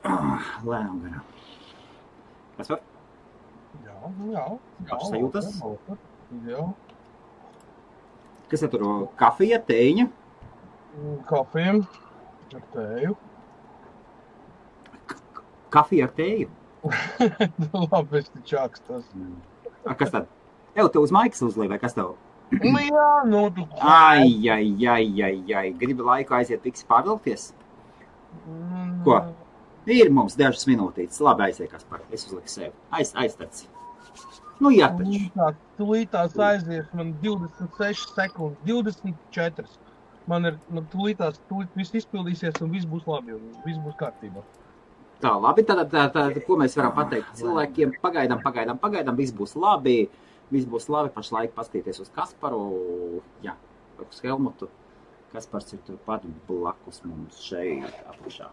Lēnām garām. Kas var? Jā. Pašas sajūtas? Jā. Kas ir tur? Kafija, tēņa? Kafija ar tēju. Kafija ar tēju? Labi, es te čākstas. Kas tad? Tev uz maikas uzlīja, vai kas tev? Jā, tu... Ai. Gribi laiku aiziet visi pārvilkties? Ko? Ir mums dažas minūtītes. Labi, aiziet, Kaspar. Es uzliku sevi. Aiztaci. Jā, taču. Tūlītās aizies man 26 sekundes, 24. Man tūlītās viss izpildīsies un viss būs labi un viss būs kārtībā. Tā, labi, tad ko mēs varam pateikt cilvēkiem? Pagaidām, viss būs labi. Viss būs labi, pašlaik paskatīties uz Kasparu, uz Helmutu. Kaspars ir turpat blakus mums šeit apakšā.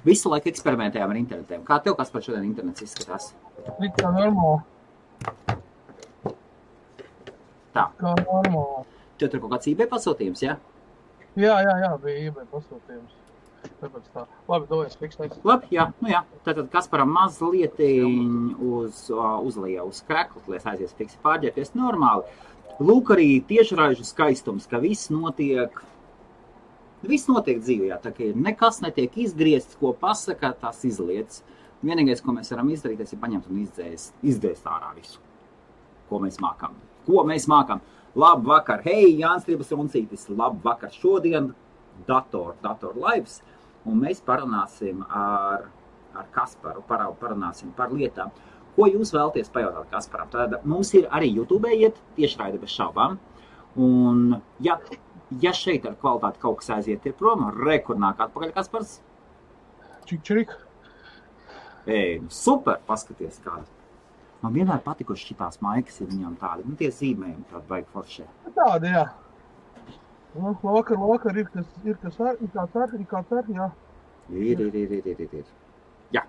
Visu laiku eksperimentējām ar internetiem. Kā tev, Kaspar, šodien internets izskatās? Kā normāli. Tā. Kā normāli. Tev tur kaut kāds eBay pasūtījums, jā? Jā, bija eBay pasūtījums. Tāpēc tā. Labi, dojies, fiksēs. Labi, jā. Tātad Kasparam mazliet uzlija uz kreklu, lai aizies fiksi pārģērties normāli. Lūk arī tiešraižu skaistums, ka viss notiek dzīvē, tā kā nekas netiek izgriezts, ko pasaka, tās izlietas. Vienīgais, ko mēs varam izdarīt, ir paņemt un izdzēst ārā visu, ko mēs mākam. Labu vakar, hei, Jānis Tribas Runcītis, labu vakar šodien, dator lives, un mēs parunāsim ar Kasparu, parunāsim par lietām. Ko jūs vēlaties pajautāt Kasparam? Tad mums ir arī YouTube iet tiešraide bez šaubām, un ja šeit ar kvalitāti kaut kas aiziet ir prom, kur nāk atpakaļ Kaspars? Čik. Super, paskaties kādu. Man vienmēr patikuši šitās maikas ir viņām tādi, tie zīmējumi tādi baigi foršie. Tādi, jā. Vakar ir kāds ar, jā. Ir. Jā.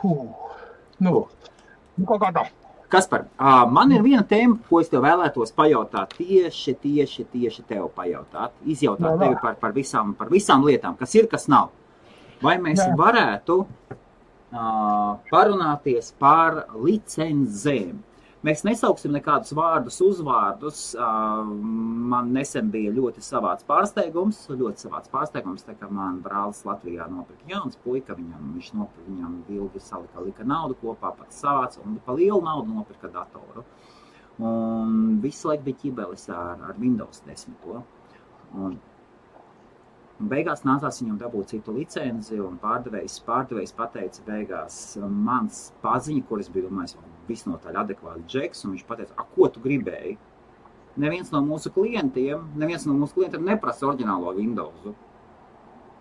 Kaut kā tā. Kaspar, man ir viena tēma, ko es tev vēlētos pajautāt, tieši tev pajautāt, izjautāt tevi par visām lietām, kas ir, kas nav. Vai mēs varētu parunāties par licencēm? Mēs nesauksim nekādus vārdus, uzvārdus. Man nesen bija ļoti savāds pārsteigums, tā kā man brālis Latvijā nopirka jauns puika, viņam ilgi lika naudu kopā, pats savāds, un pa lielu naudu nopirka datoru. Un visu laiku bija ķibelis ar Windows 10. Un beigās nācās viņam dabūt citu licenci, un pārdevējs pateica beigās mans paziņa, kur es biju domājis, visnotaļ adekvāti džeks, un viņš pateica, ko tu gribēji? Neviens no mūsu klientiem neprasa oriģinālo Windowsu.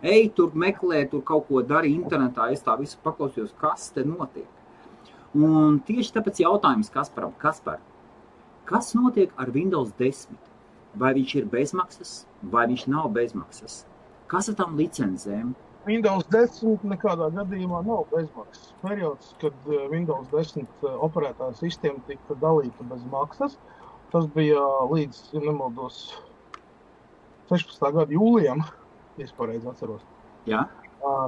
Ej, tur meklē, tur kaut ko dari internetā, es tā visu paklausījos, kas te notiek. Un tieši tāpēc jautājums Kasparam, Kaspar, kas notiek ar Windows 10? Vai viņš ir bezmaksas, vai viņš nav bezmaksas? Kas ar tām licencēm? Windows 10 nekādā gadījumā nav bezmaksas. Periods, kad Windows 10 operētā sistēma tika dalīta bez maksas, tas bija līdz, ja nemaldos, 16. gada jūlijam, ja es pareizi atceros. Jā.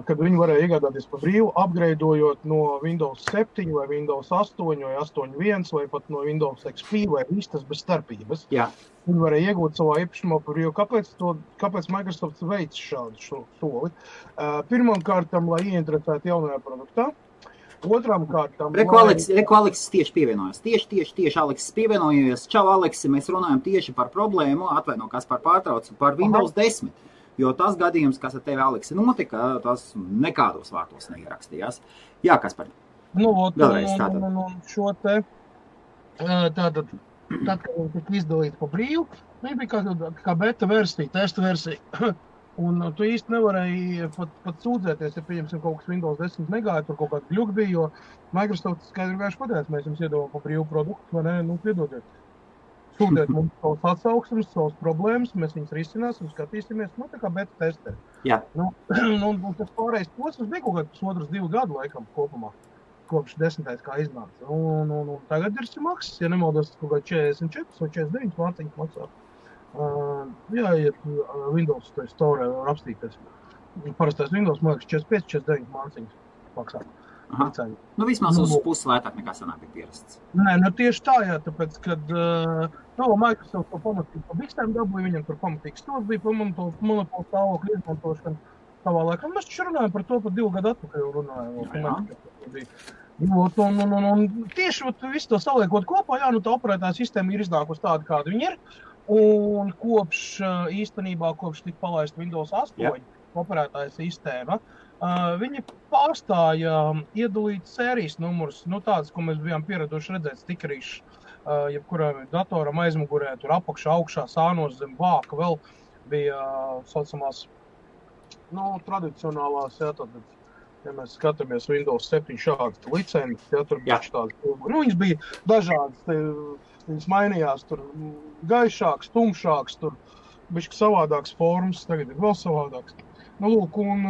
Kad viņi varēja iegādāties pa brīvu, upgradeojot no Windows 7 vai Windows 8 vai 8.1 vai pat no Windows XP vai vistas bez starpības. Jā. Viņi varēja iegūt savā īpašumā par brīvu. Kāpēc Microsoft veic šādu soli? Pirmām kārtām, lai ieinteresētu jaunajā produktā. Otrām kārtām... Reku Aleksis tieši pievienojas. Tieši Aleksis pievienojas. Čau, Aleksi, mēs runājam tieši par problēmu, atvaino, kas par pārtraucu, par Windows 10. Jo tas gadījums, kas ar tevi, Aleksi, notika, tas nekādos vārtos neierakstījās. Jā, Kaspar. Vēlreiz tātad. Un šo te, tātad, kad viņi tika izdalīti pa brīvu, viņi bija kā beta versija, testa versija. Un tu īsti nevarēji pat sūdzēties, ja pieņemsim kaut kas Windows 10 negāja, tur kaut kāds gļuk bija, jo Microsoft skaidri gājuši pateica, mēs jums iedodam pa brīvu produktu, vai ne, piedodiet. Sūdiet mums savus atsauksmes, savus problēmas, mēs viņus risināsim, skatīsimies, tā kā beta testē. Jā. Un tas pārējais posms bija kaut kāds 2 gadu laikam kopumā, kopš 10. kā iznāca. Un tagad ir maksas, ja nemaldos, kaut kā 44 vai 49 mārciņas maksā. Jāiet Windows Store var apstīties. Parastais Windows, man liekas, 45-49 māciņas maksā. Nu, vismaz uz pusi lētāk nekā sanāk bija pierasts. Nē, nu tieši tā, jā, tāpēc, kad Microsoft to pamatīgi pa bikstēm dabūja, viņam tur pamatīgi stūrs bija pa monopolu stāvokļu izmantošanu savā laikā. Mēs taču runājam par to pat 2 gadu atpakaļ runājam. Un tieši visu to saliekot kopā, jā, nu tā operētāja sistēma ir iznākusi tāda, kāda viņa ir. Un īstenībā kopš tika palaista Windows 8 operētāja sistēma, viņi pārstāja iedalīt sērijas numurus, nu tāds, ko mēs bijām pieraduši redzēt stikerīšus, jebkuram datoram aizmugurē, tur apakšā, augšā, sānos zem vāka, vēl bija saucamās, tradicionālās, jā, tad, ja mēs skatāmies Windows 7 šādas licences, jā, tur bija tādas, viņas bija dažādas, viņas mainījās, tur gaišāks, tumšāks, tur bišķi savādāks formas, tagad ir vēl savādāks. Lūk, un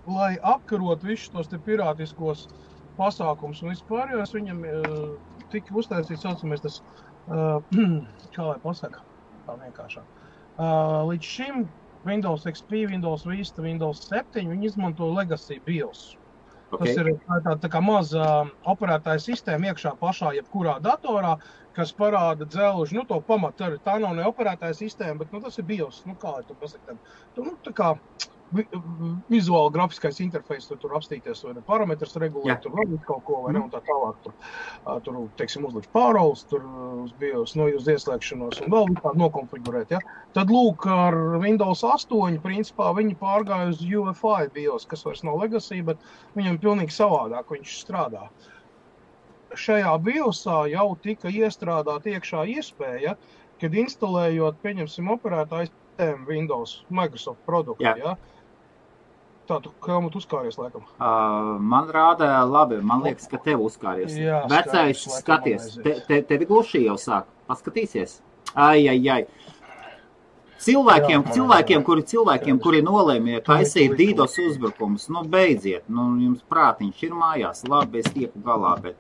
lai apkarot visus tos te pirātiskos pasākums un vispārējās, viņam tika uztaisīts, saucamies tas, kā lai pasaka, tā vienkāršāk. Līdz šim Windows XP, Windows Vista, Windows 7, viņi izmanto Legacy BIOS. Okay. Tas ir tā kā maza operētāja sistēma iekšā pašā jebkurā datorā, kas parāda dzelži, to pamatu arī. Tā nav ne operētāja sistēma, bet tas ir BIOS, kā lai tu pasaka. Tā kā vizuāli grafiskais interfejs, tur apstīties, vai ne parametrs regulēt, tur vēl kaut ko, vai ne, un tā tālāk. Tur teiksim, uzlikt pāroles, tur uz BIOS, uz ieslēgšanos, un vēl tā nokonfigurēt, ja. Tad lūk, ar Windows 8, principā, viņi pārgāja uz UEFI BIOS, kas vairs nav Legacy, bet viņam pilnīgi savādāk viņš strādā. Šajā BIOSā jau tika iestrādāt iekšā iespēja, kad instalējot, pieņemsim, operētāju sistēmu Windows, Microsoft produktu, ja. Tā, tu Helmut uzkāries, laikam? Man rāda labi, man liekas, ka tev uzkāries. Jā, vecais, skaties, tevi gluši jau sāk. Paskatīsies? Ai. Cilvēkiem, kuri nolēmja taisīt DDoS uzbrukumus, beidziet, jums prātiņš ir mājās, labi, es tieku galā, bet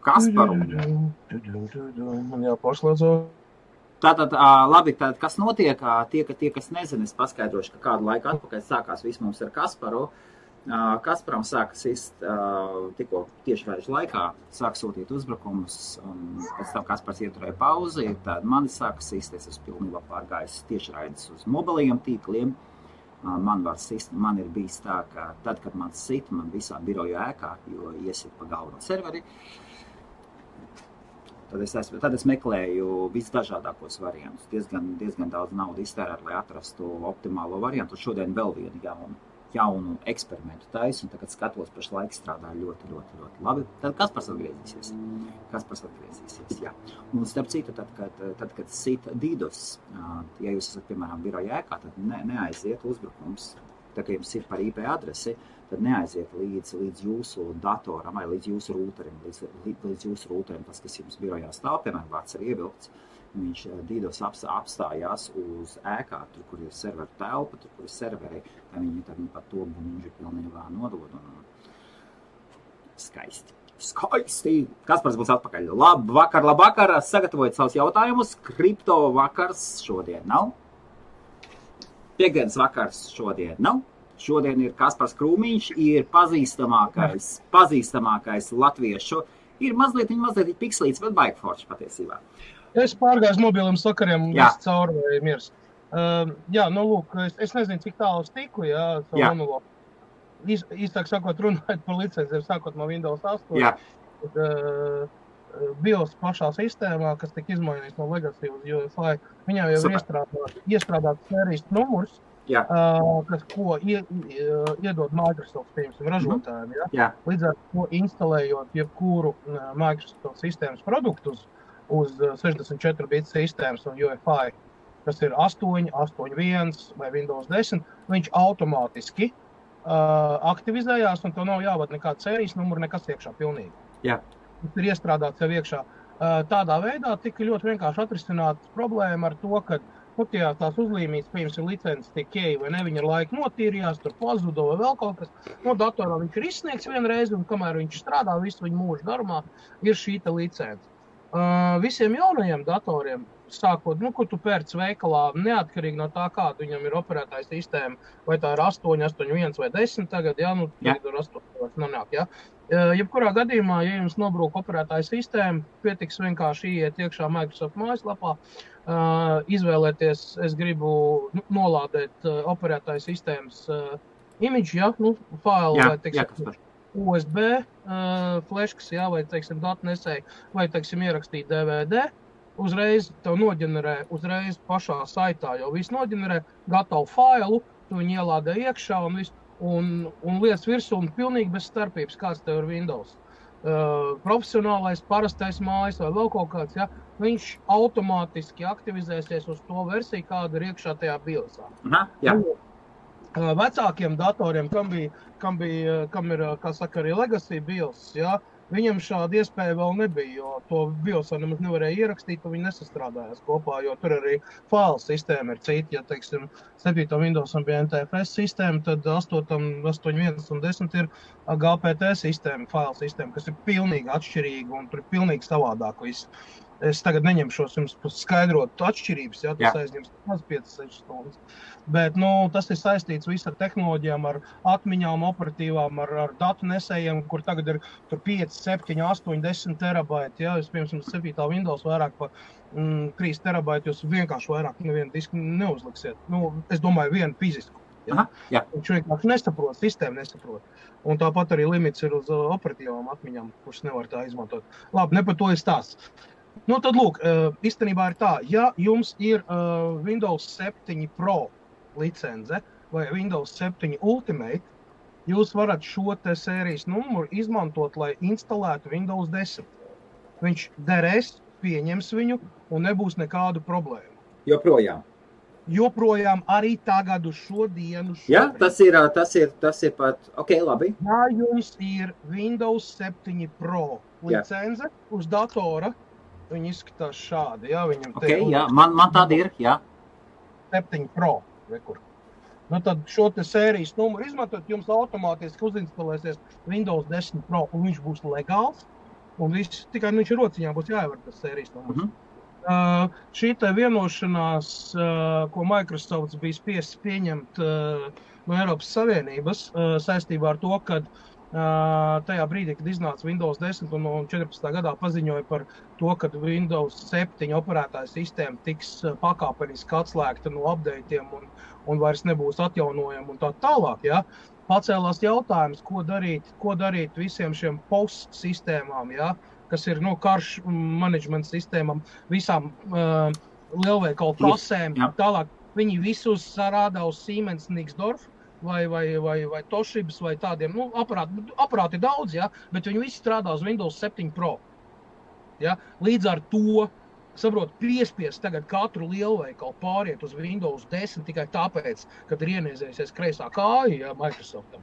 Kasparu. Man jāpašlēdzo. Tātad, labi, kas notiek, tie, kas nezina, es paskaidrošu, ka kādu laiku atpakaļ sākās viss mums ar Kasparu. Kasparam sākas tikko tieši vēžu laikā, sāk sūtīt uzbrukumus, un pēc tam Kaspars ieturēja pauzi, tad mani sākas īsties, es pilnībā pārgājis tieši raidis uz mobilajiem tīkliem. Man ir bijis tā, ka tad, kad man sit, man visā biroju ēkā, jo iesit pa galveno serveri, tad es meklēju visdažādākos variantus. Diezgan daudz naudu iztērēt, lai atrastu optimālo variantu. Šodien vēl vienu jaunu eksperimentu taisu, un tagad skatos, pašlaik strādā ļoti, ļoti, ļoti labi. Tad Kaspars atgriezīsies. Jā. Un starp citu, tad kad sit DDoS, ja jūs esat, piemēram, biroja ēkā, tad neaiziet uzbrukums. Tā kā jums ir par IP adresi, tad neaiziet līdz jūsu datoram vai līdz jūsu rūterim, tas, kas jums birojā stāv, piemēram, vārds ir ievilkts, viņš DDoS apstājās uz ēkā, tur, kur ir serveru telpa, tur, kur ir serveri, tad viņi pat to buņģi pilnībā nodod un skaisti. Kaspars būs atpakaļ. Labvakar, sagatavojiet savus jautājumus, kripto vakars šodien nav. Piektdienas vakars šodien nav. Šodien ir Kaspars Krūmiņš, ir pazīstamākais latviešu. Ir mazliet pikslīts, bet baigi forši patiesībā. Es pārgāju mobiliem sakariem, viss cauri vai miers. Lūk, es nezinu, cik tālu es tiku, savu monologu. Īstāk sakot, runājot par licencēm, sākot no Windows 8. BIOS pašā sistēmā, kas tika izmainīts no Legacy uz UEFI, viņā jau ir iestrādāts sērijas numurs, ko iedod Microsoft, piemēram, ražotājiem. Līdz ar to instalējot jebkuru Microsoft sistēmas produktus uz 64 bit sistēmas un UEFI, kas ir 8, 8.1 vai Windows 10, viņš automātiski aktivizējās, un to nav jāvada nekāda sērijas numura, nekas iekšā pilnīgi. Tas ir iestrādāts jau iekšā. Tādā veidā tika ļoti vienkārši atrisināt problēma ar to, ka tās uzlīmītas, piemēram, licences tiek ieeja vai ne, viņa ar laiku notīrījās, tur pazudo vai vēl kaut kas. No datorā viņš ir izsniegts vienreiz, un kamēr viņš strādā visu viņa mūžu garumā, ir šī licence. Visiem jaunajiem datoriem, sākot, ko tu pērc veikalā, neatkarīgi no tā, kāda viņam ir operētāja sistēma, vai tā ir 8, 8.1 vai 10 tagad, tagad ir 8 nonāk, Jebkurā gadījumā, ja jums nobrūk operētāja sistēma, pietiks vienkārši iet iekšā Microsoft mājaslapā, izvēlēties, es gribu nolādēt operētāja sistēmas imidži, failu vai, teiksim, USB fleškas, vai, teiksim, datu nesēju, vai, teiksim, ierakstīt DVD, uzreiz tev noģenerē, uzreiz pašā saitā jau viss noģenerē, gatavu failu, tu viņu ielādē iekšā un viss, un lietas virsū un pilnīgi bez starpības, kāds tev ir Windows. Profesionālais, parastais mājas vai vēl kaut kāds, viņš automātiski aktivizēsies uz to versiju, kāda ir iekšā tajā BIOSā. Vecākiem datoriem, kam ir, kā saka, arī legacy BIOS, viņam šāda iespēja vēl nebija, jo to BIOSā nemaz nevarēja ierakstīt, un viņi nesastrādājās kopā, jo tur arī failu sistēma ir cita. Ja, teiksim, 7. Windowsam bija NTFS sistēma, tad 8.1 un 10 ir GPT sistēma, failu sistēma, kas ir pilnīgi atšķirīga un tur ir pilnīgi savādāk viss. Es tagad neņemšos jums skaidrot atšķirības, tas aizņems 5-6 stundas. Bet, tas ir saistīts viss ar tehnoloģijām, ar atmiņām, operatīvām, ar datu nesējiem, kur tagad ir tur 5, 7, 8, 10 terabaiti. Es, piemēram, 7. Windows vairāk pa 3 terabaiti, jūs vienkārši vairāk nevienu disku neuzliksiet. Es domāju, vienu fizisku. Viņš vienkārši nesaprot, sistēma nesaprot. Un tāpat arī limits ir uz operatīvām atmiņām, kuras nevar tā izmantot. Labi, ne par to ir stāsts. Tad lūk, īstenībā ir tā, ja jums ir Windows 7 Pro licence vai Windows 7 Ultimate, jūs varat šo te sērijas numuru izmantot, lai instalētu Windows 10. Viņš derēs, pieņems viņu un nebūs nekādu problēmu. Joprojām arī tagad uz šo dienu. Tas ir pat, labi. Ja jums ir Windows 7 Pro licence uz datora, viņi izskatās šādi, viņam man tāda ir, 7 Pro, rekur. Tad šo te sērijas numuru izmantot, jums automātiski uzinstalēsies Windows 10 Pro, un viņš būs legāls, un viss, tikai viņš ir rociņā, būs jāievar tas sērijas numurs. Šī te vienošanās, ko Microsoft bija spiests pieņemt no Eiropas Savienības, saistībā ar to, kad tajā brīdī, kad iznāca Windows 10 un 14. gadā paziņoja par to, ka Windows 7 operētāja sistēma tiks pakāpeniski atslēgta no updateiem un vairs nebūs atjaunojama un tā tālāk, pacēlās jautājums, ko darīt visiem šiem POS sistēmām, kas ir karš management sistēmām, visām lielveikalu kasēm, tālāk viņi visus sarādā uz Siemens Nixdorf, vai Toshibas, vai tādiem, aparāti daudz, bet viņi visi strādā uz Windows 7 Pro. Līdz ar to, piespiest tagad katru lielveikalu pāriet uz Windows 10 tikai tāpēc, kad ir ieniezējusies kreisā kāja, Microsoftam.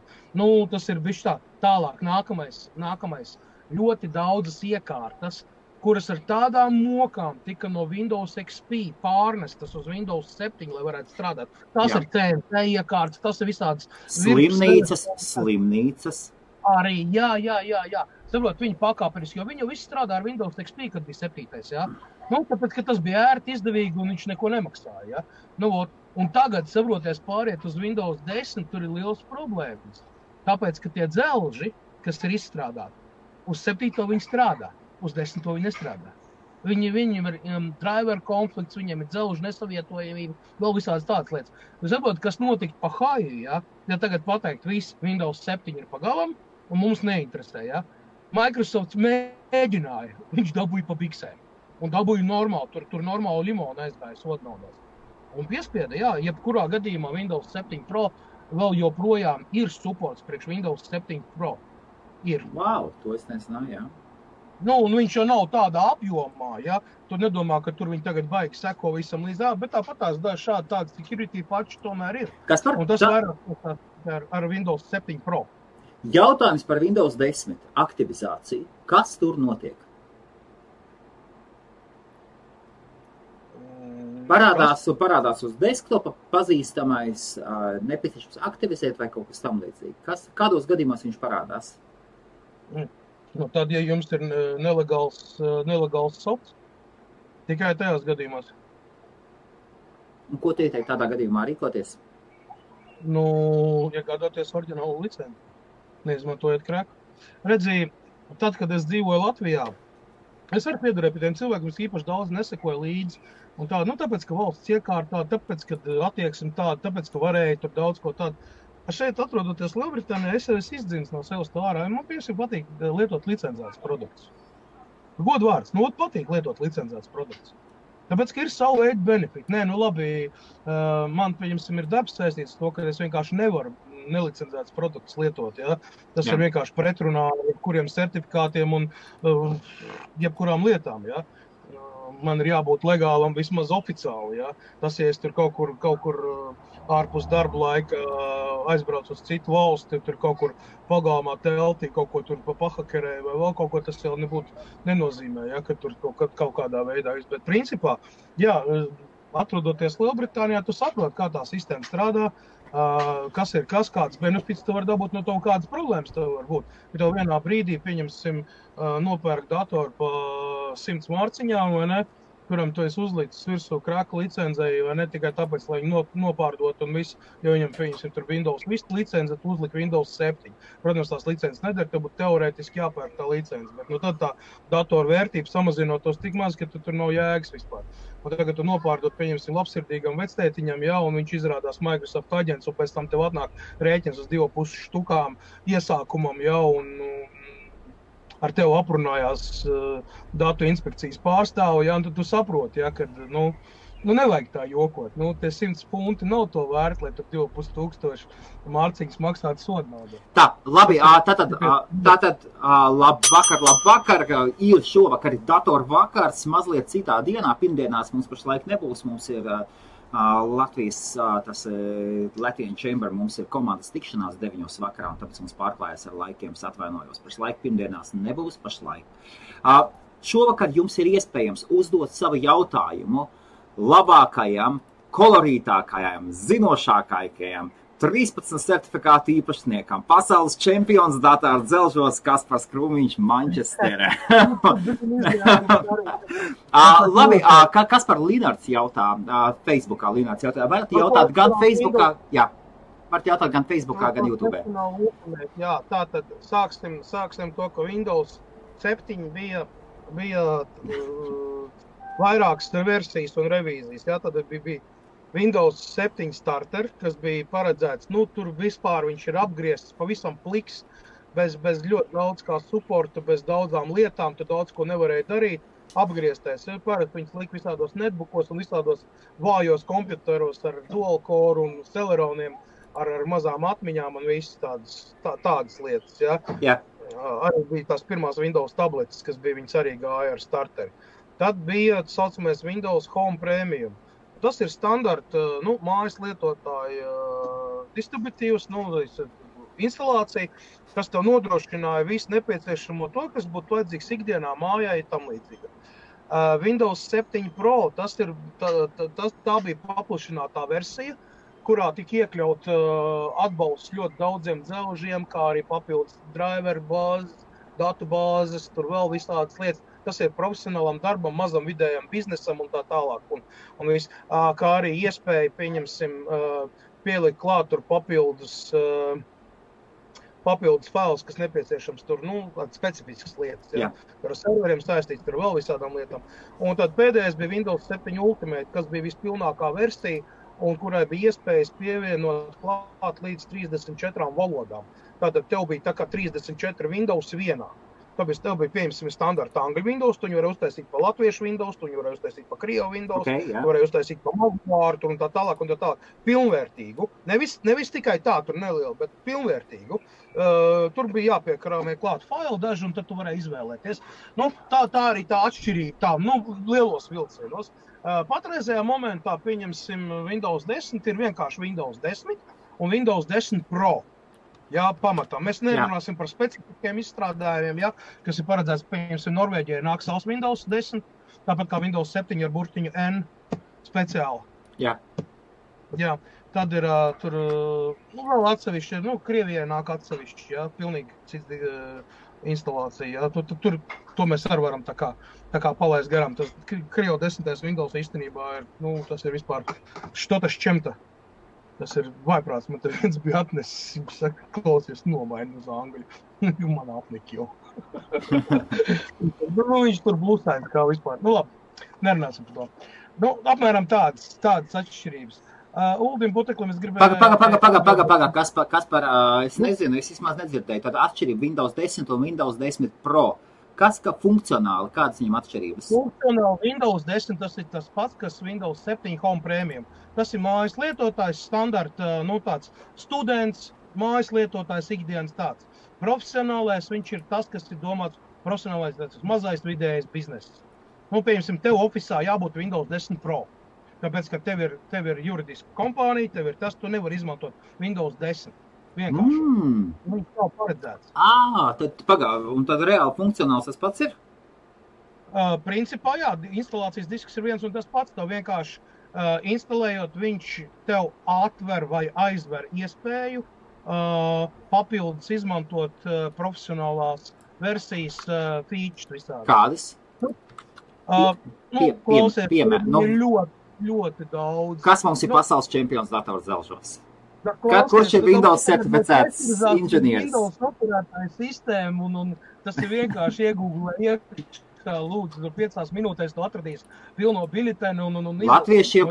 Tas ir bišķi tā. Tālāk, nākamais ļoti daudzas iekārtas, kuras ar tādām mokām tika no Windows XP pārnestas uz Windows 7, lai varētu strādāt. Tas ir TNT iekārtas, tas ir visādas slimnīcas. Arī, jā. Viņi pakāpeniski, jo viņi visi strādā ar Windows XP, kad bija 7. Tāpēc, ka tas bija ērti, izdevīgi un viņš neko nemaksāja. Un tagad, pāriet uz Windows 10, tur ir liels problēmas. Tāpēc, ka tie dzelži, kas ir izstrādāti, uz 7 viņi strādā. Uz 10 viņi nestrādā. Viņiem ir driver konflikts, viņiem ir dzelžu nesavietojamība, vēl visādas tādas lietas. Jūs saprotat, kas notika pa haju, ja tagad pateikt, viss Windows 7 ir pagalam, un mums neinteresē, Microsoft mēģināja, viņš dabūja pa biksēm, un dabūja normāli, tur normāli limonu aizgāja sodnaudās. Un piespieda, jebkurā gadījumā Windows 7 Pro vēl joprojām ir supports priekš Windows 7 Pro. Ir. Wow, to es nezināju, Un viņš jau nav tādā apjomā, Tu nedomā, ka tur viņi tagad baigi seko visam līdz, bet tāpat tāda security patch tomēr ir. Kas par? Un tas vairāk ar Windows 7 Pro. Jautājums par Windows 10 aktivizāciju. Kas tur notiek? Parādās uz desktopa pazīstamais nepieciešams aktivizēt vai kaut kas tam līdzīgi. Kādos gadījumos viņš parādās? Nu, tad, ja jums ir nelegāls softs, tikai tajās gadījumās. Un ko tu ieteikt tādā gadījumā rīkoties? Nu, iegādāties oriģinālu licenci, neizmantojot krēku. Redzi, tad, kad es dzīvoju Latvijā, es arī piederēju pie tiem cilvēkiem, kas īpaši daudz nesekoja līdzi. Un tā, nu, tāpēc, ka valsts iekārtā, tāpēc, ka attieksme tāda, tāpēc, ka varēja tur daudz ko tādu. Šeit, atrodoties Lielbritānijā, es izdzins no sevis tā ārā. Man tieši patīk lietot licencētas produktus. Godu vārds, nu, patīk lietot licencētas produktus. Tāpēc, ka ir savu veidu benefiti. Nē, nu labi, man, pieņemsim, ir darbs saistīts to, ka es vienkārši nevaru nelicencētas produktus lietot. Ja? Tas ir vienkārši pretrunā jebkuriem certifikātiem un jebkurām lietām. Ja? Man ir jābūt legālam vismaz oficiāli. Ja? Tas, ja es tur kaut kur ārpus darba laika aizbraucu uz citu valsti, tur kaut kur pagalmā teltī, kaut ko tur pahakerēju vai vēl kaut ko, tas jau nenozīmē, ja, ka tur kaut kādā veidā. Bet principā, jā, atrodoties Lielbritānijā, tu saproti, kā tā sistēma strādā, kas ir kas, kāds benefits tu var dabūt no to, kādas problēmas tev var būt. Ja tev vienā brīdī, pieņemsim, nopērk datoru pa 100 mārciņām, vai ne, kuram tu esi uzlicis virsū krāka licencei, vai ne tikai tāpēc, lai viņu nopārdot un visu, jo viņam, pieņemsim, tur Windows Vista licence, tu uzliki Windows 7. Protams, tās licences nedara, tev būtu teorētiski jāpērk tā licence, bet nu tad tā datora vērtība samazinotos tik maz, ka tur nav jēgas vispār. Un tagad tu nopārdot, pieņemsim, labsirdīgam vectētiņam, ja, un viņš izrādās Microsoft aģents, un pēc tam tev atnāk rēķins uz 2,5 štukām iesākumam, ja, un ar tevi aprunājās datu inspekcijas pārstāvi, ja, un tad tu saproti, ja, ka, nu, nevajag tā jokot. Nu, tie 100 punti nav to vērt, lai tur 2,5 mārciņas maksātu sodnaudu. Tā, labi, tātad labvakar, ir šovakar ir datoru vakars, mazliet citā dienā, pirmdienās mums pašlaik nebūs, mums ir Latvijas, tas Latvian Chamber, mums ir komandas tikšanās 9 vakarā, un tāpēc mums pārklājas ar laikiem, atvainojos. Pašlaik pirmdienās nebūs pašlaik. Šovakar jums ir iespējams uzdot savu jautājumu labākajam, kolorītākajam, zinošākajam, 13 certifikātu īpašniekam, pasaules čempions datoru dzelžos Kaspars Krūmiņš Mančesterē. Labi, Kaspar Linards jautā, Facebookā Linards jautā, varat jautāt gan Facebookā, jā, varat jautāt gan Facebookā, gan YouTube. Jā, tātad sāksim to, ka Windows 7 bija vairākas versijas un revīzijas, jā, tad bija Windows 7 starter, kas bija paredzēts, nu, tur vispār viņš ir apgriezts pavisam pliks, bez ļoti daudz kā supporta, bez daudzām lietām, tu daudz ko nevarēja darīt, apgrieztais. Parasti viņas lika visādos netbookos un visādos vājos kompjuteros ar dual core un celeroniem, ar mazām atmiņām un visas tādas lietas, ja. Yeah. Arī bija tās pirmās Windows tabletes, kas bija viņas arī gāja ar starteri. Tad bija, saucamais, Windows Home Premium. Tas ir standarta, nu, mājas lietotāja distributīvs, nu, instalācija, kas tev nodrošināja visu nepieciešamo to, kas būtu vajadzīgs ikdienā mājai tam līdzīga. Windows 7 Pro, tā bija paplašinātā versija, kurā tika iekļaut atbalsts ļoti daudziem dzelžiem, kā arī papildus driver bāzes, datu bāzes, tur vēl visādas lietas. Tas ir profesionālam darbam, mazam vidējam biznesam un tā tālāk. Un viss, kā arī iespēja, pieņemsim, pielikt klāt tur papildus fails, kas nepieciešams tur, nu, specifiskas lietas. Ja? Ar serveriem saistīts tur vēl visādām lietām. Un tad pēdējais bija Windows 7 Ultimate, kas bija vispilnākā versija, un kurai bija iespējas pievienot klāt līdz 34 valodām. Tātad tev bija tā kā 34 Windows vienā. Tāpēc tev bija, pieņemsim, standarta angļu Windows, tu viņu varēja uztaisīt pa latviešu Windows, tu viņu varēja uztaisīt pa krievu Windows, tu varēja uztaisīt pa malvārtu un tā tālāk. Pilnvērtīgu. Nevis tikai tā, tur nelielu, bet pilnvērtīgu. Tur bija jāpiekrāmē klāt failu daži, un tad tu varēji izvēlēties. Nu, tā arī tā atšķirība, tā, nu, lielos vilcienos. Patreizējā momentā, pieņemsim, Windows 10 ir vienkārši Windows 10 un Windows 10 Pro. Jā, pamatā. Mēs nerunāsim par specifiskiem izstrādājumiem, jā, kas ir paredzēts, pieņemsim, Norvēģijai nāk savs Windows 10, tāpat kā Windows 7 ar burtiņu N speciāli. Jā. Jā, tad ir tur, nu, vēl atsevišķi, nu, Krievijai nāk atsevišķi, jā, pilnīgi cits instalācija. Ja? Tur to mēs arī varam tā kā palaist garām. Tas Creo 10. Windows īstenībā ir, tas ir vispār štotas čemta. Tas ir vaiprāts. Man te viens bija atnesis, viņš saka, klausies, nomaini uz angļu. Man apnika jau. Viņš tur blusēns kā vispār. Labi, nerunāsim par to. Apmēram tādas atšķirības. Uldim Puteklim es gribēju... Paga, Kaspar, es nezinu, es vismaz nedzirdēju. Tāda atšķirība Windows 10 un Windows 10 Pro. Kas, ka funkcionāli, kādas viņam atšķirības? Funkcionāli Windows 10 tas ir tas pats, kas Windows 7 Home Premium. Tas ir mājas lietotājs, standarta, tāds students, mājas lietotājs, ikdienas tāds. Profesionālais viņš ir tas, kas ir domāts profesionālais, tas mazais vidējais bizness. Pieņemsim, tev ofisā jābūt Windows 10 Pro. Tāpēc, ka tev ir juridiska kompānija, tev ir tas, tu nevar izmantot Windows 10. Vienkārši. Viņš nav paredzēts. Un tad reāli funkcionāls tas pats ir? Principā, jā, instalācijas disks ir viens un tas pats. Tev vienkārši instalējot, viņš tev atver vai aizver iespēju papildus izmantot profesionālās versijas features visādi. Kādas? Klausies, ir ļoti daudz. Kas mums ir pasaules čempions datoru zelžos? Kurš ir Windows certificēts inženieris? Windows operētāja sistēma un tas ir vienkārši iegūglē lūdzu, 5 minūtēs tu atradīs pilno biļetenu un Latviešiem,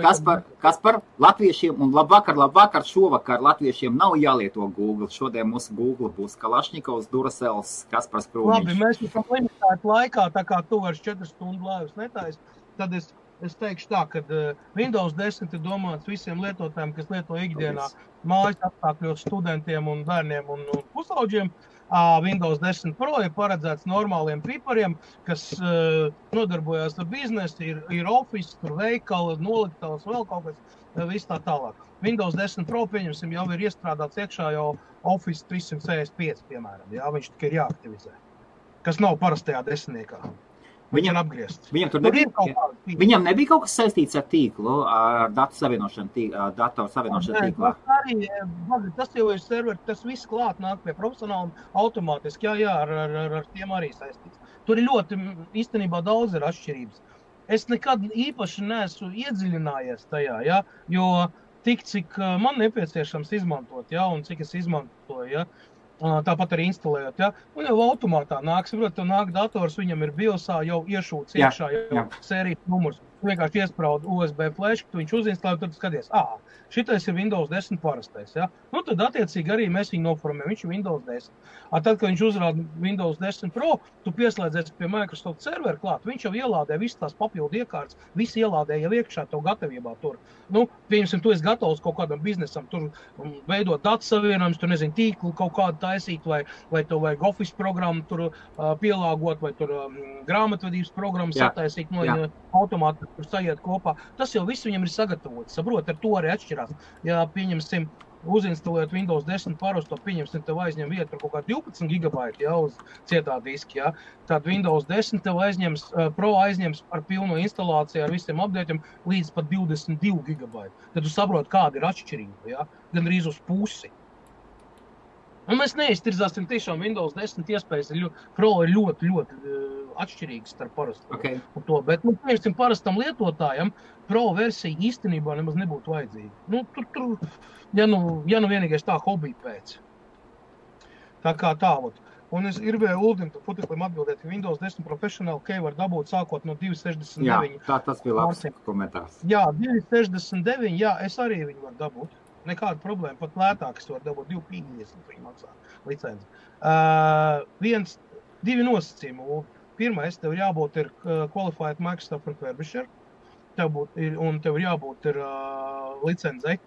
Kaspar, latviešiem un labvakar, šovakar latviešiem nav jālieto Google. Šodien mūsu Google būs Kalašņikovs, Duracels, Kaspars Krūmiņš. Labi, mēs esam limitēti laikā, tā kā tu vairs 4 stundu laivas netais, tad es teikšu tā, ka Windows 10 ir domāts visiem lietotājiem, kas lieto ikdienā mājas apstākļos studentiem un bērniem un pusauģiem. Windows 10 Pro ir paredzēts normāliem pipariem, kas nodarbojās ar biznesu, ir office, tur veikala, noliktavas, vēl kaut kas, viss tā tālāk. Windows 10 Pro, pieņemsim, jau ir iestrādāts iekšā jau Office 365, piemēram, jā, viņš tikai ir jāaktivizē, kas nav parastajā desmitniekā. Viņam apgriezt. Viņam nebija kaut kas saistīts ar tīklu, ar datoru savienošanu tīklā? Tas jau ir serveri, tas viss klāt nāk pie profesionāli automātiski, jā, ar tiem arī saistīts. Tur ir ļoti, īstenībā daudz ir atšķirības. Es nekad īpaši neesmu iedziļinājies tajā, jā, jo tik, cik man nepieciešams izmantot, jā, un cik es izmantoju, jā. Tāpat arī instalējot, ja? Un jau automātā nāk, saprot, nāk dators, viņam ir biosā jau iešūts iekšā jau sērijas numurs. Vienkārši iespraud USB flash, tu viņš uzinstalē, tad skaties, šitais ir Windows 10 parastais, ja? Tad attiecīgi arī mēs viņu noformējam, viņš ir Windows 10. Tad, kad viņš uzrāda Windows 10 Pro, tu pieslēdzies pie Microsoft servera klāt, viņš jau ielādē visas tās papildu iekārtas, visi ielādē jau iekšā tev gatavībā tur. Pieņemsim, tu esi gatavs kaut kādam biznesam, tur veidot datu savienojumus, tur, nezinu, tīklu kaut kādu taisīt, vai tev vajag Office programmu tur pielāgot, vai tur grāmatvedības programmu sataisīt, automāti tur sajiet kopā. Tas jau viss viņam ir sagatavots, saprot, ar to arī atšķirās. Ja, pieņemsim, uzinstalējot Windows 10 parasto, pieņemsim, tev aizņem vietu par kaut kā 12 gigabaiti, ja, uz cietā diski, ja. Tad Windows 10 tev Pro aizņems ar pilno instalāciju, ar visiem updateiem līdz pat 22 gigabaiti. Tad tu saprot, kāda ir atšķirība, ja, gan arī uz pusi. Un mēs neiztirzāsim tiešām Windows 10 iespējas, Pro ir ļoti atšķirīgs starp parastu un to, bet, pieņemsim, parastam lietotājam Pro versija īstenībā nemaz nebūtu vajadzīga. Tur, ja vienīgais tā hobija pēc. Tā kā tālot. Un es gribēju Uldim Puteklim atbildēt, ka Windows 10 Professional Key var dabūt sākot no 269. Jā, tas bija labs komentārs. Jā, 269, jā, es arī viņu varu dabūt. Nekāda problēma, pat lētākas var dabūt 250 viņi maksā licenci. Divi nosacījumi. Pirmais, tev jābūt ir Qualified Microsoft Refurbisher, un tev ir jābūt ir licencei,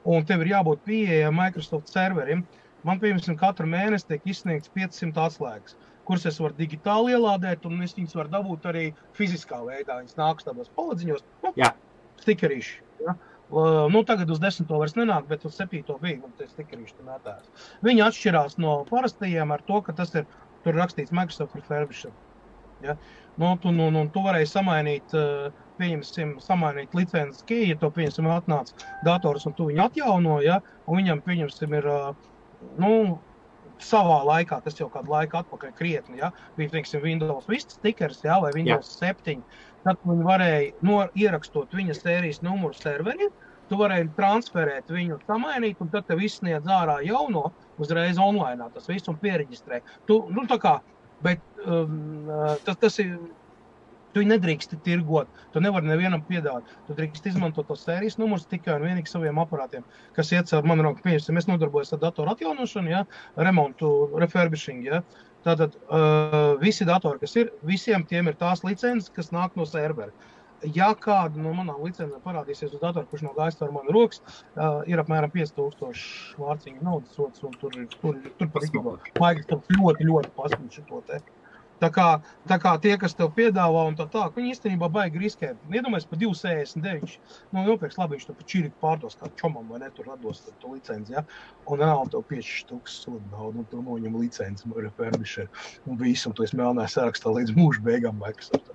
un tev ir jābūt pieejama Microsoft serverim. Man, piemēram, katru mēnesi tiek izsniegts 500 atslēgas, kuras es varu digitāli ielādēt, un es viņas varu dabūt arī fiziskā veidā. Viņas nāks tādos paladziņos, stikerīši. Ja? Tagad uz 10. vairs nenāk, bet uz 7. bija, un tie stikerīši tur mētājās. Viņi atšķirās no parastajiem ar to, ka tas ir, tur rakstīts Microsoft Refurbisher. Ja? Tu varēji samainīt, samainīt licences key, ja to, pieņemsim, atnāc dators un tu viņu atjauno, ja? Un viņam, pieņemsim, ir, savā laikā, tas jau kādu laiku atpakaļ krietni, ja, bija, teiksim, Windows Vista stikers, ja, vai Windows 7, tad viņi varēja ierakstot viņa sērijas numuru serveri, tu varēji transferēt viņu, samainīt, un tad tev izsniedz ārā jauno, uzreiz online, tas visu un piereģistrē. Tā kā, bet tas ir, tu nedrīkst tirgot, tu nevari nevienam piedāvāt. Tu drīkst izmantot tos sērijas numurus tikai un vienīgi saviem aparātiem, kas iet caur manu roku. Pieņemsim, es nodarbojos ar datoru atjaunošanu, ja, remontu, refurbishing, ja. Tātad visi datori, kas ir, visiem tiem ir tās licences, kas nāk no servera. Ja kāda no manām licencēm parādīsies uz datoru, kurš nav gājis caur manu rokas, ir apmēram 5000 vārciņu naudas sots, un tur par īstenībā vajag ļoti pasniegt šo te. Tā kā tie, kas tev piedāvā un tā, viņi īstenībā baigi riskē. Iedomājies par 2,69. Nopirks labi, viņš to pa čiriku pārdos kā čomam, vai ne, tur atdos to licenci, ja? Un reāli tev 5,000 sodu naudu, un tu noņem licenci, refurbisher, un visu, un tu esi melnā sarakstā līdz mūža beigām Microsoft.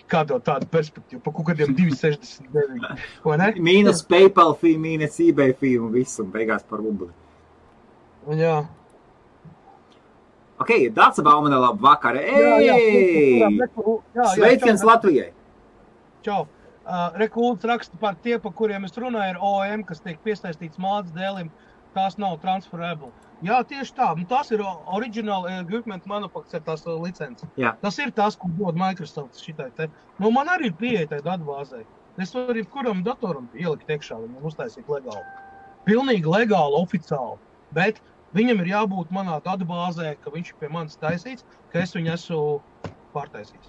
Kā tev tāda perspektīva, pa kaut kādiem 2,69, vai ne? Mīnus PayPal fee, mīnus eBay fee un viss, un beigās par rubli. Jā. Ok, Dāca Baumane, labu vakaru. Sveiciens Latvijai. Čau. Rekults raksta par tie, par kuriem es runāju, ir OEM, kas tiek piesaistīts mādas dēlim. Tās nav transferable. Jā, tieši tā. Tās ir original equipment manufacture, tās licences. Jā. Tas ir tās, ko dod Microsoft šitai te. Man arī ir pieeja tai datbāzei. Es varu kuram datoram ielikt iekšā, viņam uztaisīt legāli. Pilnīgi legāli, oficiāli. Bet viņam ir jābūt manā datbāzē, ka viņš ir pie manis taisīts, ka es viņu esmu pārtaisījis.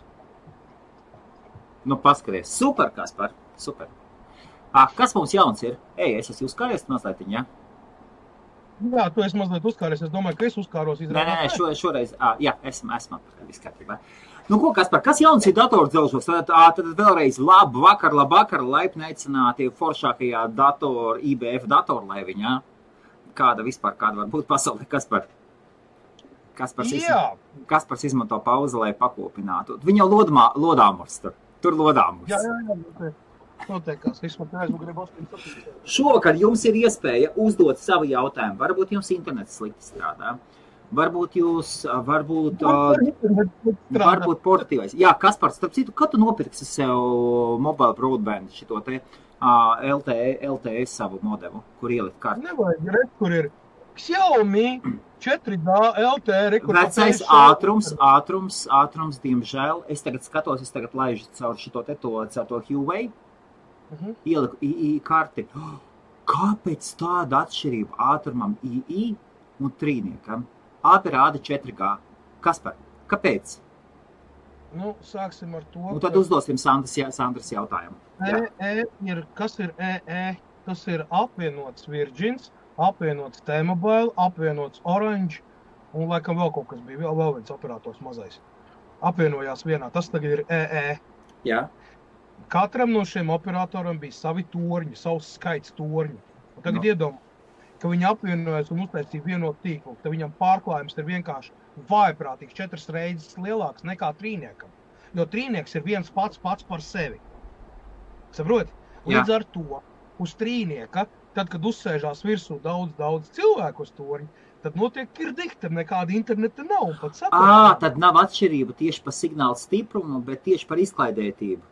Paskaties. Super, Kaspar. Super. Kas mums jauns ir? Es esmu uzkāries mazliet, ja? Jā, tu esi mazliet uzkāries. Es domāju, ka es uzkāros izrādāt. Nē, šoreiz. Jā, esmu viss kārtībā. Ko, Kaspar, kas jauns ir datordzelžos? Tad vēlreiz labu vakar, laipni aicināti foršākajā IBF datorlaiviņā. Kāda var būt pasaulē, Kaspars izmanto pauzi, lai pakopinātu. Viņa lodāmurs tur lodāmurs. Jā. Noteikās, Šovakar jums ir iespēja uzdot savu jautājumu. Varbūt jums internets slikti strādā. Varbūt portatīvais. Jā, Kaspars, starp citu, kad tu nopirksi sev mobile broadband šito te LTE savu modemu, kur ielikt kartu? Nevajag, kur ir Xiaomi 4D LTE. Vecais ātrums, diemžēl. Es tagad laižu caur šito te to Huawei. Ieliku II karti. Kāpēc tāda atšķirība ātrumam II un trīniekam? Abi rāda 4G. Kaspar, kāpēc? Sāksim ar to. Un tad uzdosim Sandras jautājumu. Kas ir EE? Tas ir apvienots Virgins, apvienots T-Mobile, apvienots Orange un laikam vēl kaut kas bija, vēl viens operators mazais. Apvienojās vienā, tas tagad ir EE. Jā. Katram no šiem operatoram bija savi torņi, savs skaits torņi. Un tagad iedomā, ka viņi apvienojas un uztaisīja vienotu tīklu, tad viņam pārklājums ir vienkārši vājprātīgs 4 reizes lielāks nekā trīniekam. Jo trīnieks ir viens pats par sevi. Saproti? Līdz ar to uz trīnieka, tad, kad uzsēžās virsū daudz cilvēku uz torņi, tad notiek kirdikta, nekāda interneta nav. Un pat saprot. Tad nav atšķirība tieši par signālu stiprumu, bet tieši par izklaidētību.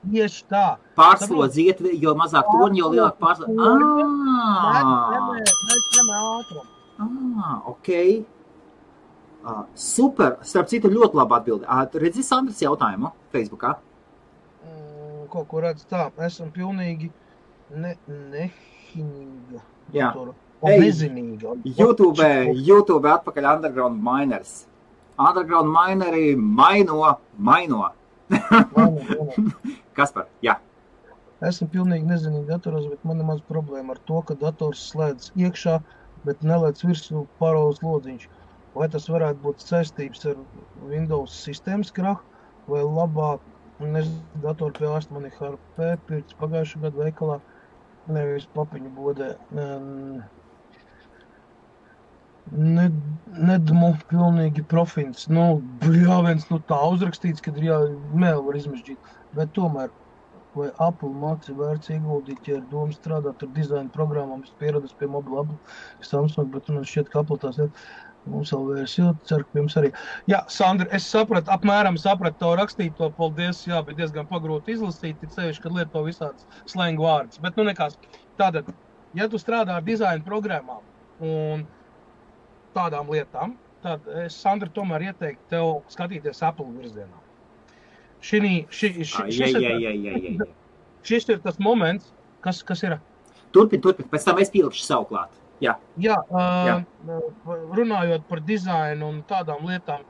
Tieši tā. Pārslodziet, jo mazāk torņi, jo lielāk pārslodziet. Ok. Super. Starp citu, ļoti labi atbildi. Redzi Sandras jautājumu Facebookā? Kaut ko redz tā. Esam pilnīgi nehinīga. Jā. Nezinīga. YouTube atpakaļ Underground Miners. Underground Mineri maino. Kaspar, jā. Esmu pilnīgi nezinīgi datoros, bet man ir maz problēma ar to, ka dators slēdz iekšā, bet nelēc virsū paraules lodziņš. Vai tas varētu būt saistības ar Windows sistēmas krahu, vai labāk, datoru pie ārsta man ir HP, pirks pagājušā gada veikalā, nevis papiņu bodē. Nedmu pilnīgi profins. Tā uzrakstīts, kad ir mēli var izmežģīt. Bet tomēr vai Apple Maci vērts ieguldīt, ja ir doma strādāt ar dizaina programmām, es pieradus pie mobila Apple, Samsung, bet man šķiet, ka Apple tās ir. Mums vēl vairs jūt, ceru, ka jums arī. Jā, Sandra, es apmēram sapratu to rakstīto, paldies, jā, bet diezgan pagrūti izlasīt, tik sevišķi, kad lieto visādas slengu vārdus. Bet, nu nekās, tātad, ja tu strādā ar dizaina programmām un tādām lietām, tad es, Sandra, tomēr ieteiktu tev skatīties Apple virzienā. Šis ir tas moments, kas ir. Turpin, pēc tam es pielikšu savu klāt. Jā, runājot par dizainu un tādām lietām,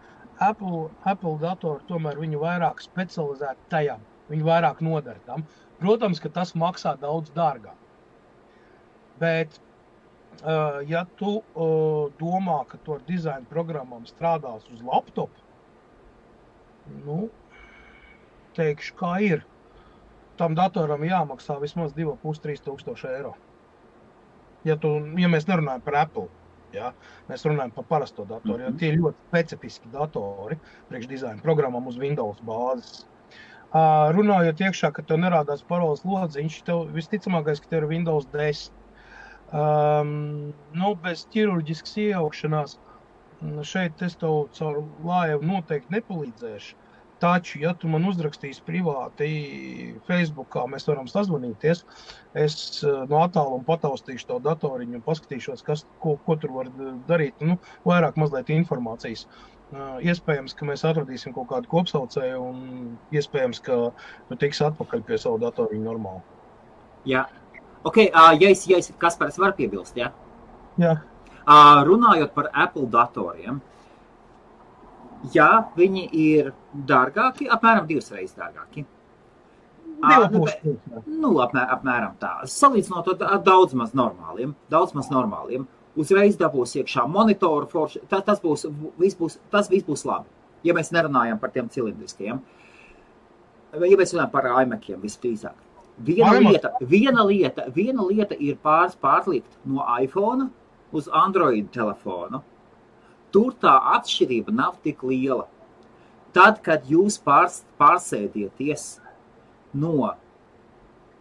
Apple datori tomēr viņu vairāk specializēti tajām, viņu vairāk nodara tam. Protams, ka tas maksā daudz dārgāk. Bet, ja tu domā, ka tu ar dizaina programmām strādās uz laptopu, nu, teikšu, kā ir. Tam datoram jāmaksā vismaz 2,5–3 tūkstoši eiro. Ja mēs nerunājam par Apple, ja, mēs runājam par parasto datoru, jo tie ir ļoti specifiski datori priekš dizaina programmām uz Windows bāzes. Runājot iekšā, ka tev nerādās paroles lodziņš, tev visticamākais, ka tev ir Windows 10. Bez ķirurģiskas iejaukšanās šeit es tev caur lājevu noteikti nepalīdzēšu. Taču, ja tu man uzrakstīsi privāti Facebookā, mēs varam sazvanīties, es no attāluma pataustīšu to datoriņu un paskatīšos, ko tur var darīt, vairāk mazliet informācijas. Iespējams, ka mēs atradīsim kaut kādu kopsaucēju un iespējams, ka tu tiksi atpakaļ pie savu datoriņu normāli. Jā. Ok, ja es Kaspars var piebilst, jā? Jā. Runājot par Apple datoriem, jā, viņi ir dārgāki, apmēram 2 reizes dārgāki. Apmēram tā. Salīdzinot ar daudz maz normāliem. Uzreiz dabūs iekšā monitoru forši. Tas viss būs labi, ja mēs nerunājam par tiem cilindriskajiem. Ja mēs runājam par iMaciem visdrīzāk. Viena lieta ir pārlikt no iPhone uz Android telefonu. Tur tā atšķirība nav tik liela. Tad, kad jūs pārsēdieties no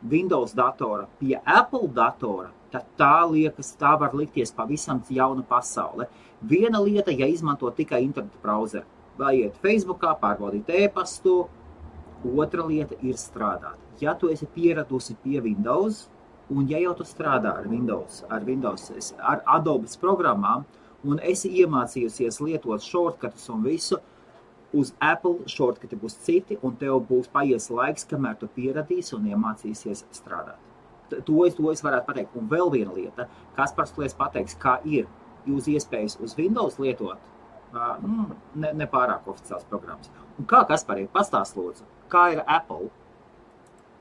Windows datora pie Apple datora, tad tā var likties pavisam jauna pasaule. Viena lieta, ja izmanto tikai interneta brauzeru, vai iet Facebookā, pārbaudīt e-pastu, otra lieta ir strādāt. Ja tu esi pieradusi pie Windows, un ja jau tu strādā ar Windows, ar Adobes programmām, un esi iemācījusies lietot shortcutus un visu, uz Apple shortcuti būs citi, un tev būs paies laiks, kamēr tu pieradīsi un iemācīsies strādāt. To es varētu pateikt. Un vēl viena lieta, Kaspars pateiks, kā ir jūs iespējas uz Windows lietot, ne pārāk oficiāls programmas. Un kā, Kaspar, pastāst lūdzu, kā ir Apple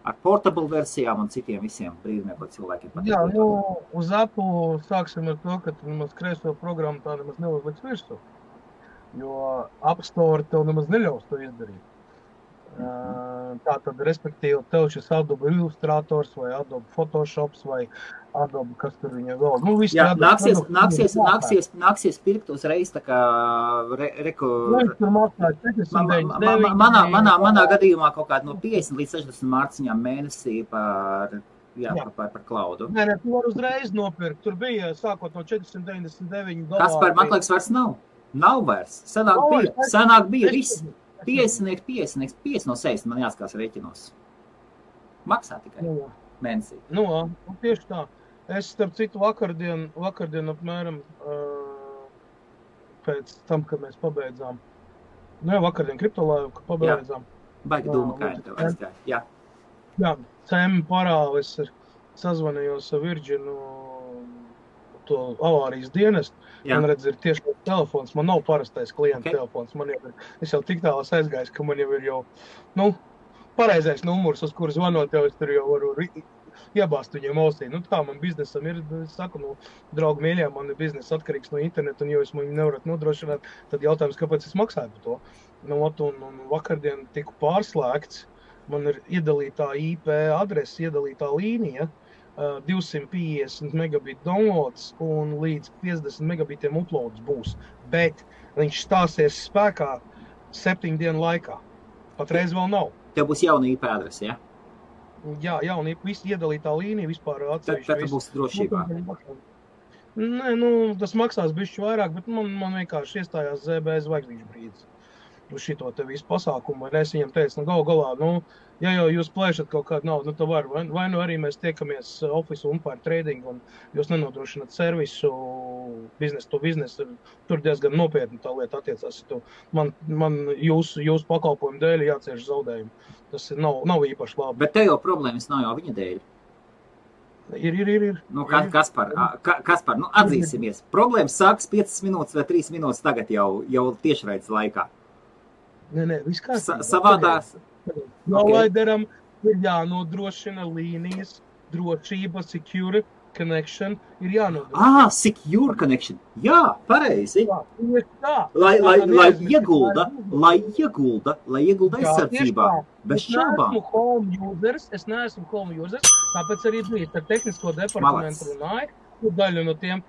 ar portable versijām un citiem visiem brīdumiem, ko cilvēkiem patīk. Jā, uz Apple sāksim ar to, ka tu nemaz kreiso programmu tā nemaz neuzliks virsū, jo App Store tev nemaz neļaus to izdarīt. Tātad, respektīvi, tev šis Adobe Illustrators vai Adobe Photoshops vai Adobe, kas tur viņa vēl. Jā, nāksies pirkt uzreiz tā kā manā gadījumā kaut kāda no 50 līdz 60 mārciņām mēnesī par klaudu. Nē, tu var uzreiz nopirkt. Tur bija sākot no $499. Kaspar, man liekas, vairs nav. Nav vairs. Senāk bija viss. 50 no 60 man jāskās rēķinos. Maksā tikai mēnesī. Tieši tā. Es, starp citu, vakardien apmēram pēc tam, kad mēs pabeidzām. Vakardien kriptolaivu, kad pabeidzām. Baigi dūma kāja tev aizgāja. Jā, cēmi parāli. Es sazvanījos ar Virginu to avārijas dienestu. Man redz, ir tieši telefons. Man nav parastais klienta telefons. Es jau tik tālās aizgājis, ka man jau ir pareizais numurs, uz kuru zvanot, jau es tur jau varu iebāzt viņiem ausī. Tā man biznesam ir, es saku, draugi mīļie, man ir biznes atkarīgs no interneta, un ja jūs man nevarat nodrošināt, tad jautājums, kāpēc es maksāju par to. Un vakardien tiku pārslēgts, man ir iedalītā IP adrese, iedalītā līnija, 250 megabit downloads un līdz 50 megabitiem uploads būs, bet viņš stāsies spēkā 7 dienu laikā. Patreiz vēl nav. Tev būs jauna IP adrese, ja? Jā, jaunība, visi iedalītā līnija vispār atsevišķi Tad tu viss. būsi drošībā. Nē, nu, tas maksās bišķi vairāk, bet man vienkārši iestājās ZB zvaigznīšu brīdis uz šito te visu pasākumu, un es viņam teicu, nu, gal galā, nu, ja jau jūs plēšat kaut kādu naudu, nu, tad var, vai nu arī mēs tiekamies office umpire trading, un jūs nenodrošināt servisu biznesu to biznesu, tur diezgan nopietni tā lieta attiecās. Man jūsu pakalpojumu dēļ jācieš zaudējumi. Tas nav īpaši labi. Bet te jau problēmas nav jau viņa dēļ. Ir. Nu, Kaspar, nu, atzīsimies. Problēmas sākas 5 minūtes vai 3 minūtes tagad jau tiešraides laikā. Nē, viss kārtībā. Savādāk. Prolaideram ir jānodrošina līnijas drošība, secure connection ir jānodrošina. Secure connection. Jā, pareizi. Jā, tieši tā. Lai iegulda aizsardzībā. Bez šaubām. Es neesmu home users, tāpēc arī bija ar tehnisko departamentu runāju, daļu no tiem,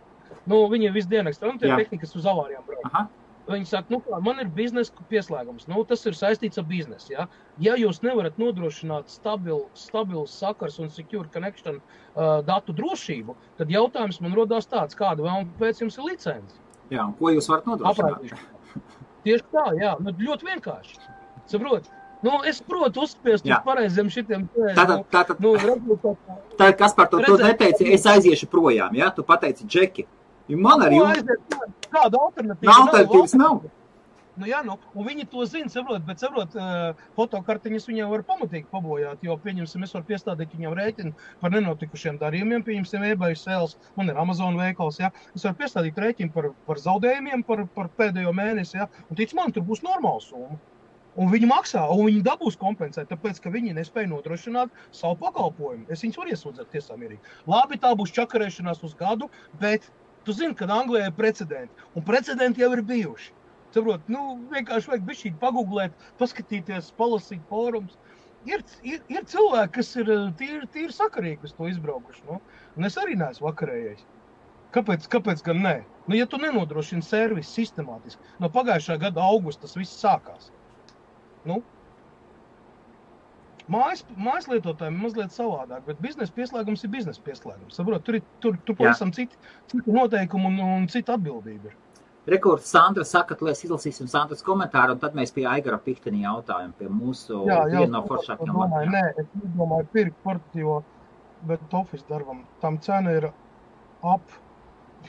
nu, viņi visdienakstā, un tie tehnikas uz avārijām brauc. Aha. Viņi saka, nu kā, man ir biznesa pieslēgums, nu tas ir saistīts ar biznesu, ja? Ja jūs nevarat nodrošināt stabilu sakars un secure connection datu drošību, tad jautājums man rodās tāds, kāda vēl pēc jums ir licence? Jā, un ko jūs varat nodrošināt? Tieši tā, jā, nu ļoti vienkārši. Saprot? Nu, es protu uzspiest uz pareiziem šitiem. Tātad, kas par to neteici, es aiziešu projām, ja? Tu pateici Džeki. Man arī kāda alternatīva nav. Nu, jā, nu, un viņi to zina, saprot, fotokartiņas viņiem var pamatīgi pabojāt, jo, pieņemsim, es varu piestādīt viņam rēķinu par nenotikušiem darījumiem, pieņemsim, eBay sales, man ir Amazon veikals, jā, es varu piestādīt rēķinu par zaudējumiem, par pēdējo mēnesi, jā, un tic man, tur būs normāla summa. Un viņi maksā, un viņi dabūs kompensēt, tāpēc, ka viņi nespēja nodrošināt savu pakalpojumu. Es viņus varu iesūdzēt tiesā mierīgi. Labi, tā būs čakarēšanās uz gadu, bet tu zini, ka Anglijā ir precedenti, un precedenti jau ir bijuši. Saprot, nu, vienkārši vajag bišķīt pagooglēt, paskatīties, palasīt fórums. Ir cilvēki, kas ir tīri sakarīgi uz to izbraukuši, nu, un es arī neesmu vakarējais. Kāpēc gan nē? Nu, ja tu nenodrošini servisu sistemātiski, no pagājušā gada augusta tas viss sākās. Nu, mājas lietotājiem mazliet savādāk, bet biznesa pieslēgums ir biznesa pieslēgums. Saprot, tur pavisam citi noteikumi un cita atbildība ir. Rekords Sandra saka, ka mēs izlasīsim Sandras komentāru, un tad mēs pie Aigara Pikteni jautājumu, pie mūsu viena no foršākajām lietām. Nē, es nedomāju pirkt portatīvo, bet office darbam. Tam cena ir ap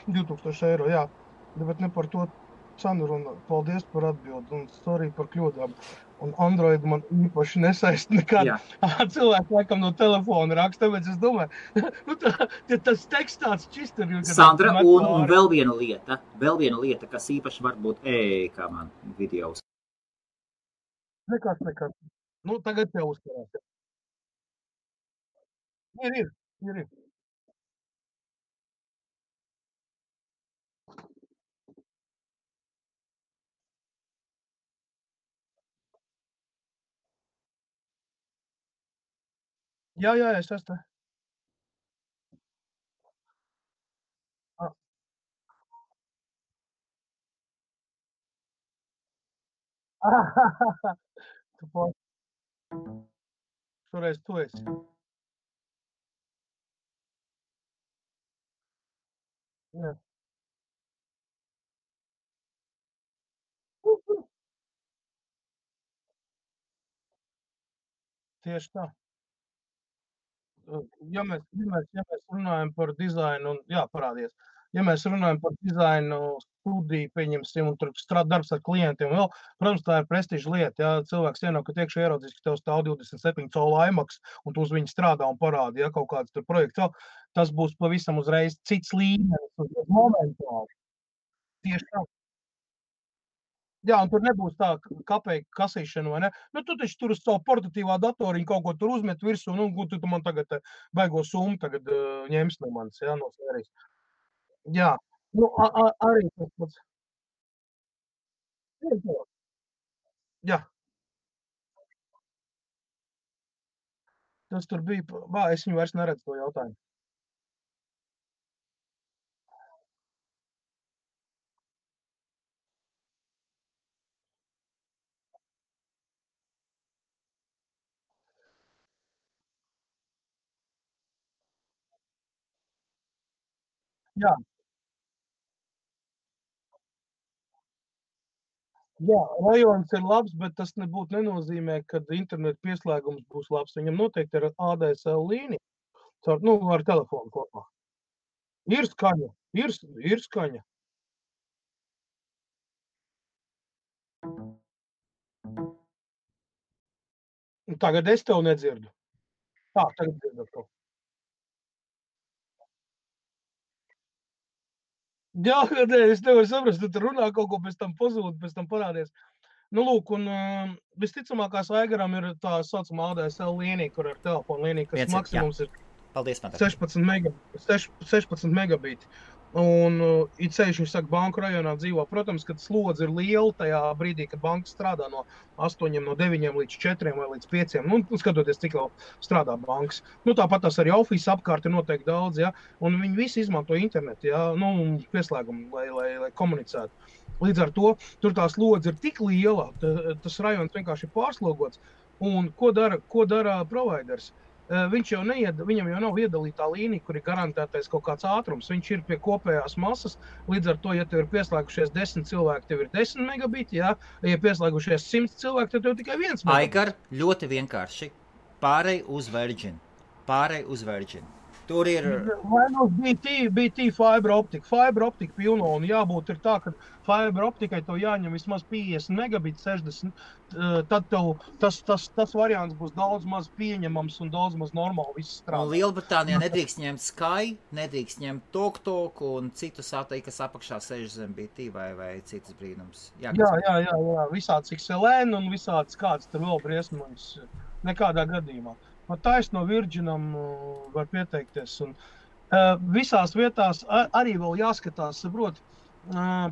2000 eiro, jā, bet ne par to cenu runa. Paldies par atbildi un sorry par kļūdām. Un Android man īpaši nesaist nekad. Cilvēki laikam no telefona raksta, tāpēc es domāju, tas teksts tāds čist ir. Sandra, un vēl viena lieta, kas īpaši var būt kā man videos. Nekas. Nu, tagad tev uzkarās. Ir. Jā, es esmu. Šoreiz tu esi. Jā. Tieši tā. Ja mēs runājam par dizainu, parādies. Ja mēs runājam par dizainu studiju, pieņemsim, un tur darbs ar klientiem, vēl, protams, tā ir prestiža lieta. Ja cilvēks ienāk, ka iekšā ieraudzīs, ka tev stāv 27 colu IMAX, un tu uz viņu strādā un parādi, ja kaut kāds tur projekts, tas būs pavisam uzreiz cits līmenis, momentāli. Tieši tā. Jā, un tur nebūs tā kapeiku kasīšana, vai ne? Nu, tu taču tur uz savu portatīvā datoriņu kaut ko tur uzmet virsū, nu, tu man tagad baigo summu tagad ņems no manis, jā, no sērijas. Jā, nu, arī tas pats. Jā. Tas tur bija, es viņu vairs neredzu to jautājumu. Jā, jā, rajons ir labs, bet tas nenozīmē, ka interneta pieslēgums būs labs. Viņam noteikti ir ADSL līnija, ar telefonu kopā. Ir skaņa, ir skaņa. Tagad es tev nedzirdu. Tagad dzirdu atkal. Jā, nē, es nevaru saprast, tu tur runā kaut ko, pēc tam pazūd, pēc tam parādies. Nu, lūk, un visticamākās Aigaram ir tā saucamā ADSL līnija, kur ar telefonu līniju, kas maksimums ir Paldies, 16 megabīti. Un it ceļš, viņš saka, banku rajonā dzīvo. Protams, kad slodze ir liela tajā brīdī, kad banka strādā no 8, no 9 līdz 4 vai līdz 5. Nu, skatoties, cik vēl strādā bankas. Nu, tāpat tās arī office apkārt ir noteikti daudz, ja. Un viņi visi izmanto internetu, ja, nu, pieslēgumu, lai komunicētu. Līdz ar to, tur tā slodze ir tik liela, tas rajons vienkārši ir pārslogots. Un ko dara providers? Viņam jau nav iedalītā līnija, kur ir garantētais kaut kāds ātrums. Viņš ir pie kopējās masas. Līdz ar to, ja tev ir pieslēgušies 10 cilvēki, tev ir 10 megabiti. Ja pieslēgušies 100 cilvēki, tad tev tikai 1 megabits. Aigar, ļoti vienkārši. Pārej uz Virgin. Tur ir... Vai nu BT fiber optika pilno, un jābūt ir tā, ka fiber optikai tev jāņem vismaz 50 megabiti, 60, tad tev tas variants būs daudz maz pieņemams un daudz maz normāli viss strādā. Un Lielbritānijā nedrīkst ņemt Sky, nedrīkst ņemt TalkTalk un citus satelītus, kas apakšā sēž zem BT vai citas brīnums. Jā, visāds XLN un visāds kāds tur vēl briesmoņas, nekādā gadījumā. Taisno Virginam var pieteikties. Un, visās vietās arī vēl jāskatās, saprot,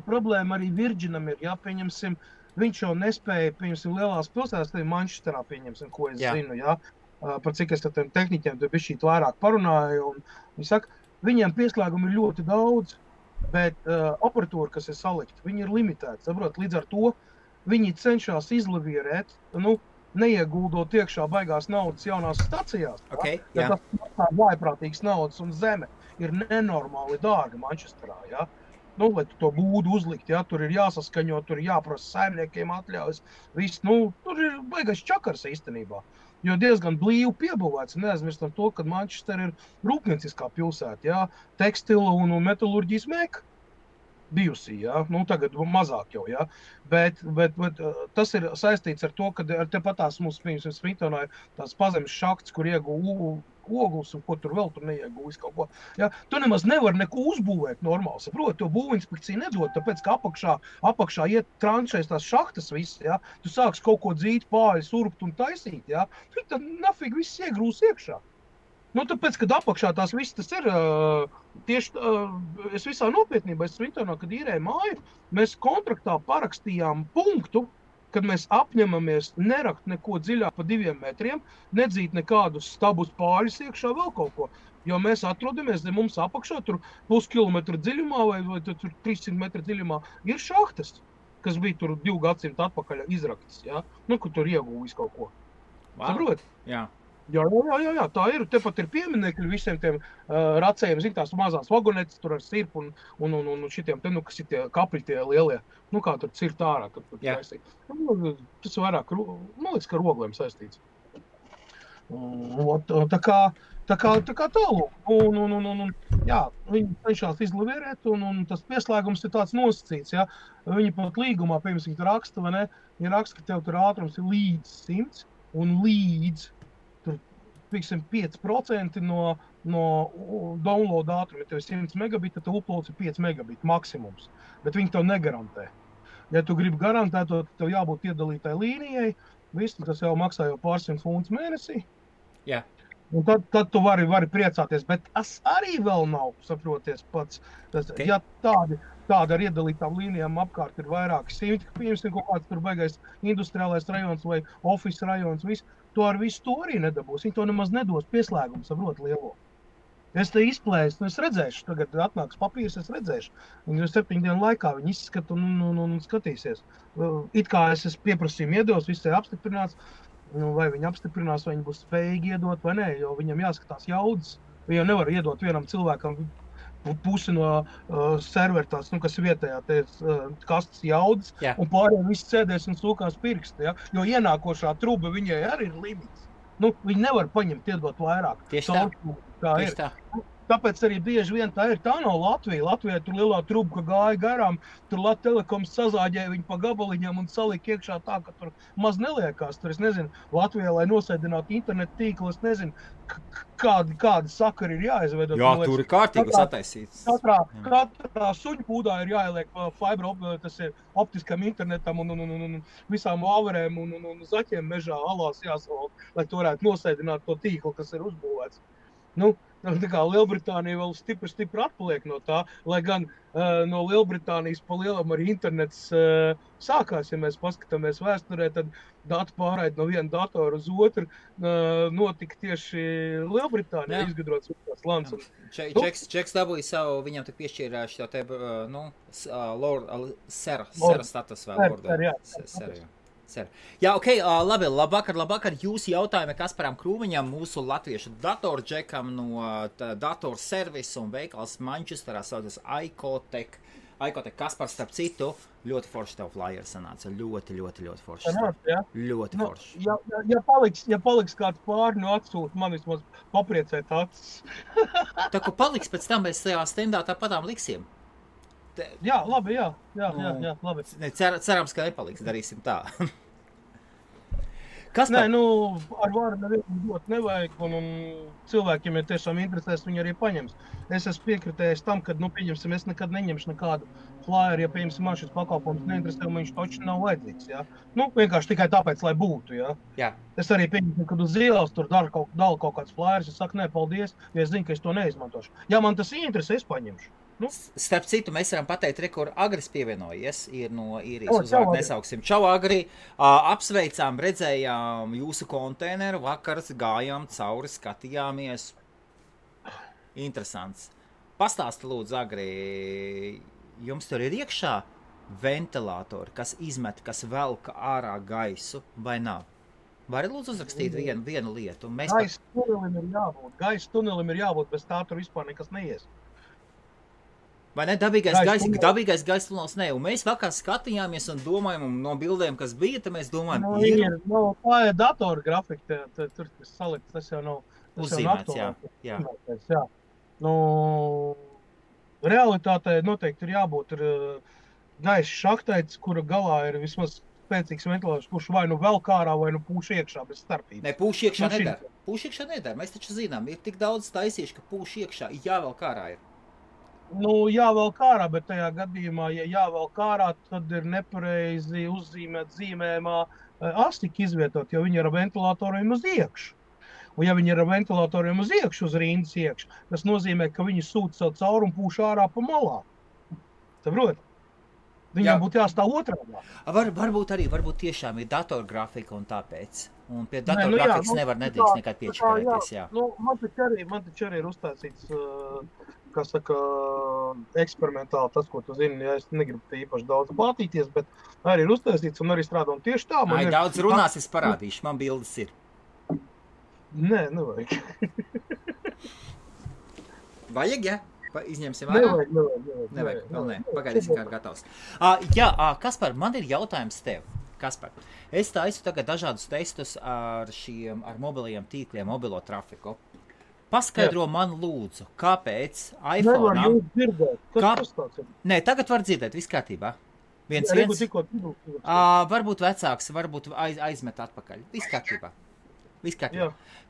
problēma arī Virginam ir, ja, pieņemsim, viņš jau nespēja, pieņemsim, lielās pilsētās, tad Manchesterā, pieņemsim, ko es zinu, ja, par cik es ar tiem tehniķiem tur bišķīt vairāk parunāju, un viņi saka, viņiem pieslēgumi ir ļoti daudz, bet operatūra, kas ir salikta, viņi ir limitēti, saprot, līdz ar to viņi cenšas izlavierēt, neieguldot iekšā baigās naudas jaunās stacijās. Okay, ja tas maksā vājprātīgas naudas un zeme ir nenormāli dārga Manchesterā. Ja? Lai tu to būdu uzlikt, ja? Tur ir jāsaskaņo, tur ir jāprasa saimniekiem atļaujas. Viss, tur ir baigais čakars īstenībā. Jo diezgan blīvi piebūvēts. Neaizmirstam to, ka Manchester ir rūpnieciskā pilsēta. Ja? Tekstila un metalurģijas meka. Bijusī, ja? Tagad mazāk jau, ja? Bet tas ir saistīts ar to, ka tepatās mums, piemēram, Smithtonā ir tās pazemes šakts, kur iegū ogles un ko tur vēl tur neiegūs kaut ko. Ja? Tu nemaz nevar neko uzbūvēt normāli, saproti, to būvinspekcija nedod, tāpēc, ka apakšā iet tranšēs tās šahtas viss, ja? Tu sāks kaut ko dzīt, pāļus, urbt un taisīt, ja? Tad nafig viss iegrūs iekšā. Tāpēc, kad apakšā tās viss tas ir, tieši es visā nopietnībā, es Smithtonā, kad īrēju māju, mēs kontraktā parakstījām punktu, kad mēs apņemamies nerakt neko dziļāk pa 2 metriem, nedzīt nekādus stabus pāļus iekšā vēl kaut ko, jo mēs atrodamies, mums apakšā tur puskilometru dziļumā vai tur 300 metru dziļumā ir šahtas, kas bija tur 2 gadsimtu atpakaļ izraktas, ja? Kur tur iegūvis kaut ko. Saprot? Jā. Jā, tā ir. Tepat ir pieminekļi visiem tiem racējiem, zin, tās mazās vagonetes tur ar sirpu un šitiem, kas ir tie kapļi tie lielie, kā tur cirt ārā, kad tur taisīt. Tas vairāk, man liekas, ka rogliem saistīts. Tā kā tālūk. Jā, viņi cenšās izlavierēt, un tas pieslēgums ir tāds nosacīts, ja. Viņi pat līgumā, piemēram, raksta, vai ne, ja raksta, ka tev tur ātrums ir līdz 100 un līdz 5% no download ātruma. Ja tev ir 100 megabiti, tad uploads ir 5 megabiti maksimums. Bet viņi tev negarantē. Ja tu gribi garantēt, tad tev jābūt iedalītai līnijai. Viss, tas jau maksā jau pāris funtus mēnesī. Jā. Un tad tu vari priecāties. Bet tas arī vēl nav, saproties pats. Okay. Ja tāda ar iedalītām līnijām apkārt ir vairāki simti, piemēram, kaut kāds tur baigais industriālais rajons vai office rajons, viss. To ar visu to arī nedabūs. Viņi to nemaz nedos pieslēgumu, saprot, lielo. Es te izplēsu, es redzēšu, tagad atnāks papīrs, es redzēšu. Viņi 7 dienu laikā viņi izskata un skatīsies. It kā es pieprasījumu iedos, viss ir apstiprināts, vai viņi apstiprinās, vai viņi būs spējīgi iedot vai nē, jo viņam jāskatās jaudas. Viņam nevar iedot vienam cilvēkam pusi no servera tās, kas vietējā kastas jaudas, Jā. un pārējiem viss sēdēs un sūkās pirksti, ja? Jo ienākošā truba viņai arī ir limits. Viņi nevar paņemt, iedot vairāk. Tieši tā. Tā Tieši ir. tā. Tāpēc arī bieži vien tā nav Latvija. Latvijā tur lielā truba, ka gāja garām, tur Latvijas Telekoms sazāģēja viņu pa gabaliņam un salika iekšā tā, ka tur maz neliekās. Tur, es nezinu, Latvijā, lai nosēdinātu internetu tīklu, es nezinu, kādi sakari ir jāizveido. Jā, tur ir kārtīgas attaisītas. Katrā suņu pūdā ir jāieliek fibra, tas ir optiskam internetam un visām vāverēm un zaķiem mežā alās jāsavalk, lai tu varētu nosēdināt to tīklu, kas ir uzbūvēts. Tā kā Lielbritānija vēl stipri atpaliek no tā, lai gan no Lielbritānijas pa lielam arī internets sākās, ja mēs paskatāmies vēsturē, tad datu pārraide no viena datora uz otru notika tieši Lielbritānijā, izgudrots tās lants. Čeks dabūja savu, viņam tik piešķīrā šo te, sera status vēl, lordu. Jā, labi, labvakar jūsu jautājumi Kasparam Krūmiņam, mūsu latviešu datorģekam no datorservisa un veikals Manchesterā saucas iCoTech. Kaspars, starp citu, ļoti forši tev flyer sanāca, ļoti forši. Ļoti forši. Ja paliks kāds pāri no atsūta, man vismaz papriecēt acis. Tā, ko paliks, pēc tam mēs tajā stendā tāpatām liksim. Jā, labi, jā, labi. Cerams, ka nepaliks, darīsim tā. Nē, ar varu nevienu dot nevajag, un cilvēkiem, ja tiešām interesēs, viņi arī paņems. Es esmu piekritējis tam, ka, pieņemsim, es nekad neņemšu nekādu flyeru, ja, pieņemsim, man šis pakalpojums neinteresē, un viņš toči nav vajadzīgs, jā. Vienkārši tikai tāpēc, lai būtu, jā. Jā. Es arī pieņemsim, kad uz ielas tur dala kaut kāds flyers, es saku, nē, paldies, jo es zinu, ka es to neizmantošu. Ja man tas interesē, es paņemšu. Starp citu, mēs varam pateikt, kur Agris pievienojies, ir no īrijas uzvārdu nesauksim. Čau, Agri, apsveicām, redzējām jūsu konteineru, vakars gājām cauri, skatījāmies. Interesants. Pastāsti lūdzu, Agri, jums tur ir iekšā ventilātori, kas izmet, kas velka ārā gaisu, vai nav? Vari lūdzu uzrakstīt vienu lietu? Gaisa tunelim ir jābūt, bez tā tur vispār nekas neies. Vai ne? Dabīgais gaisa tunelis ne. Un mēs vakar skatījāmies un domājam, un no bildēm, kas bija, tad mēs domājam, tā ir datora grafika, tur salikts, tas jau nav. Uzzīmēts, jā. Realitātē noteikti ir jābūt gaisa šahtaits, kura galā ir vismaz spēcīgs ventilators, kurš vai vēl kārā, vai pūš iekšā bez starpības. Ne, pūš iekšā nedara. Pūš iekšā nedara. Mēs taču zinām, ir tik daudz taisīši, ka pūš iekšā, jāvēl kārā ir. Jāvēl kārā, bet tajā gadījumā, ja jāvēl kārā, tad ir nepareizi uzzīmēt zīmējumā astika izvietot, jo viņi ir ar ventilatoriem uz iekšu. Un ja viņi ir ar ventilatoriem uz iekšu, uz rindas iekšu, tas nozīmē, ka viņi sūta savu cauri un pūš ārā pa malā. Saprot? Viņam būtu jāstāv otrādā. Varbūt tiešām ir datorgrafika un tāpēc. Un pie datorgrafikas nedrīkst nekad piečakarēties, jā. Man taču arī ir uzstāstīts, kā saka, eksperimentāli tas, ko tu zini, ja es negribu īpaši daudz plātīties, bet arī ir uztaisīts un arī strādā un tieši tā. Daudz runās, es parādīšu, man bildes ir. Nē, nevajag. Vajag, ja? Izņemsim ārā? Nevajag, vēl nē. Pagaidīsim, kā ir gatavs. Kaspar, man ir jautājums tev. Kaspar, es taisu tagad dažādus testus ar mobilajiem tīkliem, mobilo trafiku. Paskaidro man lūdzu, kāpēc iPhone... Nevar jūs dzirdēt. Kas tas ir? Nē, tagad var dzirdēt, viss kārtībā. Viens. Varbūt vecāks, varbūt aizmet atpakaļ. Viss kārtībā.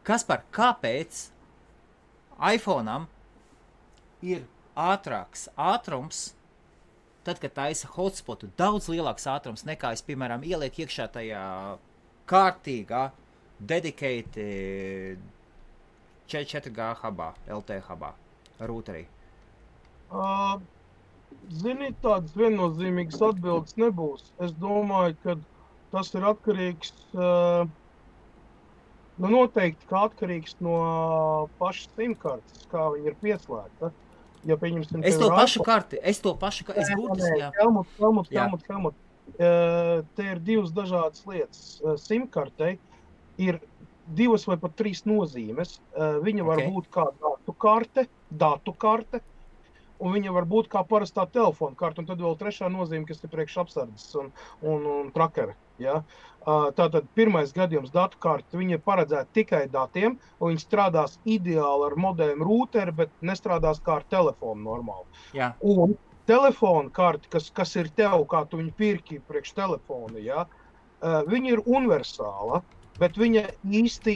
Kaspar, kāpēc iPhone'am ir ātrāks ātrums, tad, kad taisa hotspotu, daudz lielāks ātrums nekā es, piemēram, ieliek iekšā tajā kārtīgā, dedicated 4G hubā, LT hubā, rūterī? Zini, tādas viennozīmīgas atbildes nebūs. Es domāju, ka tas ir atkarīgs, noteikti, ka atkarīgs no pašas simkartes, kā viņa ir pieslēgta. Ja pieņemsim, es to pašu karti, es būtu, jā. Helmut. Te ir divas dažādas lietas. SIM-kartei ir 2 vai pat 3 nozīmes. Viņa var būt kā datu karte, un viņa var būt kā parastā telefona karta, un tad vēl trešā nozīme, kas ir priekš apsardzes un trakeri. Ja? Tātad pirmais gadījums datu karta, viņa ir paredzēta tikai datiem, un viņa strādās ideāli ar modēmu rūteri, bet nestrādās kā ar telefonu normāli. Jā. Un telefona karta, kas ir tev, kā tu viņu pirki priekš telefona, ja? Viņa ir universāla, bet viņa īsti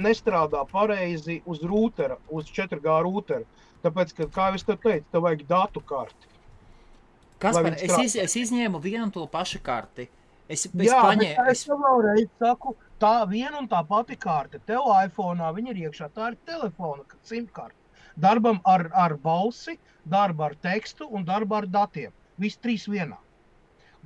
nestrādā pareizi uz rūtera, uz 4G rūtera. Tāpēc, ka, kā es te teicu, tev vajag datu karti. Kaspar, es izņēmu vienu un to pašu karti. Es vēlreiz saku, tā viena un tā pati karte. Tev iPhone'ā viņa ir iekšā, tā ir telefona simkarte. Darbam ar balsi, darba ar tekstu un darba ar datiem. Viss trīs vienā.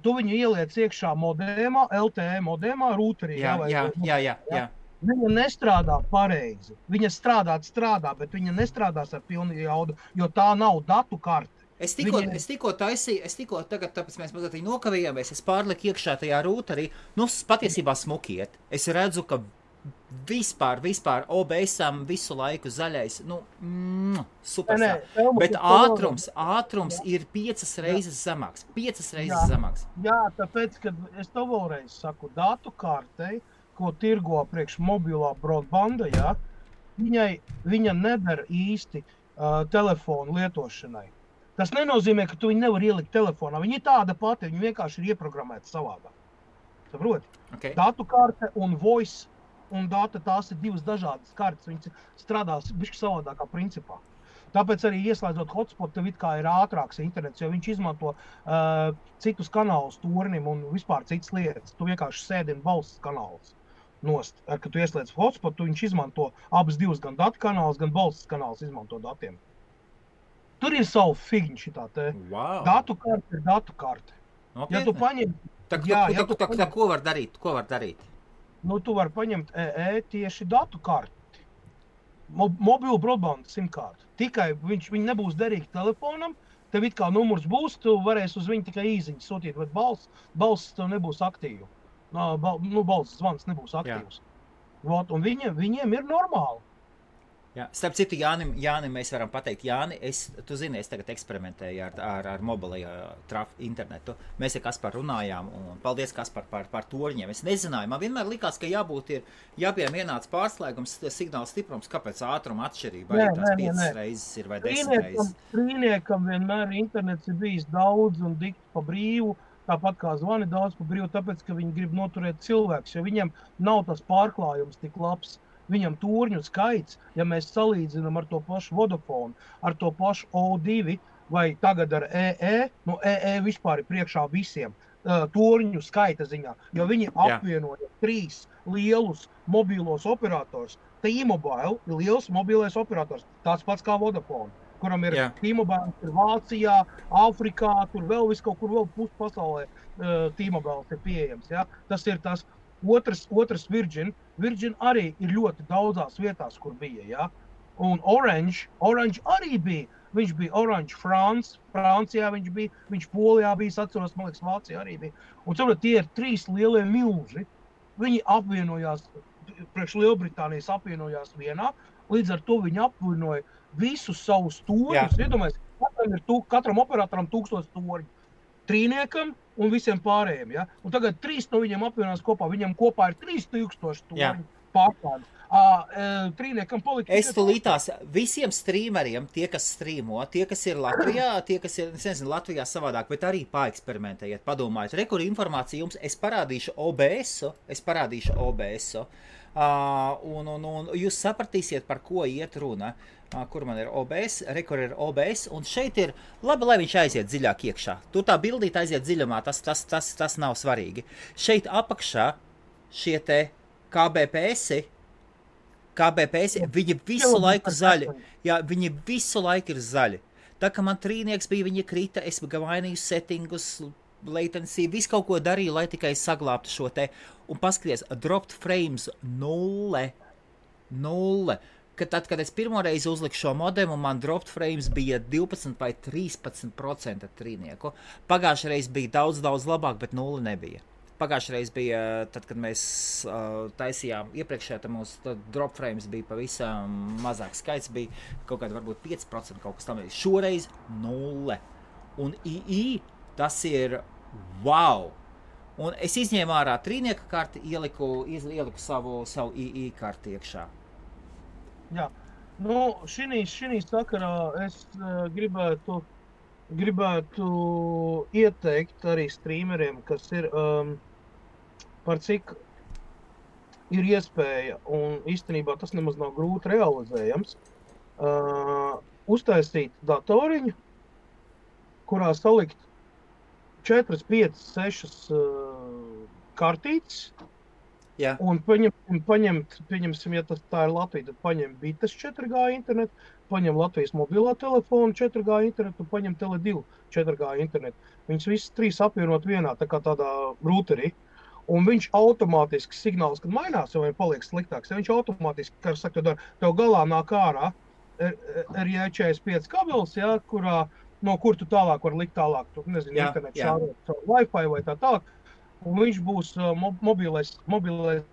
Tu viņu ieliec iekšā modēmā, LTE modēmā, rūterī. Jā. Viņa nestrādā pareizi. Viņa strādā, bet viņa nestrādās ar pilnu jaudu, jo tā nav datu karte. Es tikko taisīju, tagad, tāpēc mēs mazliet nokavījāmies, es pārliku iekšā tajā rūterī, patiesībā smukiet. Es redzu, ka vispār OBS-am visu laiku zaļais, superstar. Bet ātrums ir 5 reizes zemāks. 5 reizes zemāks. Jā, tāpēc, kad es to vēlreiz saku, datu kartei, ko tirgo priekš mobilā broadbanda, ja, viņa neder īsti telefonu lietošanai. Tas nenozīmē, ka tu viņu nevar ielikt telefonā. Viņa ir tāda pati, viņa vienkārši ir ieprogrammēta savādāk. Saproti? Okay. Datu karte un voice un data, tās ir divas dažādas kartes. Viņas strādās bišķi savādākā principā. Tāpēc arī ieslēdzot hotspot, tev it kā ir ātrāks internets, jo viņš izmanto citus kanālus turnim un vispār citas lietas. Tu vienkārši sēdini balss kanālus nost. Kad tu ieslēdz hotspot, viņš izmanto abas divas, gan datu kanālus, gan balss kanālus izmanto datiem. Tur ir savu figņu šitā te. Wow. Datu karte ir datu karte. Okay. Ja tu paņem... Ko var darīt? Nu, tu var paņemt tieši datu karti. Mobilu broadband simkārtu. Tikai viņi nebūs derīgi telefonam, tev it kā numurs būs, tu varēsi uz viņu tikai īziņu sūtīt, bet balss tev nebūs aktīva. Balss zvans nebūs aktīvs. Un viņiem ir normāli. Jā. Starp citu, Jānim mēs varam pateikt, Jāni, tu zini, es tagad eksperimentēju ar mobilajā internetu. Mēs ar Kasparu runājām, un paldies, Kaspar, par torņiem. Es nezināju, man vienmēr likās, ka jāpiem vienāds pārslēgums, signāla stiprums, kāpēc ātruma atšķirība arī tās 5 reizes ir vai 10 reizes. Trīniekam vienmēr internets ir bijis daudz un dikti pa brīvu, tāpat kā zvani daudz pa brīvu, tāpēc, ka viņi grib noturēt cilvēks, jo viņiem nav tas pārklājums tik labs. Viņam turņu skaits, ja mēs salīdzinām ar to pašu Vodafone, ar to pašu O2 vai tagad ar EE, vispār ir priekšā visiem turņu skaita ziņā, jo viņi apvienoja 3 lielus mobīlos operators. T-Mobile ir liels mobilais operators, tāds pats kā Vodafone, kuram ir T-Mobile, ir Vācijā, Āfrikā, tur vēl viskaut kur vēl puspasaulē T-Mobile ir pieejams. Ja? Tas ir tas. Otrs Virgin arī ir ļoti daudzās vietās, kur bija, ja? Un Orange arī bija. Viņš bija Orange Francijā viņš bija, viņš Polijā bija, es atceros, man liekas, Vācijā arī bija. Un saprot, tie ir 3 lielie milži. Viņi apvienojās, priekš Lielbritānijas apvienojās vienā, līdz ar to viņi apvienoja visus savus torņus. Iedomājies, katram operatoram 1000 torņu. Trīniekam un visiem pārējiem, ja? Un tagad 3 no viņiem apvienās kopā. Viņam kopā ir 3000 torņu pārklādes. Trīniekam palika... Es tulītās visiem streameriem, tie, kas streamo, tie, kas ir Latvijā, tie, kas ir, nezinu, Latvijā savādāk, bet arī paeksperimentējiet, padomājiet. Kur informācija jums, es parādīšu OBS-u, un jūs sapratīsiet, par ko iet runa. Kur man ir OBS, kur ir OBS, un šeit ir, labi, lai viņš aiziet dziļāk iekšā. Tur tā bildīt aiziet dziļumā, tas nav svarīgi. Šeit apakšā šie te KBPS, viņi visu laiku zaļi. Jā, viņi visu laiku ir zaļi. Tā kā man trīnieks bija, viņi krita, es mainīju settingus, latency, visu kaut ko darīju, lai tikai saglābtu šo te. Un paskaties, dropped frames 0. Tad, kad es pirmoreiz uzliku šo modemu, man dropped frames bija 12 vai 13% trīnieku. Pagājušajā reiz bija daudz labāk, bet 0 nebija. pagājušreiz bija, tad, kad mēs taisījām iepriekšējā, tad mūsu drop frames bija pavisam mazāks skaits, bija kaut kāda varbūt 5% kaut kas tam. Šoreiz 0. Un II tas ir wow! Un es izņēmu ārā trīnieka karti, ieliku savu II karti iekšā. Jā, nu, šī sakarā es gribētu ieteikt arī streameriem, kas ir par cik ir iespēja, un īstenībā tas nemaz nav grūti realizējams, uztaisīt datoriņu, kurā salikt 4, 5, 6 kartītes, un paņemsim, ja tā ir Latvija, tad paņem Bites 4G internetu, paņem Latvijas mobilā telefonu 4G internetu un paņem Tele2 4G internetu. Viņas visas 3 apvienot vienā, tā kā tādā routerī. Un viņš automātiski signāls, kad mainās, vai paliek sliktāks, ja viņš automātiski, kā saka, tev galā nāk ārā RJ45 kabelis, ja, no kur tu tālāk var likt tālāk, tu nezinu, internetu šārot Wi-Fi vai tā tālāk. Un viņš būs mobilais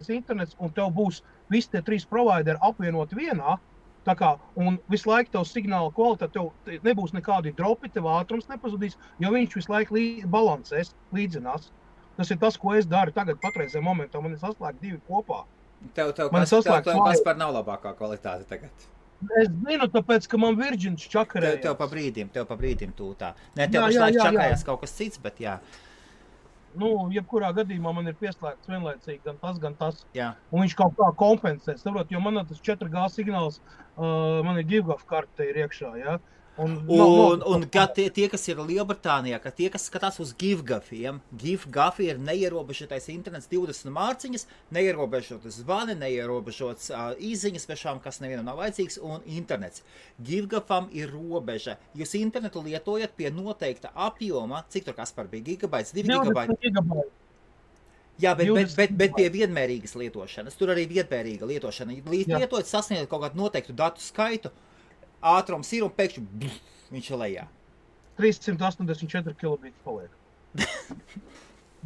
internets, un tev būs visi tie 3 provideri apvienoti vienā, tā kā, un visu laiku tev signāla kvalitāte, tev nebūs nekādi dropi, tev ātrums nepazudīs, jo viņš visu laiku balansēs, līdzinās. Tas ir tas, ko es daru tagad patreizajā momentā, man ir saslēgt 2 kopā. Tev Kaspar nav labākā kvalitāte tagad. Es zinu, tāpēc, ka man Virģins čakarējās. Tev pa brīdim tūtā. Nē, tev pašlaik čakarējās kaut kas cits, bet jā. Nu, jebkurā gadījumā man ir pieslēgts vienlaicīgi gan tas. Jā. Un viņš kaut kā kompensē, saprot, jo man tas 4G signāls, man ir GiveGov karte ir iekšā, jā. Un tie, kas ir Lielbritānijā, tie, kas skatās uz GiveGoviem, GiveGov ir neierobežotais internets 20 mārciņas, neierobežotas zvani, neierobežotas īziņas svešām, kas nevienam nav vajadzīgs, un internets. GiveGovam ir robeža. Jūs internetu lietojat pie noteikta apjoma, cik tur Kaspar bija, gigabaits, 2 gigabaiti? Jā, bet pie vienmērīgas lietošanas. Tur arī vienmērīga lietošana. Lietojot sasniegt kaut kādu noteiktu datu skaitu, ātrums ir un pēkšņi viņš ir lejā. 384 kilobīti paliek.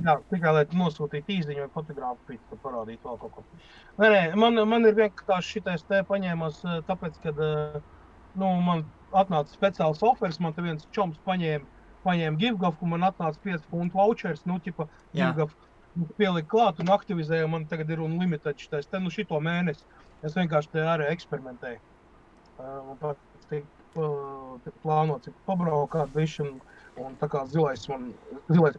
Jā, tikai lai nosūtītu īziņu vai fotogrāfiju, tad parādītu vēl kaut ko. Nē, man ir vienkārši šitais te paņēmās, tāpēc, kad man atnāca speciāls offers, man te viens čoms paņēma GiveGov, un man atnāca 5 funtu vouchers, GiveGov pielika klāt un aktivizēja, man tagad ir unlimited šitais te, šito mēnesi. Es vienkārši te arī eksperimentēju. Plānots pabraukāt viši, un tā kā zilais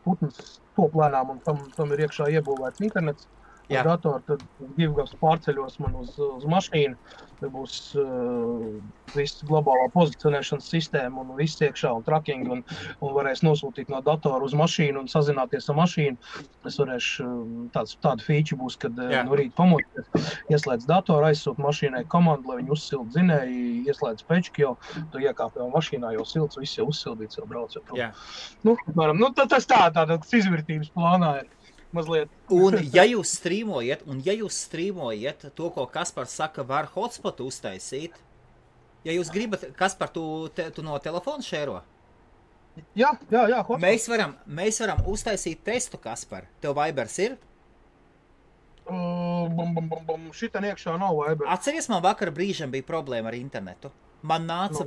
putns top lēnām, un tam ir iekšā iebūvēts internets. Uz datoru, tad GiveGovs pārceļos man uz mašīnu, tad būs viss globālā pozicionēšanas sistēma un viss iekšā un tracking, un varēs nosūtīt no datoru uz mašīnu un sazināties ar mašīnu. Es varēšu, tāda feature būs, kad no rīta pamodties, ieslēdz datoru, aizsūt mašīnai komandu, lai viņi uzsild dzinēji, ieslēdz pečki, jo tu iekāp jau mašīnā, jau silts, viss jau uzsildīts, jau brauc jau prom. Tas tāds izvirtības plānā ir. Mazliet. Un ja jūs strīmojat to, ko Kaspars saka, var hotspotu uztaisīt, ja jūs gribat, Kaspar, tu no telefona šēro? Jā, hotspot. Mēs varam uztaisīt testu, Kaspar. Tev Vibers ir? Šitan iekšā nav Viber. Atceries, man vakar brīžam bija problēma ar internetu. Man nāca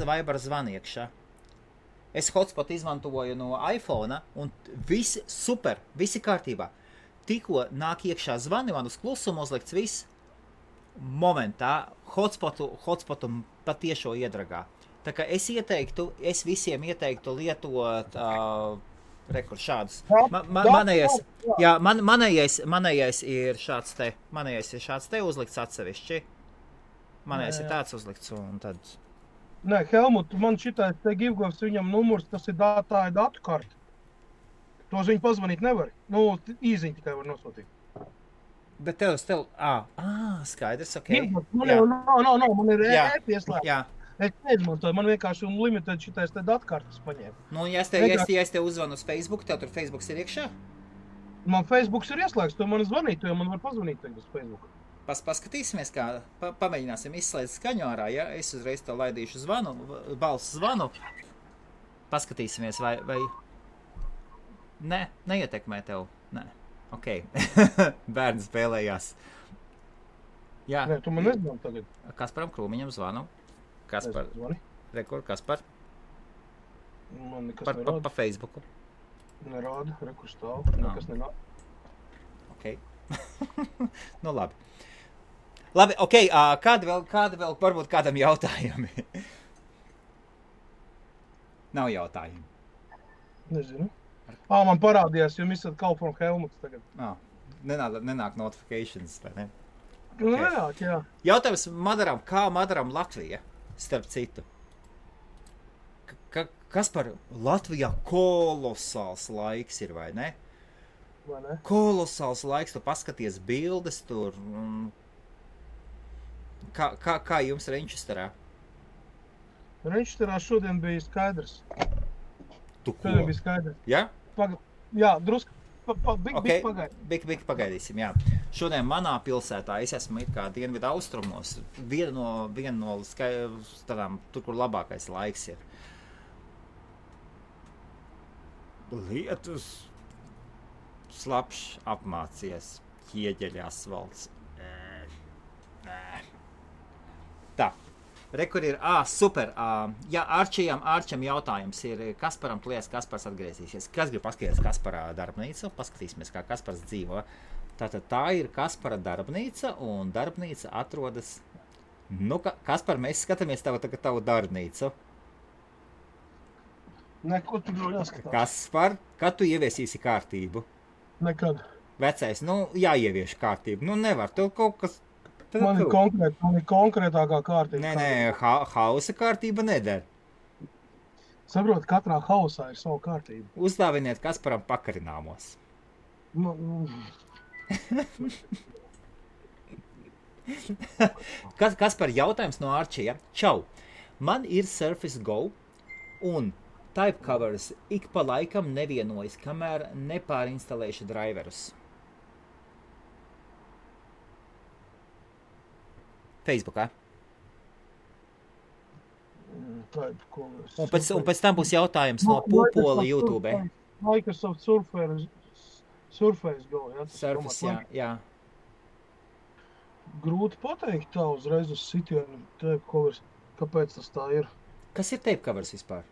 Viber zvani iekšā. Es hotspot izmantoju no iPhone, un visi super, visi kārtībā. Tikko nāk iekšā zvani, man uz klusumu uzlikts viss. Momentā hotspotu patiešo iedragā. Tā kā es visiem ieteiktu lietot šādus. Manējais ir šāds te uzlikts atsevišķi. Manējais ir tāds uzlikts, un tad... Nē, Helmut, man šitais te GiveGovs, viņam numurs, tā ir datu karta. Tos viņi pazvanīt nevar. Īziņu tikai var nosūtīt. Bet tev, skaidrs, ok. Nav, man ir e-pieslēgts. Es neizmantoju, man vienkārši unlimited šitais te datu kartas paņēma. Ja es te uzvanu uz Facebook, tev tur Facebooks ir iekšā? Man Facebooks ir ieslēgts, to man zvanīt, jo man var pazvanīt tagad uz Facebooku. Paskatīsimies, kā pamēģināsim izslēgt skaņu ārā, ja? Es uzreiz tev laidīšu balsu zvanu. Paskatīsimies, vai... Nē, neietekmē tev. Nē, ok. Bērni spēlējās. Jā. Nē, tu man nezinu tagad. Kasparam Krūmiņam zvanu. Kaspar. Rekord, Kaspar. Man nekas nerāda. Pa Facebooku. Nerāda, rekur stāv. Nekas nerāda. Ok. Nu, labi. Labi, ok. Kādi vēl varbūt kādam jautājumi? Nav jautājumi. Nezinu. Man parādījās, jo esat Call from Helmuts tagad. Nenāk notifications, vai ne? Okay. Nenāk, jā. Jautājums Madaram, kā Madaram Latvija, starp citu? Kas par Latvijā kolosāls laiks ir, vai ne? Vai ne? Kolosāls laiks, tu paskaties bildes tur. Kā jums Renčesterā? Renčesterā šodien bija skaidrs. Tu ko? Šodien bija skaidrs. Jā? Jā, drusku. Bik pagaidīsim, jā. Šodien manā pilsētā es esmu it kā dienvidu austrumos. Viena no tādām, tur, kur labākais laiks ir. Lietus slapšs apmācies, ķieģeļa asfalts. Tā, rekur ir, super, jā, Arčam jautājums ir, Kasparam, tu liekas, Kaspars atgriezīsies. Kas grib paskatīties Kasparā darbnīcu? Paskatīsimies, kā Kaspars dzīvo. Tātad tā ir Kaspara darbnīca, un darbnīca atrodas, Kaspar, mēs skatāmies tavu darbnīcu. Neko tu jau jāskatās. Kaspar, kad tu ieviesīsi kārtību? Nekad. Vecais, jāievieš kārtību. Nevar, tev kaut kas... Man ir konkrētākā kārtība. Nē, hausa kārtība neder. Saprot, katrā hausā ir savu kārtību. Uzdāviniet Kasparam pakarināmos. Kaspar, jautājums no Arčija. Čau, man ir Surface Go un type covers ik pa laikam nevienojas, kamēr nepārinstalēšu driverus. Facebookā. Un pēc tam būs jautājums no Pūpola YouTube. Microsoft Surface Go, jā? Surface, jā. Grūti pateikt tā uzreiz uz sitienu tape covers. Kāpēc tas tā ir? Kas ir tape covers vispār?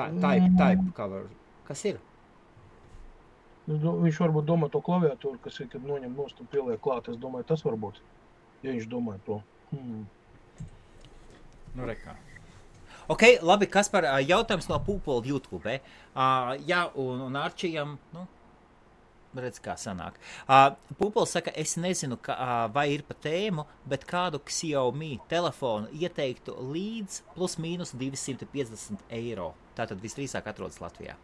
Type cover. Kas ir? Viņš varbūt domā to klaviatūru, kas ir, kad noņem nost un pieliek klāt. Es domāju, tas varbūt, ja viņš domāja to. Rekā. Ok, labi, Kaspar, jautājums no Pūpola YouTube. Jā, un Arčijam, redz, kā sanāk. Pūpols saka, es nezinu, vai ir pa tēmu, bet kādu Xiaomi telefonu ieteiktu līdz plus mīnus 250 eiro. Tātad visdrīzāk atrodas Latvijā.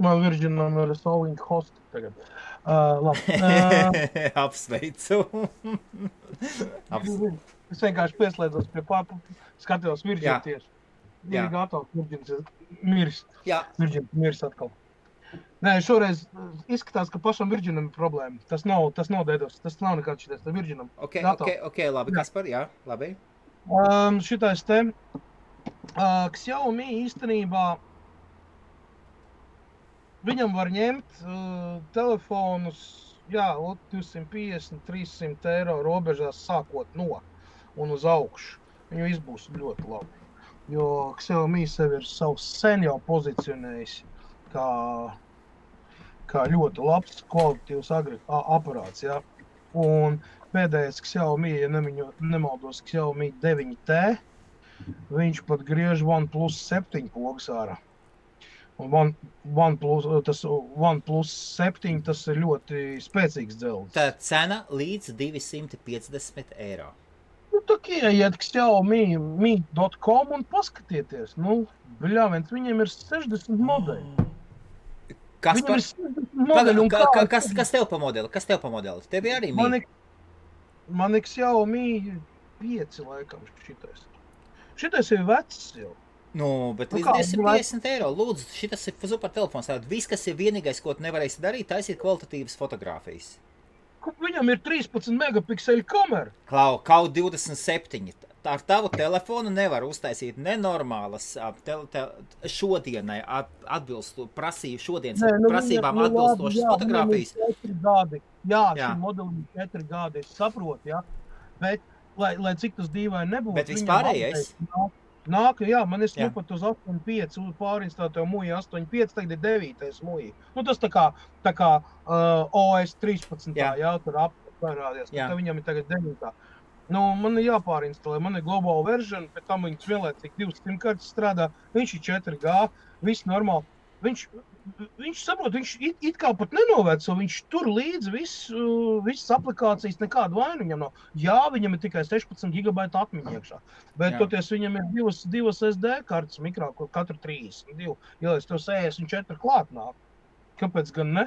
Man Virginam ir solving host tagad. Labi. Apsveicu. Es vienkārši pieslēdzos pie skatījos Virginu tieši. Ir gatavs, Virgins miris. Jā. Virgins miris atkal. Nē, šoreiz izskatās, ka pašam Virginam ir problēma. Tas nav dedos, tas nav nekāds šitais, tas Virginam. Ok, labi, Kaspar, jā, labi. Šitais te Xiaomi īstenībā viņam var ņemt telefonus, 250, 300 eiro robežās sākot no un uz augšu. Viņu izbūs ļoti labi. Jo Xiaomi sevi ir savs sen jau pozicionējis kā ļoti labs kvalitatīvs aparāts, jā. Un pēdējais Xiaomi, ja nemaldos, Xiaomi 9T, viņš pat griež OnePlus 7 pogas ārā. Un OnePlus 7, tas ir ļoti spēcīgs dzelzs. Tā cena līdz 250 eiro. Tā ieiet Xiaomi.com un paskatieties. Viņiem ir 60 modeļi. Kas tev pa modeli? Tev ir arī Mi? Man ir Xiaomi 5 laikam šitais. Šitais ir vecs jau. Bet līdz 250 eiro. Lūdzu, šitas ir super telefons. Viss, kas ir vienīgais, ko tu nevarēsi darīt, taisīt kvalitatīvas fotogrāfijas. Viņam ir 13 megapikseļu kamera. Kaut 27. ar tavu telefonu nevar uztaisīt nenormālas šodienai prasībām atbilstošas fotogrāfijas. Šim modelim 4 gadi, es saprotu, ja, bet, lai cik tas dīvaini nebūtu. Bet vispārējais? Nāk, jā, man es pat uz 8.5 pārinstātu muju 8.5, tagad ir 9. muju. Nu, tas tā kā OS 13, jā, tur apvērādies, bet viņam ir tagad 9. Nu, man ir jāpārinstalē, man ir global version, pēc tam viņas vienlaicīgi 2 SIM-kartes strādā, viņš ir 4G, viss normāli. Viņš saprot, viņš it kā pat nenoveco, viņš tur līdzi visas aplikācijas, nekādu vainu viņam nav. Jā, viņam ir tikai 16 GB atmiņa iekšā, bet toties viņam ir divas SD kartes mikrā, kur katru 32, ja es tev 64 klāt nāk. Kāpēc gan ne?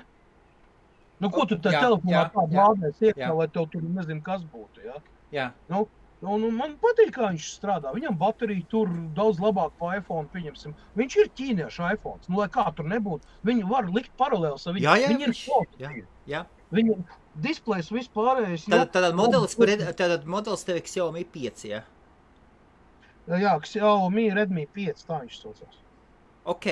Nu, ko tu tā telefonā tādu lādēs iekšā, lai tev tur nezinu, kas būtu, jā? Jā. Nu, man patīk, kā viņš strādā. Viņam baterija tur daudz labāk pa iPhone, pieņemsim. Viņš ir ķīniešu iPhones. Nu, lai kā tur nebūtu, viņu var likt paralēls ar viņu. Viņi ir šoki. Viņu displejs vispārējais. Tātad modelis tev Xiaomi 5, jā? Jā, Xiaomi Redmi 5, tā viņš saucās. Ok.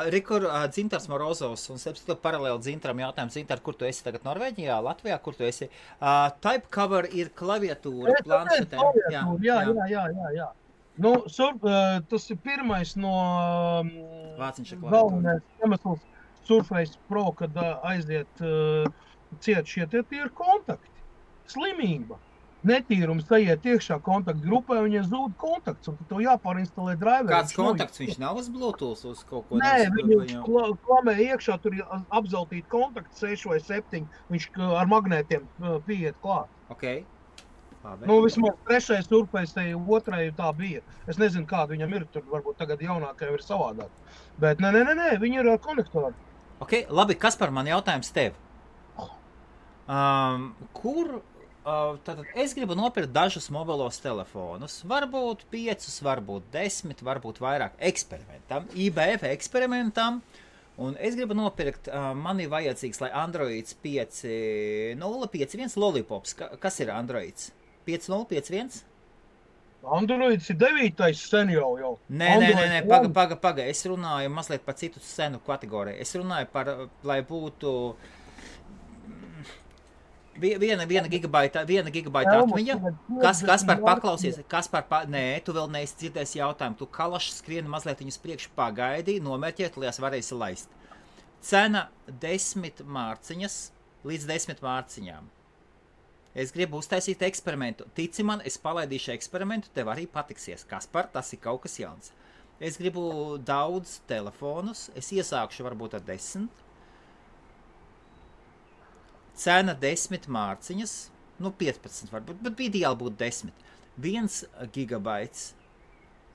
Rikur Dzintars Morozovs un tev paralēli Dzintaram jautājums. Dzintar, kur tu esi tagad? Norvēģijā, Latvijā? Kur tu esi? Type cover ir klaviatūra, planšetēm. Jā. Nu, tas ir pirmais no galvenais iemesls Surface Pro, kad aiziet ciet šie tie ir kontakti. Slimība. Netīrums aiziet iekšā kontaktu grupē, un ja zūd kontakts, un tev jāpārinstalē driveri. Kāds kontakts? Viņš nav uz Bluetooth uz kaut ko? Nē, viņu klamē iekšā, tur ir apzeltīti kontakti 6 vai 7, viņš ar magnētiem pieiet klāt. Ok. Labi. Nu, vismaz 3. Surface, 2. tā bija. Es nezinu, kāda viņam ir, tur varbūt tagad jaunākajam ir savādāk. Bet nē, viņi ir ar konektoru. Ok, labi, Kaspar, man jautājums tev. Tātad es gribu nopirkt dažus mobilos telefonus, varbūt 5, varbūt 10, varbūt vairāk eksperimentam, IBF eksperimentam, un es gribu nopirkt, man ir vajadzīgs, lai Androids 5.0.5.1 Lollipops, kas ir Androids? 5.0.5.1? Androids ir 9. sen jau. Nē, paga, es runāju mazliet par citu senu kategoriju, es runāju par, lai būtu 1 gigabaita atmiņa. Kaspar, paklausies. Nē, tu vēl neesi dzirdējis jautājumu. Tu kalaši skrieni mazliet viņus priekš pagaidi, nomērķēt, lai varēsi laist. Cena 10 mārciņas līdz 10 mārciņām. Es gribu uztaisīt eksperimentu. Tici man, es palaidīšu eksperimentu, tev arī patiksies. Kaspar, tas ir kaut kas jauns. Es gribu daudz telefonus, es iesākšu varbūt ar 10. Cena 10 mārciņas, 15 varbūt, bet ideāli būtu 10. 1 gigabaits,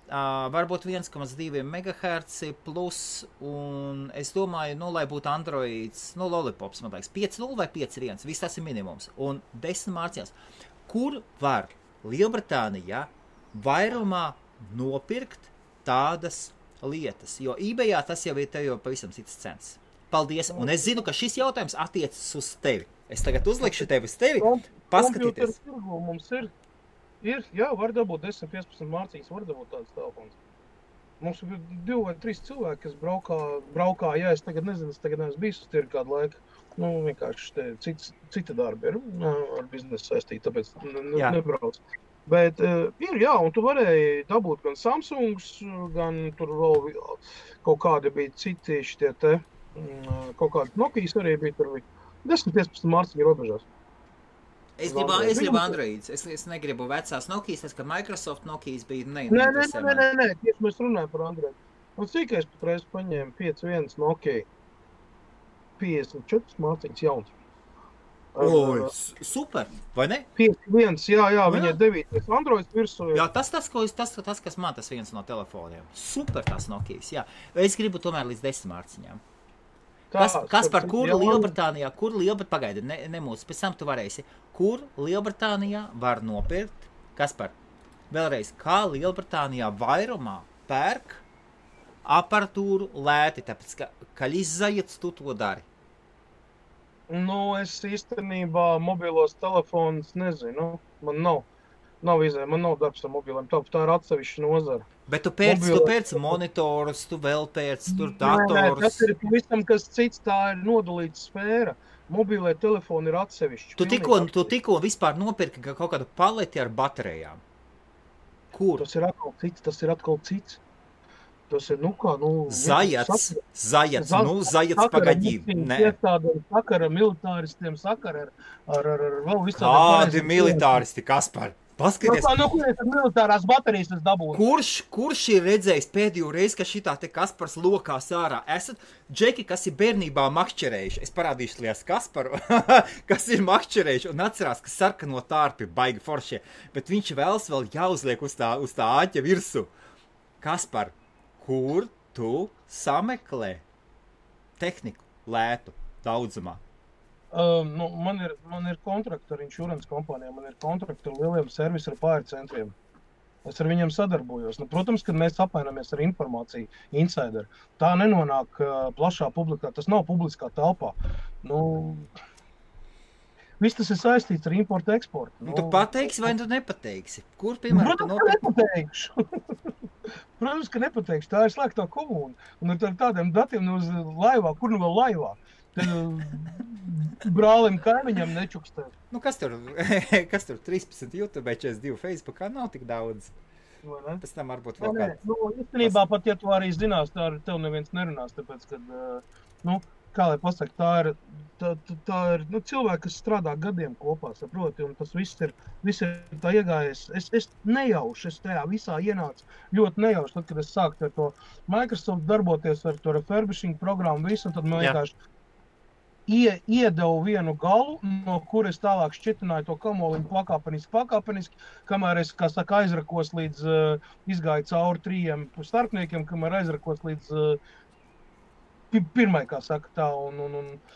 varbūt 1,2 MHz plus, un es domāju, lai būtu Androids, Lollipops, man liekas, 5.0 vai 5.1, viss tas ir minimums, un 10 mārciņās. Kur var Lielbritānijā vairumā nopirkt tādas lietas? Jo eBayā tas jau ir tev pavisam citas cenas. Paldies, un es zinu, ka šis jautājums attiecas uz tevi. Es tagad uzlikšu tevi uz tevi, paskatīties. Mums ir, jā, var dabūt 10-15 mārciņas, var dabūt tādas telefons. Mums ir 2 vai 3 cilvēki, kas braukā, jā, es tagad nezinu, es tagad neesmu bijis uz tirgu kādu laiku. Nu, vienkārši cita darba ir ar biznesu saistīta, tāpēc nebrauc. Bet ir, jā, un tu varēji dabūt gan Samsungs, gan tur vēl kaut kādi bija citi šitie te, kaut kādi Nokijas arī bija tur 10-15 mārciņu robežās. Es gribu Androids, es negribu vecās Nokijas, tas, ka Microsoft Nokijas bija neinteresē. Nē, tieši mēs runājam par Android. Un cik es patreiz paņēmu 5.1 Nokia, 54 mārciņas jauns. Super, vai ne? 5.1, jā, viņa ir 9. Androids virsū. Jā, tas, kas man tas viens no telefoniem. Super tas Nokijas, jā. Es gribu tomēr līdz 10 mārciņām. Kas par kur Lielbritānijā, pagaidi, nemūs, pēc tam tu varēsi, kur Lielbritānijā var nopirkt, Kaspar, vēlreiz, kā Lielbritānijā vairumā pērk aparatūru lēti, tāpēc, ka izzajiet tu to dari. Nu, es īstenībā mobilos telefonus nezinu, man nav. Nav izēja, man nav darbs ar mobiliem, tā ir atsevišķa nozara. Bet tu pēc monitorus, tu vēl pēc tur datorus. Tas ir visam, kas cits, tā ir nodalīta sfēra. Mobilē telefoni ir atsevišķi. Tu tikko vispār nopirki kaut kādu paleti ar baterijām. Kur? Tas ir atkal cits. Tas ir, Zajats pagadību. Sakara militāristiem, sakara ar vēl visādiem. Kādi militāristi, Kaspar? Paskaties. Kurienes militārās baterijas tas dabūna? Kurš ir redzējis pēdējo reizi, ka šitā te Kaspars lokās ārā? Esat džeki, kas ir bērnībā makšķerējuši. Es parādīšu lies Kasparu, kas ir makšķerējuši un atcerās, ka sarkano tārpi baigi foršie. Bet viņš vēlas vēl jāuzliek uz tā āķa virsu. Kaspar, kur tu sameklē tehniku lētu daudzumā? Man ir kontrakti ar insurance kompānijām, man ir kontrakti ar lieliem servisu ar pārcentriem. Es ar viņiem sadarbojos. Protams, kad mēs apmainamies ar informāciju, insider, tā nenonāk plašā publikā, tas nav publiskā telpā. Viss tas ir saistīts ar importu, eksportu. Tu pateiksi vai tu nepateiksi? Kur, piemēram, tu nepateikšu. Protams, ka nepateikšu. Tā ir slēgtā komūna. Un ar tādiem datiem uz laivā, kur nu vēl laivā? Brālim kaimiņam nečukstē. Kas tur 13 YouTube, 42 Facebookā nav tik daudz. Pēc tam varbūt vēl kāds. Īstenībā pat, ja tu arī zinās, tā ar tev neviens nerunās, tāpēc, kad, kā lai pasaka, tā ir cilvēki, kas strādā gadiem kopā, saproti, un tas viss ir tā iegājies. Es nejauši, es tajā visā ienācu ļoti nejauši, tad, kad es sāku ar to Microsoft darboties ar to refurbishing programmu visu, un tad man vienkārši iedevu vienu galu, no kuras tālāk šķitināju to kamoliņu pakāpeniski, kamēr es, kā saka, aizrakos līdz, izgāju cauri 3 starpniekiem, kamēr aizrakos līdz pirmai, kā saka tā, un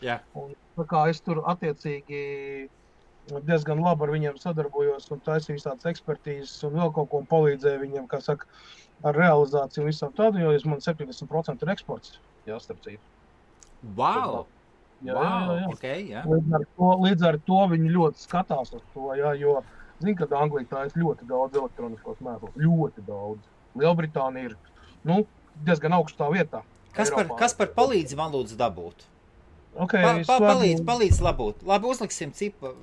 tā kā es tur attiecīgi diezgan labi ar viņiem sadarbojos un taisīju visādas ekspertīzes un vēl kaut ko palīdzēju viņiem, kā saka, ar realizāciju un visam tādu, jo man 70% ir eksports, starp citu. Wow! Jā. Okay, jā. Līdz ar to viņi ļoti skatās uz to, jo, zin, kad Anglija tā ir ļoti daudz elektroniskos mēslus, ļoti daudz. Lielbritānija ir, diezgan augstā vietā. Kaspar, palīdzi man lūdzu dabūt. Palīdzi labūt. Labi, uzliksim cipu,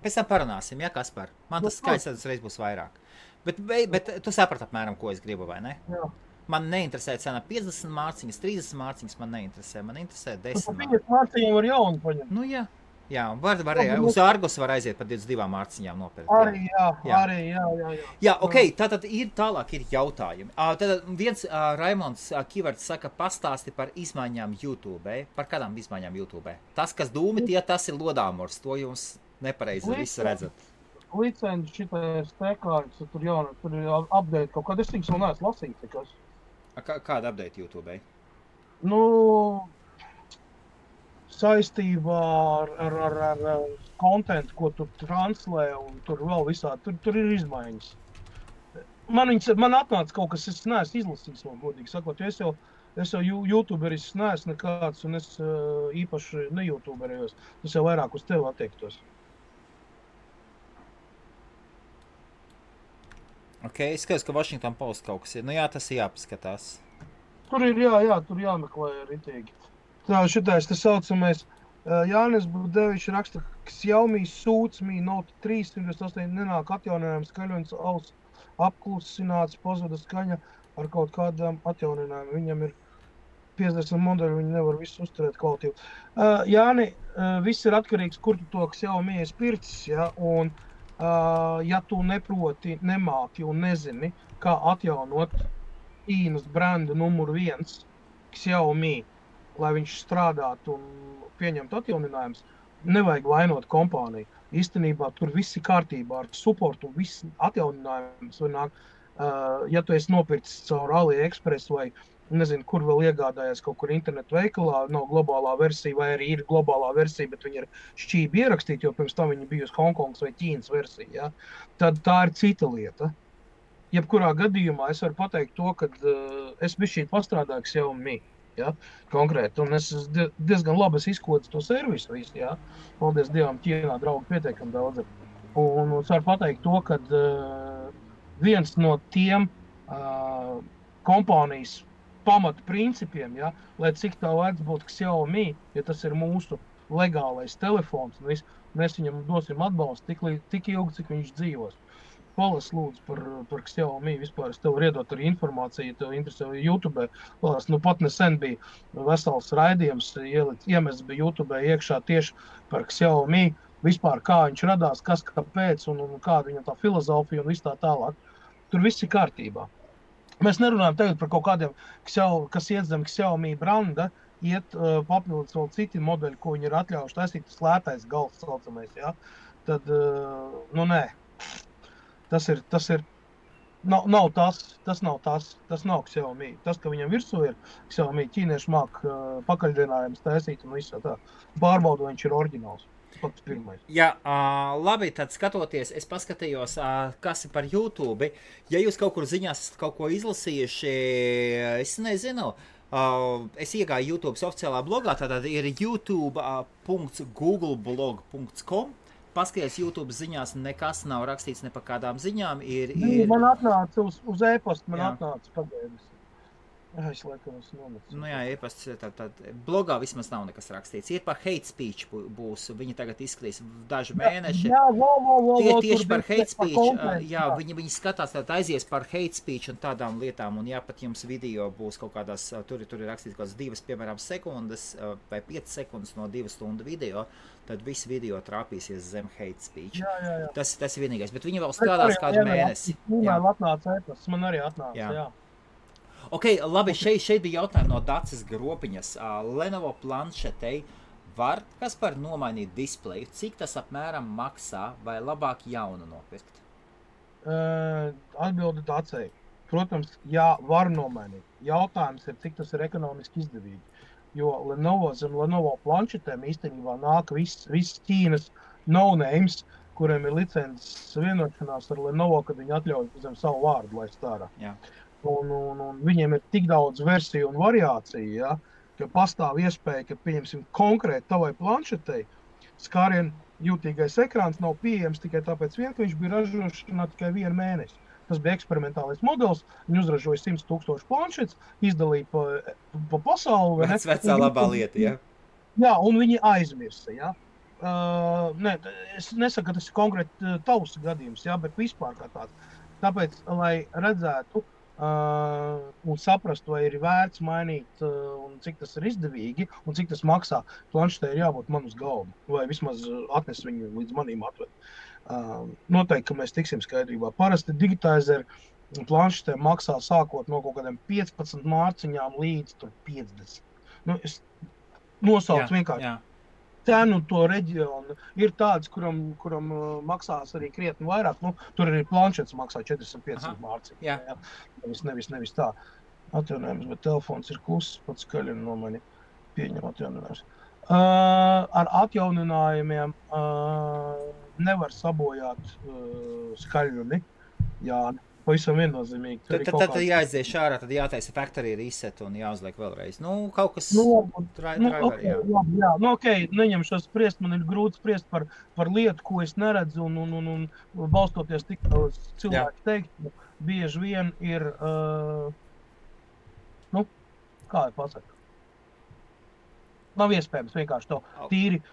pēc tam parunāsim, Kaspar? Man tas skaits reiz būs vairāk. Bet tu saprati apmēram, ko es gribu, vai ne? Jā. Man neinteresē cena 50 mārciņas, 30 mārciņas, man neinteresē 10 mārciņas. 50 mārciņiem var jaunu paņemt. Jā, uz Argos var aiziet par 22 mārciņām nopirkt. Arī, jā. Jā, tātad tālāk ir jautājumi. Tātad viens Raimonds Kivarts saka, pastāsti par izmaiņām YouTube. Par kādām izmaiņām YouTube? Tas, kas dūmi, tas ir lodāmors. To jums nepareizi viss redzat. Licenci šitais tekārts, tur ir update kaut kāda, es tiks vēl neesmu lasīt, tikas. Kāda update YouTube? Saistībā ar kontentu, ko tu translē, un tur vēl visādi, tur ir izmaiņas. Man atnāca kaut kas, es neesmu izlasījis vēl, godīgi sakot, jo es jau YouTuberis neesmu nekāds, un es īpaši ne-YouTuberējos, tas jau vairāk uz tevi attiektos. Es skatos, ka Washington Post kaut kas ir. Tas ir jāpaskatās. Tur ir, tur jāmeklē ritīgi. Tā, šitais, tas saucamais, Jānis Budevičs raksta, ka Xiaomi Suits Mi Note 3 128 nenāk atjauninājums skaļonis auss apklusināts, pazvada skaņa ar kaut kādām atjauninājumiem. Viņam ir 50 modeļi, viņi nevar visu uzturēt kvalitīvi. Jāni, viss ir atkarīgs, kur tu to Xiaomi esi pircis, un ja tu neproti, nemāki un nezini, kā atjaunot Ķīnas brendu numuru 1 Xiaomi, lai viņš strādātu un pieņemtu atjauninājumus, nevajag vainot kompāniju. Īstenībā tur viss ir kārtībā ar supportu un viss atjauninājums. Ja tu esi nopircis caur AliExpress vai nezinu, kur vēl iegādājies kaut kur internetu veikalā, nav globālā versija vai arī ir globālā versija, bet viņi ir šķībi ierakstīti, jo pirms tam viņi bija uz Hongkongas vai Ķīnas versija, ja? Tad tā ir cita lieta. Jebkurā gadījumā es varu pateikt to, ka es bišķīt pastrādāju Xiaomi, ja? Konkrēti, un es diezgan labi izkodu to servisu visu, ja? Paldies Dievam, Ķīnā draugi pietiekami daudz. Un es varu pateikt to, ka viens no tiem kompānijas pamata principiem, ja, lai cik tā vērts būtu Xiaomi, ja tas ir mūsu legālais telefons, un mēs viņam dosim atbalstu tik ilgi, cik viņš dzīvos. Palas lūdzu par Xiaomi vispār. Es tev varu iedot arī informāciju, ja tev interesē YouTube. Palas, pat nesen bija vesels raidījums, iemests bija YouTube iekšā tieši par Xiaomi, vispār kā viņš radās, kas kāpēc un kāda viņam tā filozofija un viss tā tālāk. Tur viss ir kārtībā. Mēs nerunājam tagad par kaut kādiem, kas iet zem Xiaomi branda, iet papildus vēl citi modeļi, ko viņi ir atļaujuši taisīt, tas lētais gals saucamais, ja? Tad, nē. Tas nav Xiaomi. Tas, ka viņam virsū ir Xiaomi, ķīnieši māk pakaļdienājumus taisīt un visu tā. Pārbaudu, viņš ir oriģināls. Pats pirmais. Jā, labi, tad skatoties, es paskatījos, kas ir par YouTube. Ja jūs kaut kur ziņās esat kaut ko izlasījuši, es nezinu, es iegāju YouTube oficiālā blogā, tātad ir youtube.googleblog.com. Paskaties, YouTube ziņās nekas nav rakstīts ne par kādām ziņām. Man atnāca uz e-pastu, atnāca pagaidis. Es laikam esmu nometis. Jā, e-pasts, tad blogā vismaz nav nekas rakstīts. Ir par hate speech būs, viņi tagad izskatīs daži mēneši. Tieši par hate speech, viņi skatās, tad aizies par hate speech un tādām lietām, un pat jums video būs kaut kādās, tur ir rakstīts kaut kādas 2, piemēram, sekundes vai 5 sekundes no 2 stundu video, tad viss video trāpīsies zem hate speech. Jā. Tas ir vienīgais, bet viņi vēl strādās kādu mēnesi. Man arī atnāca, jā. Ok, labi, šeit bija jautājumi no Daces Gropiņas. Lenovo planšetei var Kaspar nomainīt displeju? Cik tas apmēram maksā vai labāk jaunu nopirkt? Atbildi Dacei. Protams, jā, var nomainīt. Jautājums ir, cik tas ir ekonomiski izdevīgi. Jo zem Lenovo planšetēm īstenībā nāk viss Ķīnas no-names, kuriem ir licences vienošanās ar Lenovo, kad viņi atļauj zem savu vārdu laist ārā. Jā. Un viņiem ir tik daudz versiju un variāciju, ja, ka pastāv iespēja, ka, pieņemsim, konkrēti tavai planšetei skārien jūtīgais ekrāns nav pieejams tikai tāpēc ka viņš bija ražošanā tikai 1 mēnesi. Tas bija eksperimentālais modelis, viņi uzražoja 100,000 planšetes, izdalīja pa pasauli. Vecā labā lieta, ja? Jā, un viņi aizmirsa, ja. Es nesaku, ka tas ir konkrēti tavs gadījums, ja, bet vispār kā tāds. Tāpēc, lai redzētu, un saprast, vai ir vērts mainīt, un cik tas ir izdevīgi, un cik tas maksā, planšetē ir jābūt man uz galda, vai vismaz atnes viņu līdz manīm atved. Noteikti, ka mēs tiksim skaidrībā. Parasti digitizeri planšetē maksā sākot no kaut kādiem 15 mārciņām līdz 50. Es nosaucu vienkārši. Jā. Cenu to reģionu ir tāds, kuram maksās arī krietni vairāk. Tur arī planšets maksā 450 mārciņu. Jā. Nevis tā. Atjaunojums, bet telefons ir kluss, pats skaļi no mani pieņem atjauninājums. Ar atjauninājumiem nevar sabojāt skaļumi. Jā, pavisam viennozīmīgi. Tad jāizdzieš ārā, tad jātaisa factory reset un jāuzliek vēlreiz. Kaut kas driver, jā. Jā, neņemšos spriest, man ir grūti spriest par lietu, ko es neredzu, un balstoties tik uz cilvēku teikt, bieži vien ir, kā ir pasaka? Nav iespējams vienkārši to tīri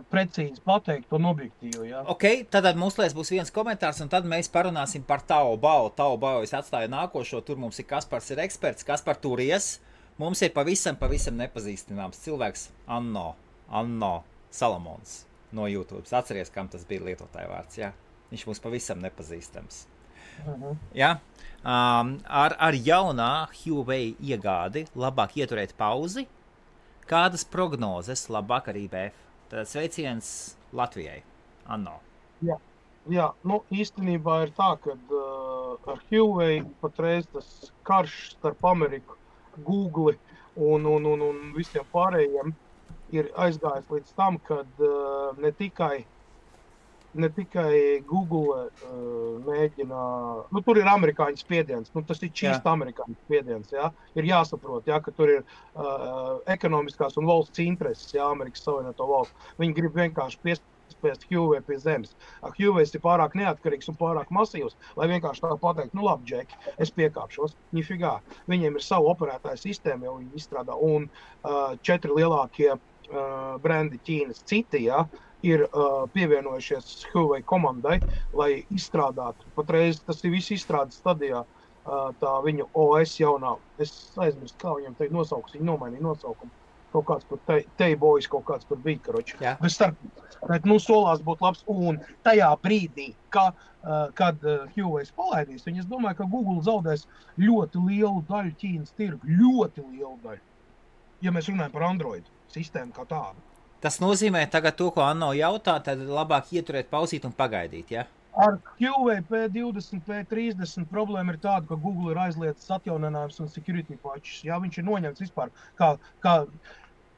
precīzi pateikt, to objektīvu, jā. Ok, tad mūslēs būs viens komentārs, un tad mēs parunāsim par Taobao. Taobao es atstāju nākošo, tur mums ir Kaspars ir eksperts. Kaspar, turies. Mums ir pavisam nepazīstināms cilvēks Anno Salamons no YouTube. Atceries, kam tas bija lietotāja vārds, jā. Viņš mums pavisam nepazīstams. Jā. Ar jaunā Huawei iegādi labāk ieturēt pauzi. Kādas prognozes labāk ar IBF? Tad sveiciens Latvijai. Anno. Jā, īstenībā ir tā, ka ar Huawei patreiz tas karš starp Ameriku, Google un visiem pārējiem ir aizgājis līdz tam, kad ne tikai Google mēģina, tur ir amerikāņu spiediens, tas ir čīst amerikāņu spiediens, jā. Ir jāsaprot, jā, ka tur ir ekonomiskās un valsts intereses, jā, Amerikas Savienoto valsts. Viņi grib vienkārši spēst Huawei pie zemes. Huawei ir pārāk neatkarīgs un pārāk masīvs, lai vienkārši tā pateikt, nu labi, Džeki, es piekāpšos. Nifigā. Viņiem ir savu operētāju sistēmu, jau viņi izstrādā, un 4 lielākie brendi Ķīnas citi, ir pievienojušies Huawei komandai, lai izstrādātu. Patreiz tas ir viss izstrādes stadijā, tā viņu OS jaunā. Es aizmirstu, kā viņam te nosauks, viņi nomainīja nosaukumu. Kaut kāds par T-Boys, kaut kāds par bija, karoči. Bet solās būt labs. Un tajā brīdī, kad Huawei palaidīs, es domāju, ka Google zaudēs ļoti lielu daļu Ķīnas tirgu. Ļoti lielu daļu. Ja mēs runājam par Android sistēmu kā tādu. Tas nozīmē tagad to, ko Anno jautā, tad labāk ieturēt, pauzīt un pagaidīt, ja? Ar Huawei P20, P30 problēma ir tāda, ka Google ir aizliedzis atjauninājums un security patches. Jā, viņš ir noņemts vispār,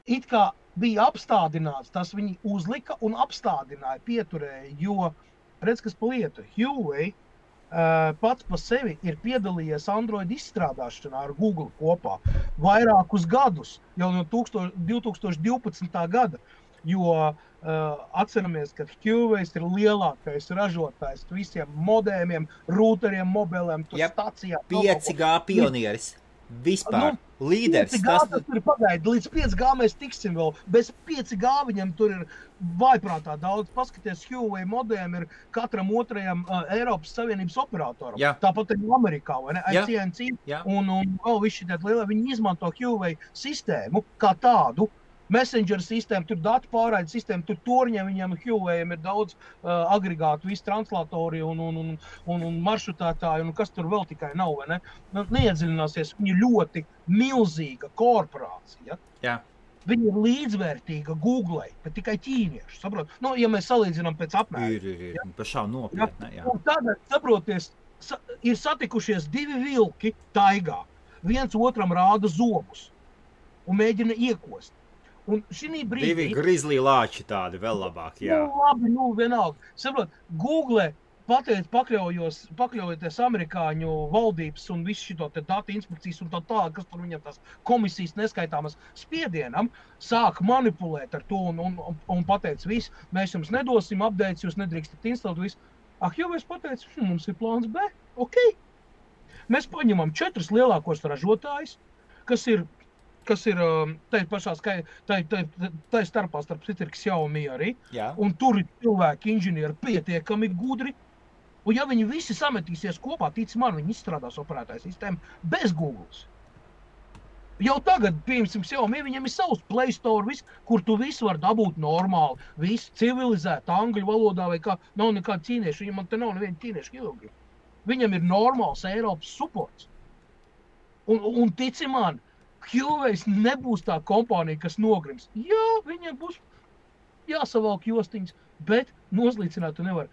it kā bija apstādināts, tas viņi uzlika un apstādināja, pieturēja, jo, redz, kas pa lietu, Huawei pats pa sevi ir piedalījies Android izstrādāšanā ar Google kopā vairākus gadus, jau no 2012. gada, jo atceramies, ka Huawei ir lielākais ražotājs visiem modēmiem, rūteriem, mobiliem, stacijām. 5G pionieris. Vispār. Līderis. 5G tas ir pagaidi. Līdz 5G mēs tiksim vēl. Bez 5G viņam tur ir vaiprātā daudz. Paskaties, Huawei modēm ir katram otrajam Eiropas Savienības operatoram. Jā. Tāpat ir Amerikā, vai ne? AT&T un vēl visi tādi lielie. Viņi izmanto Huawei sistēmu kā tādu. Messenger sistēma, tur datu pārraida sistēma, tur torņiem viņiem Huawei ir daudz agregātu, visi translatori un maršrutētāji, un kas tur vēl tikai nav, vai ne? Neiedziļināsies, viņi ļoti milzīga korporācija. Jā. Viņi ir līdzvērtīga Googlei, bet tikai ķīnieši, saprot? Nu, ja mēs salīdzinām pēc apmēra. Ir, pašām nopietni, jā. Un tagad, saproties, ir satikušies 2 vilki taigā. Viens otram rāda zobus un mēģina iekost. Un šī brīdī... 2 grizlī lāči tādi vēl labāk, jā. Labi, vienalga. Saprot, Google pakļaujoties amerikāņu valdības un visu šito te datu inspekcijas un tā, kas tur viņam tās komisijas neskaitāmas spiedienam, sāk manipulēt ar to un pateica visu, mēs jums nedosim updates, jūs nedrīkstat instalēt visu. Huawei pateica, mums ir plāns B, ok. Mēs paņemam 4 lielākos ražotājus, kas ir tai pašā tai starpā starp citu ir Xiaomi arī. Jā. Un tur ir cilvēki, inženieri pietiekami gudri. Un ja viņi visi sametīsies kopā, tic man, viņi izstrādās operētāju sistēmu bez Googles. Jau tagad, piemēram, Xiaomi, viņam ir savs Play Store, kur tu visu var dabūt normāli, visu civilizēt, angļu valodā vai kā, nav nekāda ķīnieša, viņam te nav neviena ķīnieša ilgi. Viņam ir normāls Eiropas supports. Un tici man, Huawei nebūs tā kompānija, kas nogrims. Jā, viņiem būs jāsavalk jostiņas, bet nozlīcināt tu nevar.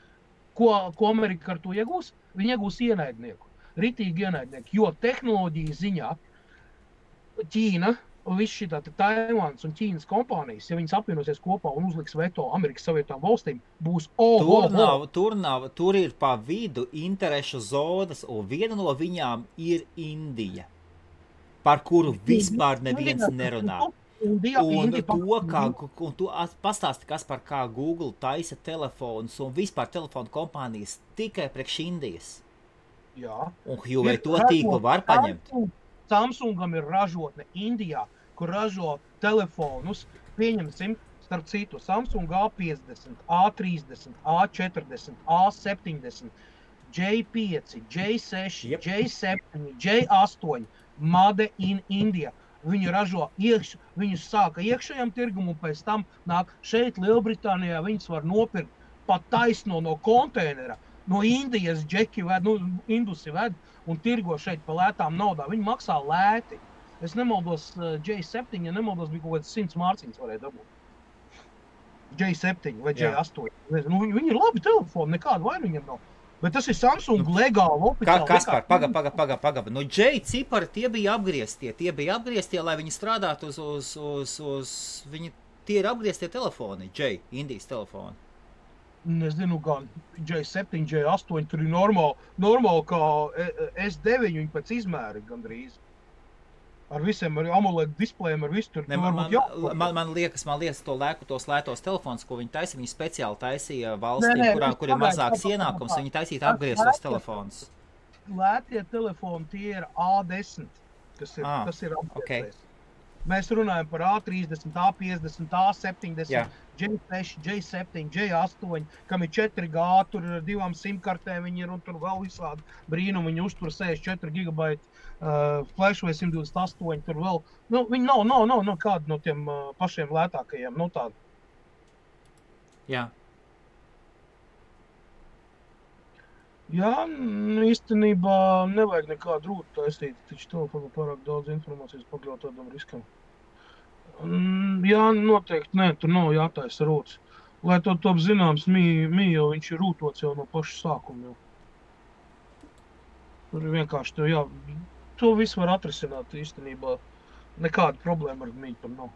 Ko Amerika ar to iegūs? Viņi iegūs ienaidnieku, ritīgi ienaidnieku, jo tehnoloģijas ziņā Ķīna, viss šitā Taivāns un Ķīnas kompānijas, ja viņas apvienosies kopā un uzliks veto Amerikas Savienotām valstīm, būs Tur ir pa vidu interešu zonas, un viena no viņām ir Indija, par kuru vispār neviens nerunā. Un tu pastāsti, kas par kā Google taisa telefonus un vispār telefonu kompānijas tikai priekš Indijas. Jā. Un Huawei to tīklu var paņemt. Samsungam ir ražotne Indijā, kur ražo telefonus, pieņemsim, starp citu, Samsung A50, A30, A40, A70, J5, J6, J7, J8, Made in India. Viņi ražo viņus sāka iekšējam tirgum un pēc tam nāk šeit Lielbritānijā, viņus var nopirkt pat taisno no konteinera, no Indijas džeki ved, indusi ved un tirgo šeit pa lētām naudā. Viņi maksā lēti. Es nemaldos J7, ja nemaldos bija kaut kāds 100 mārciņas varēja dabūt. J7 vai J8. Viņi ir labi telefoni, nekāda vaina viņam nav. Bet tas ir Samsung legāli, oficiāli. Kaspar, paga. Nu, J cipari tie bija apgrieztie, lai viņi strādātu uz tie ir apgrieztie telefoni, J, Indijas telefoni. Nezinu, gan J7, J8, tur ir normāli kā S9, viņi pēc izmēri gandrīz. ar visiem ar AMOLED displejiem, ar visu tur. Man liekas, tos lētos telefons, ko viņi taisīja, viņi speciāli taisīja valstīm, kur ir mazāks ienākums, viņi taisīja apgrieztos telefons. Lētie telefoni, tie ir A10, kas ir apgrieztais. Okay. Mēs runājam par A30, A50, A70, J6, J7, J8, kam ir 4G, tur ir 2 simkartēm, viņi ir un tur vēl visādi brīnumi, viņi uztur 64 GB flash vai 128, tur vēl, viņi nav kādi no tiem pašiem lētākajiem, tādi. Jā. Jā, īstenībā nevajag nekādu rūtu taisīt, taču telefonu pārāk daudz informācijas pakļaut tādam riskam. Jā, noteikti, nē, tur nav jātaisa rūts. Lai to top zināms, jau viņš ir rūtots jau no paša sākuma jau. Tur ir vienkārši to visu var atrisināt īstenībā. Nekāda problēma ar mīju tam nav.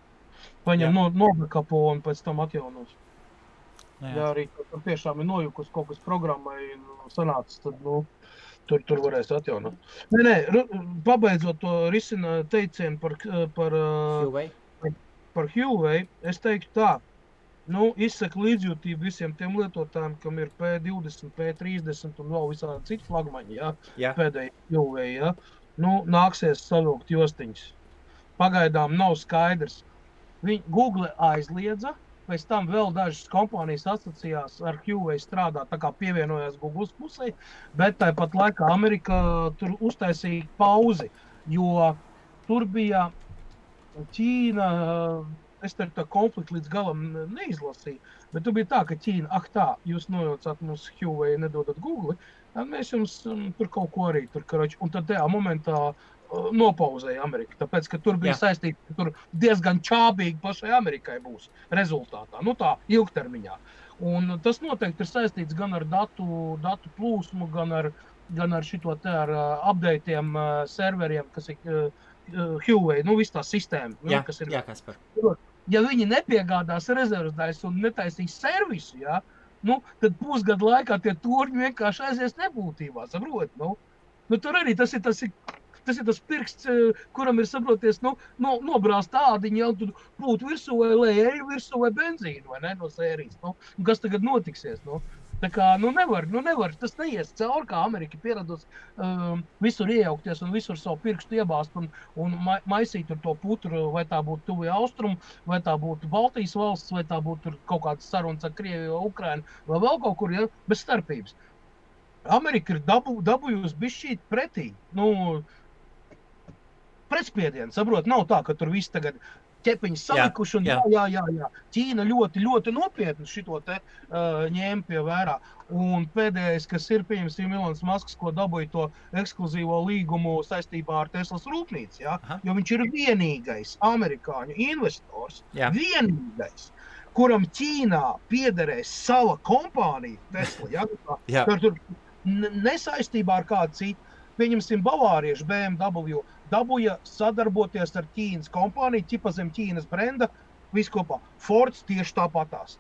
Paņem nobekapo un pēc tam atjaunos. Ja arī tur tiešām ir nojukus kaut kas programmai sanācis, tad, tur varēs atjaunot. Nē, pabeidzot to risina teicienu par Huawei, es teiktu tā, izsaka līdzjūtību visiem tiem lietotājiem, kam ir P20, P30 un vēl visādi citi flagmaņi, pēdēji Huawei, nāksies savilkt jostiņas. Pagaidām nav skaidrs. Google aizliedza, pēc tam vēl dažas kompānijas asociējās ar Huawei strādāt, tā kā pievienojās Google pusē, bet tāpat laikā Amerika tur uztaisīja pauzi, jo tur bija Ķīna, es tā konfliktu līdz galam neizlasīju, bet tur bija tā, ka Ķīna, jūs nojaucāt mums Huawei, nedodat Google, tad mēs jums tur kaut ko arī tur, karoči, un tad tajā momentā nopauzēja Amerika, tāpēc, ka tur bija saistīti, ka tur diezgan čābīgi pašai Amerikai būs rezultātā, tā ilgtermiņā. Un tas noteikti ir saistīts gan ar datu plūsmu, gan ar šito te ar updateiem serveriem, kas ir Huawei, viss tā sistēma. Kas ir. Jā, Kaspar. Ja viņi nepiegādās rezerves daļas un netaisīs servisu, tad pusgadu laikā tie turņi vienkārši aizies nebūtībā, saprot? Tur arī tas ir tas pirksts, kuram ir, saproties, nobrāzt tādiņi jau tur pūt virsū vai eļu virsū vai benzīnu, vai ne, no sērijas. Kas tagad notiksies, Tā kā, nevar, tas neies cauri, kā Amerika pieradus visur iejaukties un visur savu pirkstu iebāzt un maisīt tur to putru, vai tā būtu tuvie austrumu, vai tā būtu Baltijas valsts, vai tā būtu kaut kāds sarunas ar Krieviju vai Ukrainu, vai vēl kaut kur, bez starpības. Amerika ir dabūjusi bišķīt pretī, pretspiedienu, saprot, nav tā, ka tur viss tagad ķepiņas salikuši un jā. Ķīna ļoti, ļoti nopietni šito te ņēma pie vērā. Un pēdējais, kas ir, pieņemsim, Ilons Masks, ko dabūja to ekskluzīvo līgumu saistībā ar Teslas rūpnīcu, jo viņš ir vienīgais amerikāņu investors, vienīgais, kuram Ķīnā piederēs sava kompānija Tesla, tur nesaistībā ar kādu citu. Pieņemsim, bavārieši BMW dabūja sadarboties ar Ķīnas kompāniju, ķipa zem Ķīnas brenda, visu kopā. Fords tieši tāpatās,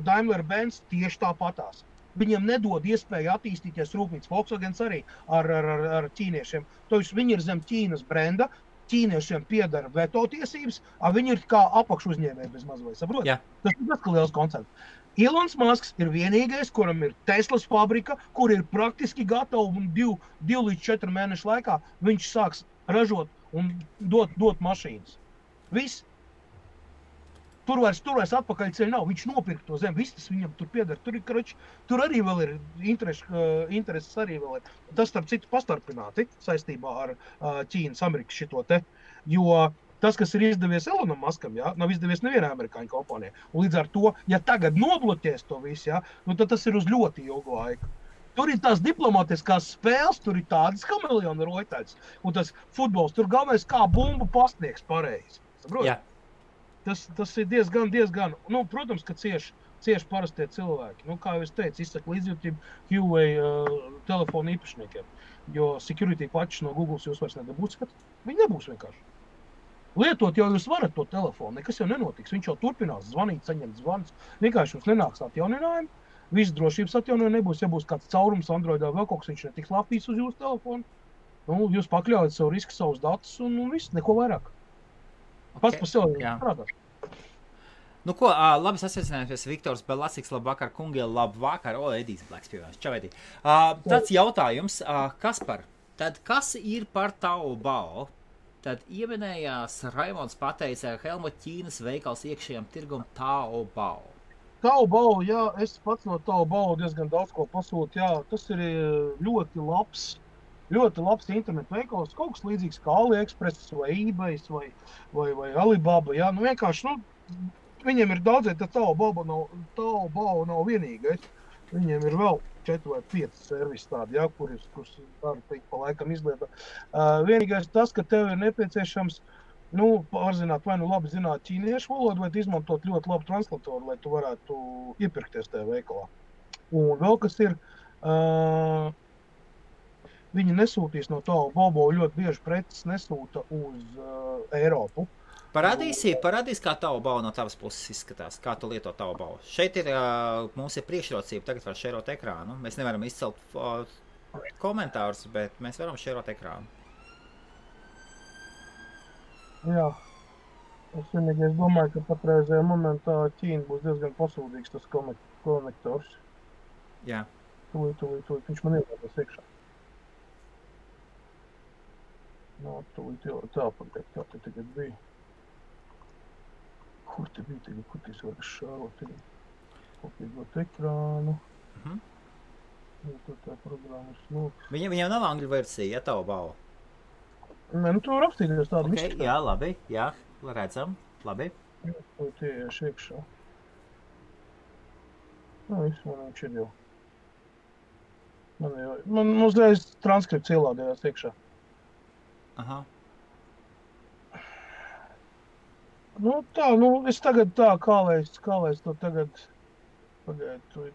Daimler-Benz tieši tāpatās. Viņiem nedod iespēju attīstīties rūpnīcas, Volkswagens arī ar ķīniešiem. Tāpēc viņi ir zem Ķīnas brenda, ķīniešiem piedara veto tiesības, viņi ir kā apakšuzņēmēji bez mazvai, saprot? Tas ir tas, ka liels koncerts. Ilons Masks ir vienīgais, kuram ir Teslas fabrika, kur ir praktiski gatava un 2 līdz 4 mēnešu laikā viņš sāks ražot un dot mašīnas. Viss. Tur vairs atpakaļ ceļ nav. Viņš nopirka to zemi. Viss tas viņam tur pieder. Tur arī vēl ir intereses arī vēl ir. Tas, starp citu, pastarpināti saistībā ar Ķīnas Amerikas šito te. Jo tas, kas ir izdevies Elonam Maskam, nav izdevies nevienai amerikāņu kompānijai. Un līdz ar to, ja tagad nobloķēs to visu, tad tas ir uz ļoti ilgu laiku. Tur ir tās diplomātiskās spēles, tur ir tādas kameleona roitaļas. Un tas futbols, tur galvenais kā bumbu pastniegs pareizi. Saprot? Tas ir diezgan. Protams, ka cieši parastie cilvēki. Kā jau es teicu, izsaka līdzjūtību Huawei telefonu īpašniekiem. Jo security patches no Google jūs vairs nedabūsiet. Viņi nebūs vienkārši. Lietot jau jūs varat to telefonu, nekas jau nenotiks. Viņš jau turpinās zvanīt, saņemt zvanus. Vienkārši jums nenāks atjauninājumi. Viss drošības atjaunojumi nebūs. Ja būs kāds caurums Androidā vēl kaut kas, viņš netiks lapīs uz jūsu telefonu. Jūs pakļaujat savu risku, savus datus un viss, neko vairāk. Pats par sevi strādā. Nu ko, labi sasveicinājumies, Viktors Belasiks, labvakar, kungi, labvakar. Edijs Blēks pievienojas. Čau, Edij. Tāds jautājums, Kaspar, tad kas ir par Taobao? Tad ieminējās Raimonds pateica Helmut Ķīnas veikals iekšējām tirgum Taobao. Taobao, jā, es pats no Taobao diezgan daudz ko pasūtu, jā, tas ir ļoti labs internetu veikals, kaut kas līdzīgs kā AliExpress vai eBay vai Alibaba, jā, nu vienkārši, viņiem ir daudzēt, tad Taobao nav vienīgais. Viņiem ir vēl 4 vai 5 servisi tādi, jā, kurus var teikt pa laikam izlietā. Vienīgais tas, ka tev ir nepieciešams, pārzināt vai labi zināt ķīniešu valodu, vai izmantot ļoti labu translatoru, lai tu varētu iepirkties tajā veikalā. Un vēl kas ir, viņi nesūtīs no Taobao, ļoti bieži preces nesūta uz Eiropu. Parādīs, kā Taobao no tavas puses izskatās, kā tu lieto Taobao. Šeit mums ir priekšrocība, tagad var šerot ekrānu. Mēs nevaram izcelt komentārus, bet mēs varam šerot ekrānu. Jā, es vienīgais domāju, ka patreizajā momentā Ķīna būs diezgan pasūdīgs tas konektors. Jā. Tūlīt, viņš man ielādās iekšā. Tūlīt jau tā pagaid, kā te tagad bija. Kur te bija tagad, kur tis var šārot tagad? Kopīgot ekrānu. Tur tā programma ir smūks. Viņam nav angļu versija, ja Taobao? Nē, tu var apstīties tādu izskatā. Jā, labi, jā, redzam, labi. Jā, tie iekšā. Viss man viņš ir jau. Man uzreiz transkripts ielādējās iekšā. Aha. Es tagad tā, kā lai es to tagad pagaidu.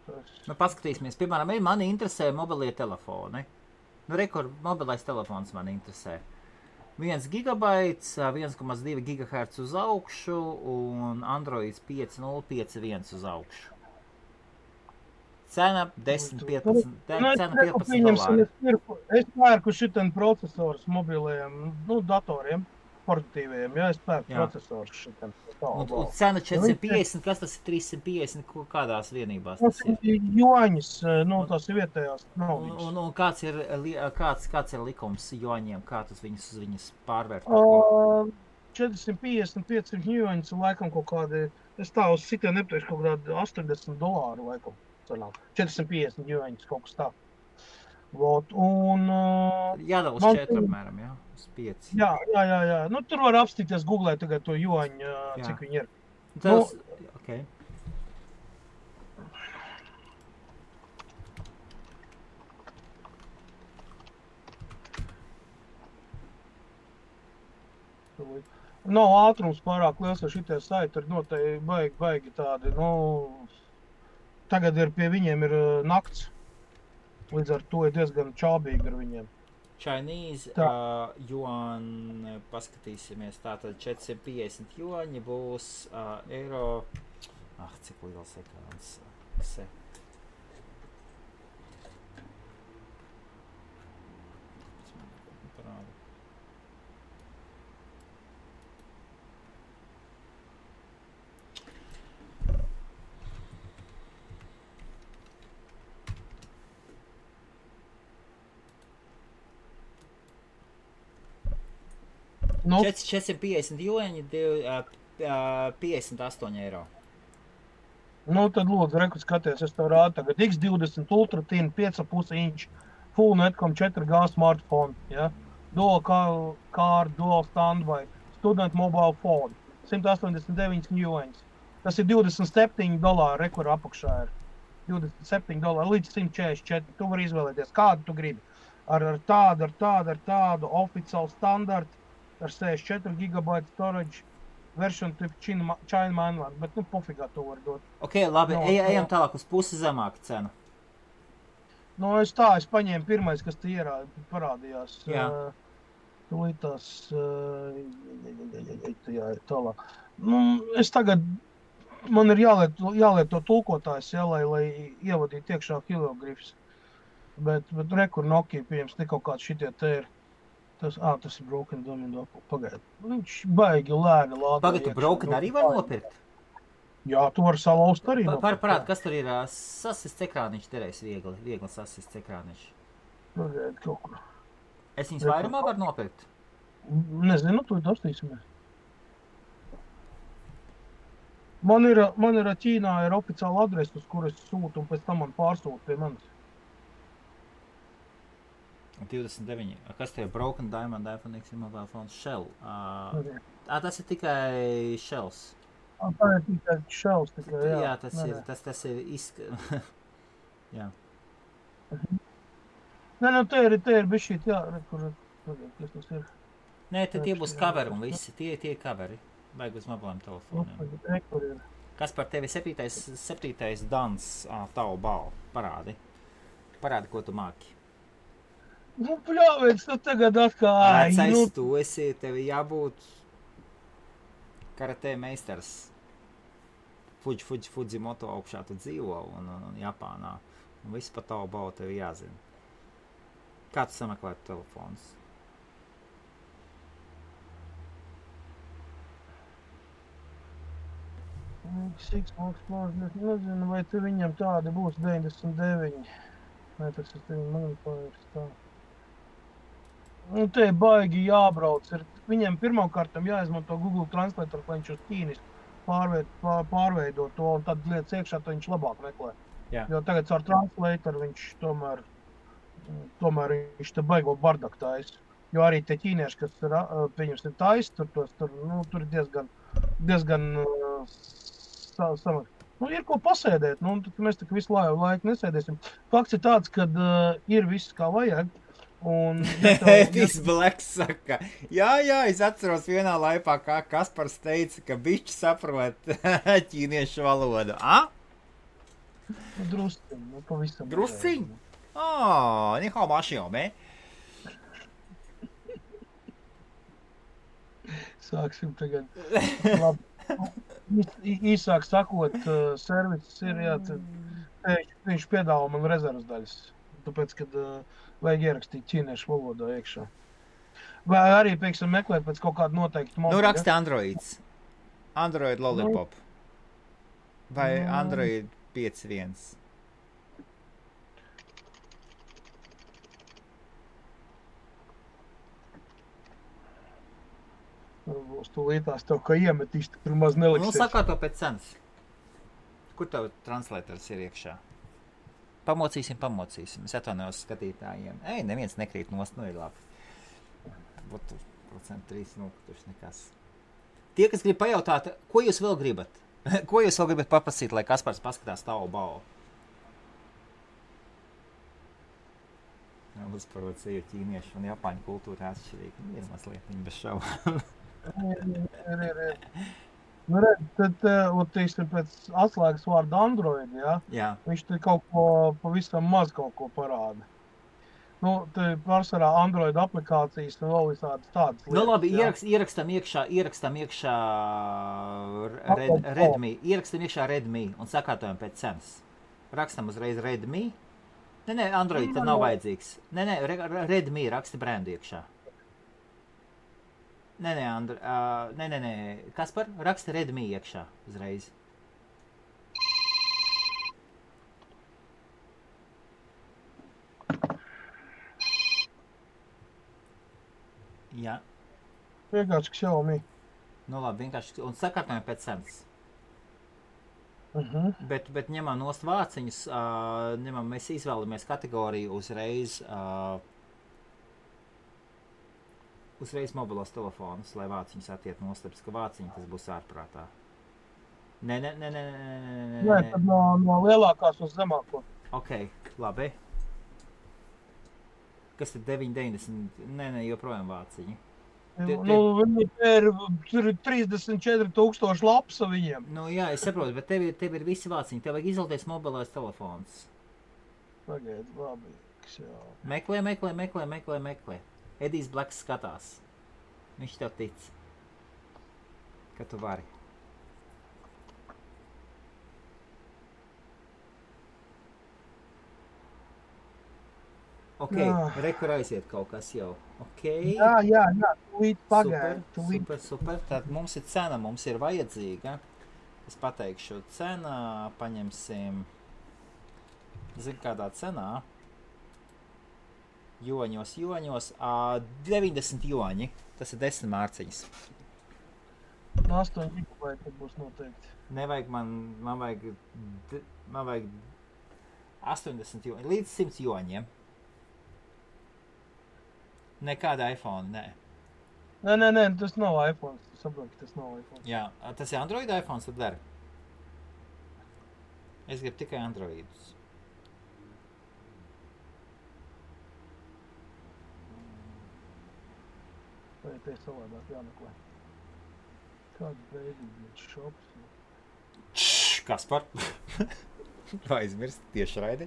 Paskatīsimies, piemēram, mani interesē mobilie telefoni. Rekur, mobilais telefons mani interesē. 1 gigabaits, 1,2 gigahertz uz augšu un Androids 5.051 uz augšu. Cena 10-15 dolāri. Es pērku šitam procesors mobilajiem, datoriem. Portatīviem, jā, es pērku procesorus šitam. Un cena 450, kas tas ir 350, kādās vienībās tas ir? Tas ir juaņas, tās ir vietējās naudas. Un kāds ir likums juaņiem, kā tas viņas pārvērt? 450-500 juaņas ir laikam kaut kādi, es tā uz sitiem nepteikšu kaut kādi $80 laikam. 450 juaņas kaut kas tā. Jādala uz 4 apmēram, jā? Uz 5. Jā. Tur var apstīties Googlē tagad to juaņu, cik viņi ir. Okay. Nav ātrums pārāk liels, jo šitie saiti ir noteikti baigi tādi, tagad pie viņiem ir nakts. Līdz ar to ir diezgan čābīgi ar viņiem. Chinese yuan, paskatīsimies, tātad 450 juaņi būs eiro. Cik liels ekrāns. Nu, 450 juaņi, 58 eiro. Tad lūdzu, reku skaties, es tev rādu tagad X20 Ultra Thin 5,5 inch Full Netcom 4G smartphone, ja? Dual car, dual standby, student mobile phone, 189 juaņas. Tas ir $27, rekur apakšā ir. $27 līdz 144. Tu vari izvēlēties, kādu tu gribi. Ar tādu oficiālu standartu. Ar 64 GB storage, version type China mainland, bet pofigā to var dot. Ok, labi, ejam tālāk uz pusi zemāku cenu. Es paņēmu pirmais, kas te parādījās. Jā. Tūlīt tās, jā, tālāk. Es tagad, man ir jālieto tulkotājs, jā, lai ievadītu iekšā hieroglifs. Bet rekur Nokia pieņems, ne kaut kāds šitie te ir. Tas ir Broken Domino. Pagaid. Viņš baigi lēni lādē. Pagaid, tu Broken arī var nopirkt? Jā, tu vari salauzt arī nopirkt. Parād, kas tur ir sasists ekrāniņš, terēs viegli sasists ekrāniņš. Pagaid, kaut kur. Es viņus vairumā varu nopirkt? Nezinu, tu dostīsimies. Man ir Ķīnā ir oficiāla adrese, uz kuras sūtu, un pēc tam man pārsūta pie manis. 29. Kas tie ir? Broken Diamond, iPhone X, mobile phone, Shell. Tas ir tikai Shells. Tā ir tikai Shells, tikai, jā. Jā, tas ir jā. Nē, te ir bišķīt, jā, kas tas ir. Nē, tie būs coveri un visi, tie coveri. Vajag uz mobiliem telefoniem. Kas par tevi 7. dans tavu balvu? Parādi, ko tu māki. Nu, pļāvēc, tu tagad atkal... Vecais, tu esi, tevi jābūt karatē meistars. Fujimoto augšā tu dzīvo un Japānā. Un viss par tavu balvu tevi jāzina. Kā tu sameklētu telefonus? Nezinu, vai tu viņam tādi būs 99. Vai tas ir tevi manipulējums tā. Nu, te baigi jābrauc. Viņiem pirmkārtam jāizmanto Google Translator, lai viņš uz ķīnis pārveido to, un tad lietas iekšā, tad viņš labāk meklē. Jā. Jo tagad ar Translator viņš tomēr viņš te baigo bardaku taisa. Jo arī tie ķīnieši, kas pieņems ir taisa, tur ir diezgan samak. Nu, ir ko pasēdēt, mēs tā visu laiku nesēdēsim. Fakts ir tāds, ka ir viss kā vajag. Viss Blacks saka, jā, es atceros vienā laipā, kā Kaspars teica, ka bišķi saprot ķīniešu valodu. Drusciņ, pavisam. Drusciņ? Ni hao ma xiao me. Sāksim tagad. Labi. Īsāk sakot, serviss ir, jā, viņš piedāvā man rezervas daļas. Tāpēc, kad vajag ierakstīt ķīniešu valodā iekšā. Vai arī, pieksim, meklēt pēc kaut kādu noteiktu modeļu. Raksti Androids. Android Lollipop. Vai Android 5.1. Uz tūlītās tev, ka iemetīs, tur maz neliksies. Sakārto pēc cenas. Kur tev translators ir iekšā? Pamocīsim. Es atvainojos skatītājiem. Neviens nekrīt nost, ir labi. Būtu 3%, kurš nekas. Tie, kas grib pajautāt, ko jūs vēl gribat? Ko jūs vēl gribat paprasīt, lai Kaspars paskatās tavu balvu? Uzparot seju ķīniešu un japāņu kultūra atšķirīgi. Ir mazliet viņa bez šaubām. Ir. Nu, redz, tad, teiksim, pēc atslēgas vārda Android, jā. Viņš te kaut ko, pavisam maz kaut ko parāda. Nu, te pārsvarā Android aplikācijas un vēl visādas tādas lietas. Nu, labi, ierakstam iekšā Redmi. Ierakstam iekšā Redmi un sakārtojam pēc cenas. Rakstam uzreiz Redmi. Nē, Android tad nav vajadzīgs. Nē, Redmi raksta brendu iekšā. Nē, Kaspar, raksta Redmi iekšā uzreiz. Jā. Vienkārši Xiaomi. Nu labi, vienkārši, un sakārtojam pēc cenas. Bet ņemam nost vāciņus, mēs izvēlamies kategoriju uzreiz mobilos telefonus, lai vāciņus attiet nostapis, ka vāciņi tas būs ārprātā. Nē. Nē, tad no lielākās uz zemāko. Ok, labi. Kas tad 9,90? Nē, joprojām vāciņi. Viņi ir 34,000 lapsa viņiem. Nu jā, es saprotu, bet tev ir visi vāciņi. Tev vajag izvēlēties mobilais telefons. Pagaid, labi. Meklē. Edijs Blacks skatās. Viņš tev tic, ka tu vari. Ok, rekur aiziet kaut kas jau. Ok. Jā, tūlīt pagaid. Super. Tad mums ir cena, mums ir vajadzīga. Es pateikšu cena, paņemsim, zinu kādā cenā. Joņos, 90 joņi, tas ir 10 mārciņas. 8 gigabaiti būs noteikti. Nevajag, man vajag 80 joņi, līdz 100 joņiem. Nekāda iPhone, nē. Nē, tas nav iPhone, saproti, tas nav iPhone. Jā, tas ir Android iPhone, tad der. Es gribu tikai Androidus. Vai te savādāk jāmeklē? Kāds beidīgs šops? Kaspar? Vai aizmirst tieši raidi?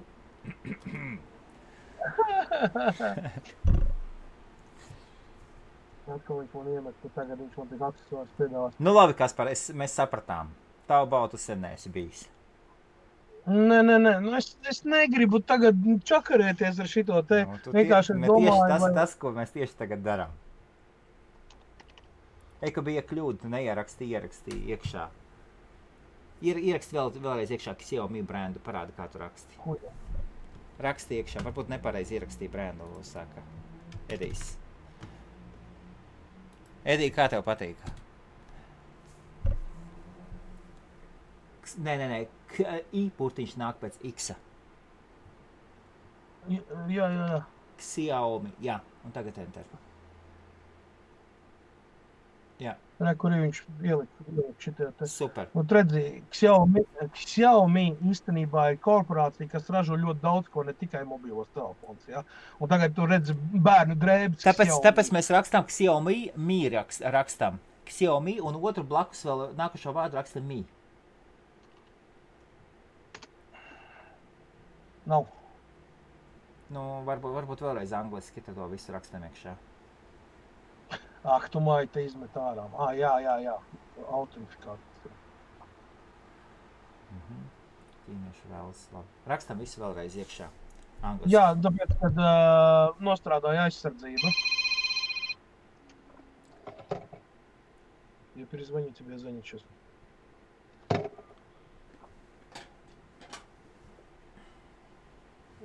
Atkal viņš man iemet, ka tagad viņš man tik aksesuārs piedāvās. Nu labi, Kaspar, mēs sapratām. Tavu baltu sen neesi bijis. Nē, nu es negribu tagad čakarēties ar šito te. Vienkārši domāju, tas, ko mēs tieši tagad darām. Ka bija kļūda, tu neieraksti iekšā. Ieraksti vēlreiz iekšā Xiaomi brendu, parāda, kā tu raksti. Raksti iekšā, varbūt nepareizi ierakstīja brendu, saka Edijs. Edij, kā tev patīk? Nē, I burtiņš nāk pēc X-a. Jā. Xiaomi, jā, un tagad enter. Jā. Re, kur viņš ielika šitie te. Super. Un redzi, Xiaomi īstenībā ir korporācija, kas ražo ļoti daudz ko, ne tikai mobilos telefons, ja? Un tagad tu redzi bērnu drēbes Tāpēc mēs rakstām Xiaomi, Mi rakstam. Xiaomi un otru blakus vēl nākušo vārdu rakstam Mi. Nav. Nu, varbūt vēlreiz angliski, tad to visu rakstam iekšā. Tu māji te izmet ārā. Jā. Autentifikācija. Ķīniešu vēlas labi. Rakstam visu vēlreiz iekšā. Angliski. Jā, tāpēc, kad nostrādāja aizsardzību. Ja перезвонить тебе, звонить сейчас.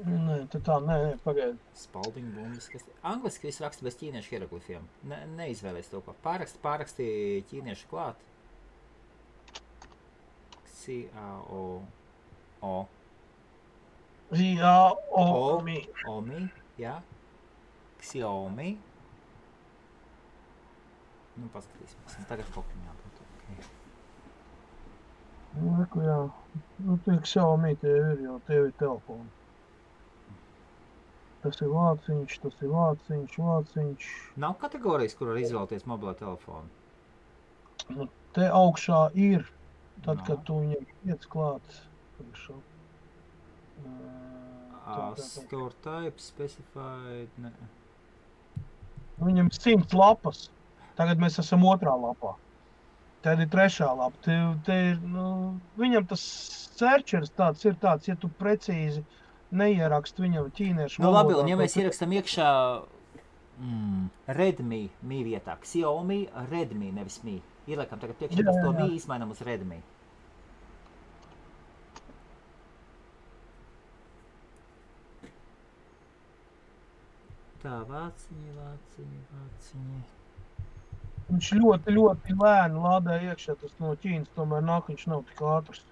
Nē, pagaidi. Spalding bumbas, kas... Angliski visu raksta bez ķīniešu hieroglifiem. Neizvēlies to, ko. Pāraksti ķīniešu klāt. Xiaomi. Xiaomi, jā. Xiaomi. Nu, paskatīsimies. Tagad kaut kā jābūt. Okay. Nu, jā. Nu, tie Xiaomi tev ir, jo tev ir telefoni. Tas ir vāciņš. Nav kategorijas, kur var izvēlēties mobilo telefonu? Nu, te augšā ir, tad, kad tu viņam iec klāt. Store type, specified, ne. Viņam 100 lapas. Tagad mēs esam 2. lapā. Tad ir 3. lapa. Te ir, viņam tas searchers tāds ir tāds, ja tu precīzi neierakst viņam ķīniešu valodā. Nu labi, un ja mēs ierakstam iekšā Redmi, Mi vietā, Xiaomi, Redmi, nevis Mi. Ieliekam tagad priekšā, to Mi izmainam uz Redmi. Tā, vāciņi. Viņš ļoti lēni lādē iekšā, tas no Ķīnas, tomēr nāk, viņš nav tik ātrs.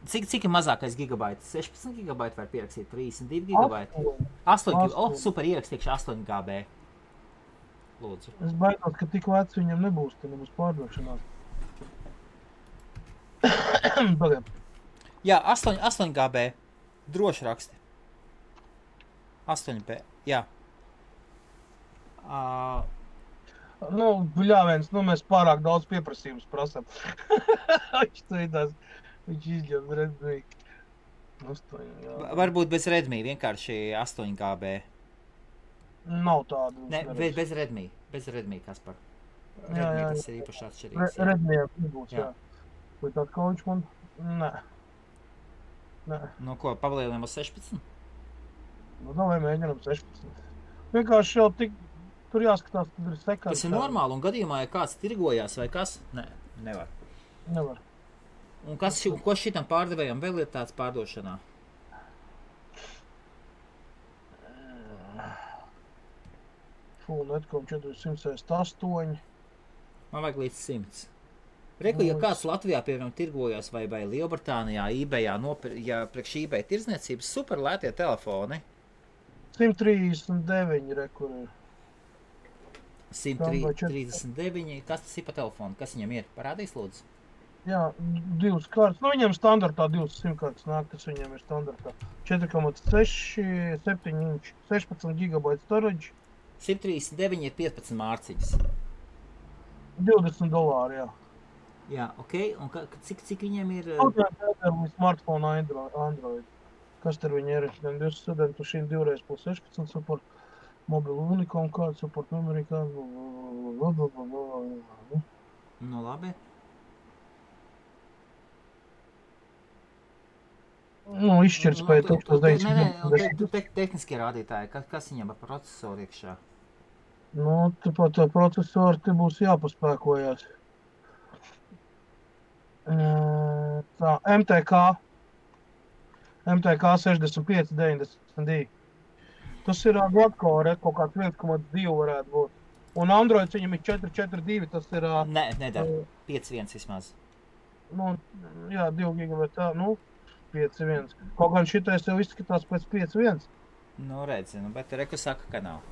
Cik ir mazākais gigabaits? 16 gigabaiti var pierakstīt, 32 gigabaiti? 8 gigabaiti. Super, ierakstīkšu 8 GB. Lūdzu. Es baidos, ka tik veci viņam nebūs, te nebūs pārdošanās. Pagaid. Jā, 8 GB. Droši raksti. 8 GB, jā. Bļāviens, mēs pārāk daudz pieprasījums prasam. Viņš izņem Redmi. 8, jā. Varbūt bez Redmi, vienkārši 8 GB. Nav tādu. Ne, bez Redmi, Kaspar. Redmi tas ir īpaši atšķirīgs. Redmi nebūs, jā. Vai tād kā viņš man? Nē. Nu ko, pavalieliem uz 16? Nu, vai mēģinām 16. Vienkārši jau tik, tur jāskatās, tad ir sekāds. Tas ir normāli, un gadījumā, ja kāds tirgojās vai kas? Nē, nevar. Nevar. Un ko šitam pārdevējam vēl ir tāds pārdošanā? Full.com 468. Man vajag līdz 100. Reku, ja kāds Latvijā, piemēram, tirgojās vai Lielbritānijā, eBayā, ja priekš eBay tirdzniecības super lētie telefoni. 139 rekur ir. 139. Kas tas ir pa telefonu? Kas viņam ir? Parādīs, lūdzu? Jā, 2 kārtas. Nu, viņam standartā 2 simtkārtas nāk, tas viņam ir standartā. 4,6, 7 inči, 16 GB storage. 139 ir 15 mārciņas. $20, jā. Jā, ok. Un cik viņiem ir? Smartphone Android. Kas tur viņi ir? Gan 2 studentu šīm 2x16 support, mobilu unikom kādu support, memory kādu. Nu, labi. Nu, izšķirtspēja 1900. Nē, tehniskie rādītāji. Kas viņam ar procesoru iekšā? Nu, tāpat tā procesoru te būs jāpaspēkojās. Tā, MTK 6592. Tas ir Gladcore, kaut kāds 1,2 varētu būt. Un Android viņam ir 442, tas ir... Nē, nedara. 5.1 vismaz. Nu, jā, 2 GB, tā, nu, 5.1. Kaut gan šitais jau izskatās pēc 5.1. Nu, redzi, bet Reku saka, ka nav.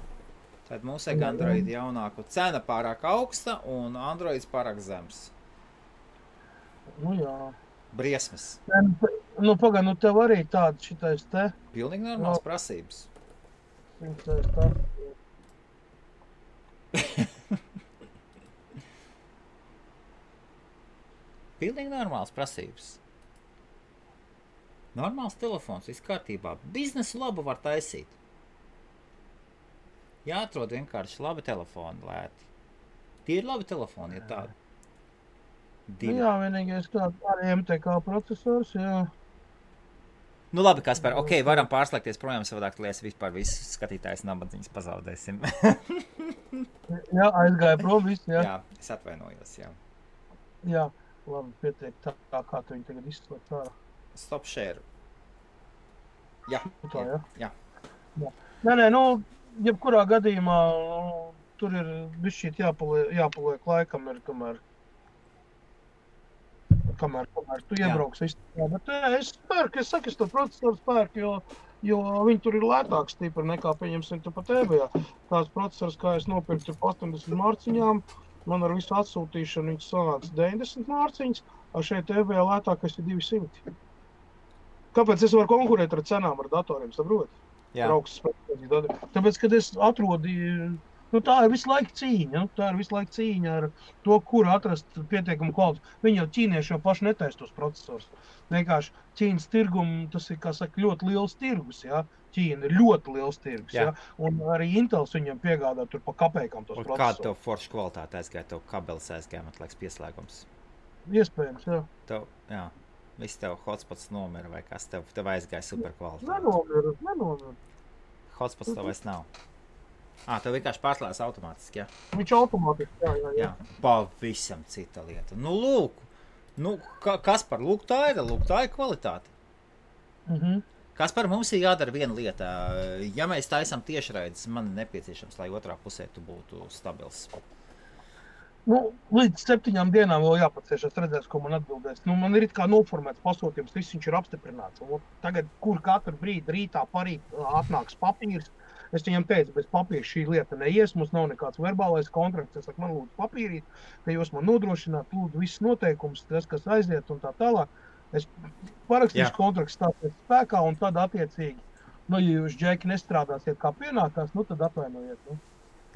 Tad mums ir Android jaunāku. Cena pārāk augsta un Androids pārāk zems. Nu, jā. Briesmas. Nu, pagaid, nu tev arī tāda šitais te. Pilnīgi normāls prasības. Šitais tā. Pilnīgi normāls prasības. Normāls telefons, viss kārtībā. Biznesu labu var taisīt. Jāatrod vienkārši labi telefoni lēti. Tie ir labi telefoni, ja tādi. Nu, jā, vienīgais kā arī MTK procesors, jā. Nu labi, Kaspar, ok, varam pārslēgties projām savādāk, lai es vispār visus skatītājus nabadzīņus pazaudēsim. Jā, aizgāja prom viss, jā. Jā, es atvainojos, jā. Jā, labi, pietiek tā, kā tu viņi tagad izslēgt ārā. Stop share. Jā, tā, jā. Nē, nu, jebkurā gadījumā tur ir bišķīt jāpaliek laikam, ir kamēr tu iebrauks izstāvā. Bet es spērku, es to procesoru spērku, jo viņi tur ir lētāks stipri nekā, pieņemsim, tu pat eBayā. Tās procesors, kā es nopirku tur 80 mārciņām, man ar visu atsūtīšanu viņš sanāca 90 mārciņas, a šeit eBayā lētākais ir 200. Kāpēc es varu konkurēt ar cenām ar datoriem, saprot? Jā. Tāpēc, kad es atrodīju, nu tā ir visu laiku cīņa, ar to, kur atrast pietiekumu kvalitāti. Viņi jau ķīnieši jau paši netaisa tos procesors. Vienkārši Ķīnas tirgumu, tas ir, kā saka, ļoti liels tirgus, jā. Ķīna ir ļoti liels tirgus, jā. Un arī Intels viņam piegādā tur pa kapēkam tos procesorus. Kāda tev forša kvalitāte aizgāja, tev kabelis aizgāja, man liekas, pieslēgums? Iespējams, jā. Jā. Viss tev hotspots nomira vai kas, tev aizgāja super kvalitāte. Nenomira. Hotspots tev vairs nav. Tev vienkārši pārslēdz automātiski, jā? Viņš automātiski, jā. Pavisam cita lieta. Nu, lūk, Kaspar, tā ir kvalitāte. Kaspar, mums ir jādara viena lieta. Ja mēs taisam tiešraides, man ir nepieciešams, lai otrā pusē tu būtu stabils. Nu, līdz 7 dienām vēl jāpacieš, es redzēšu, ko man atbildēs. Nu, man ir it kā noformēts pasūtījums, viss viņš ir apstiprināts. Un tagad, kur katru brīdi rītā parīt atnāks papīrs, es viņam teicu, bez papīra šī lieta neies, mums nav nekāds verbālais kontrakts. Es saku, man lūdzu papīrīt, ka jūs man nodrošināt, lūdzu visus noteikumus, tas, kas aiziet un tā tālāk. Es parakstīšu kontrakts stāties spēkā un tad attiecīgi, nu, ja jūs, Džeki, nestrādāsiet kā pienākās, nu, tad atvainojiet. Nu.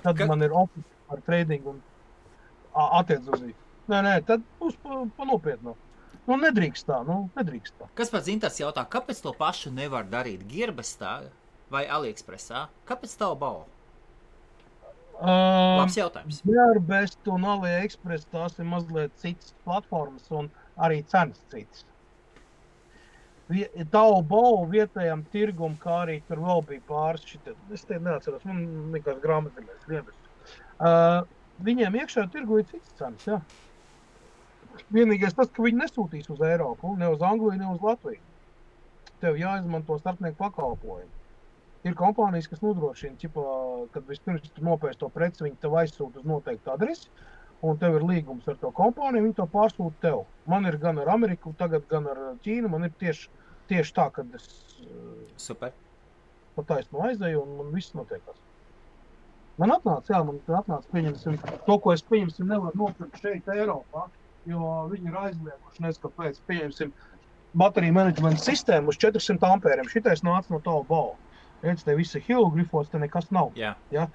Tad man ir office ar trading un attiecīgi. Nē, tad būs pa nopietno. Nu, nedrīkst tā. Kas pats Inters jautā, kāpēc to pašu nevar darīt Gearbestā vai AliExpressā? Kāpēc tavu balvu? Labs jautājums. Gearbest un AliExpress tās ir mazliet citas platformas un arī cenas citas. Taobao vietējām tirgum, kā arī tur vēl bija pāris šitā. Es te neatceros, man likās grāmatvedējs vienas. Viņiem iekšā tirgu ir cits cenas, jā. Vienīgais tas, ka viņi nesūtīs uz Eiropu, ne uz Angliju, ne uz Latviju. Tev jāizmanto starpnieku pakalpojumu. Ir kompānijas, kas nodrošina, kad vispirms tu nopērci to preci, viņi tev aizsūta uz noteiktu adresi, un tev ir līgums ar to kompāniju, viņi to pārsūta tev. Man ir gan ar Ameriku, tagad gan ar Ķīnu, man ir tieši tā, kad es Super. pa taisnu aizēju, un man viss notiekās. Man atnāca, pieņemsim, to, ko es pieņemsim, nevar nopirkt šeit Eiropā, jo viņi ir aizlieguši, nes kāpēc, pieņemsim, bateriju menedžmenta sistēmu uz 400 ampēriem. Šitais nāca no Taobao. Redz, te visi hilogrifos, te nekas nav. Jā. Ja?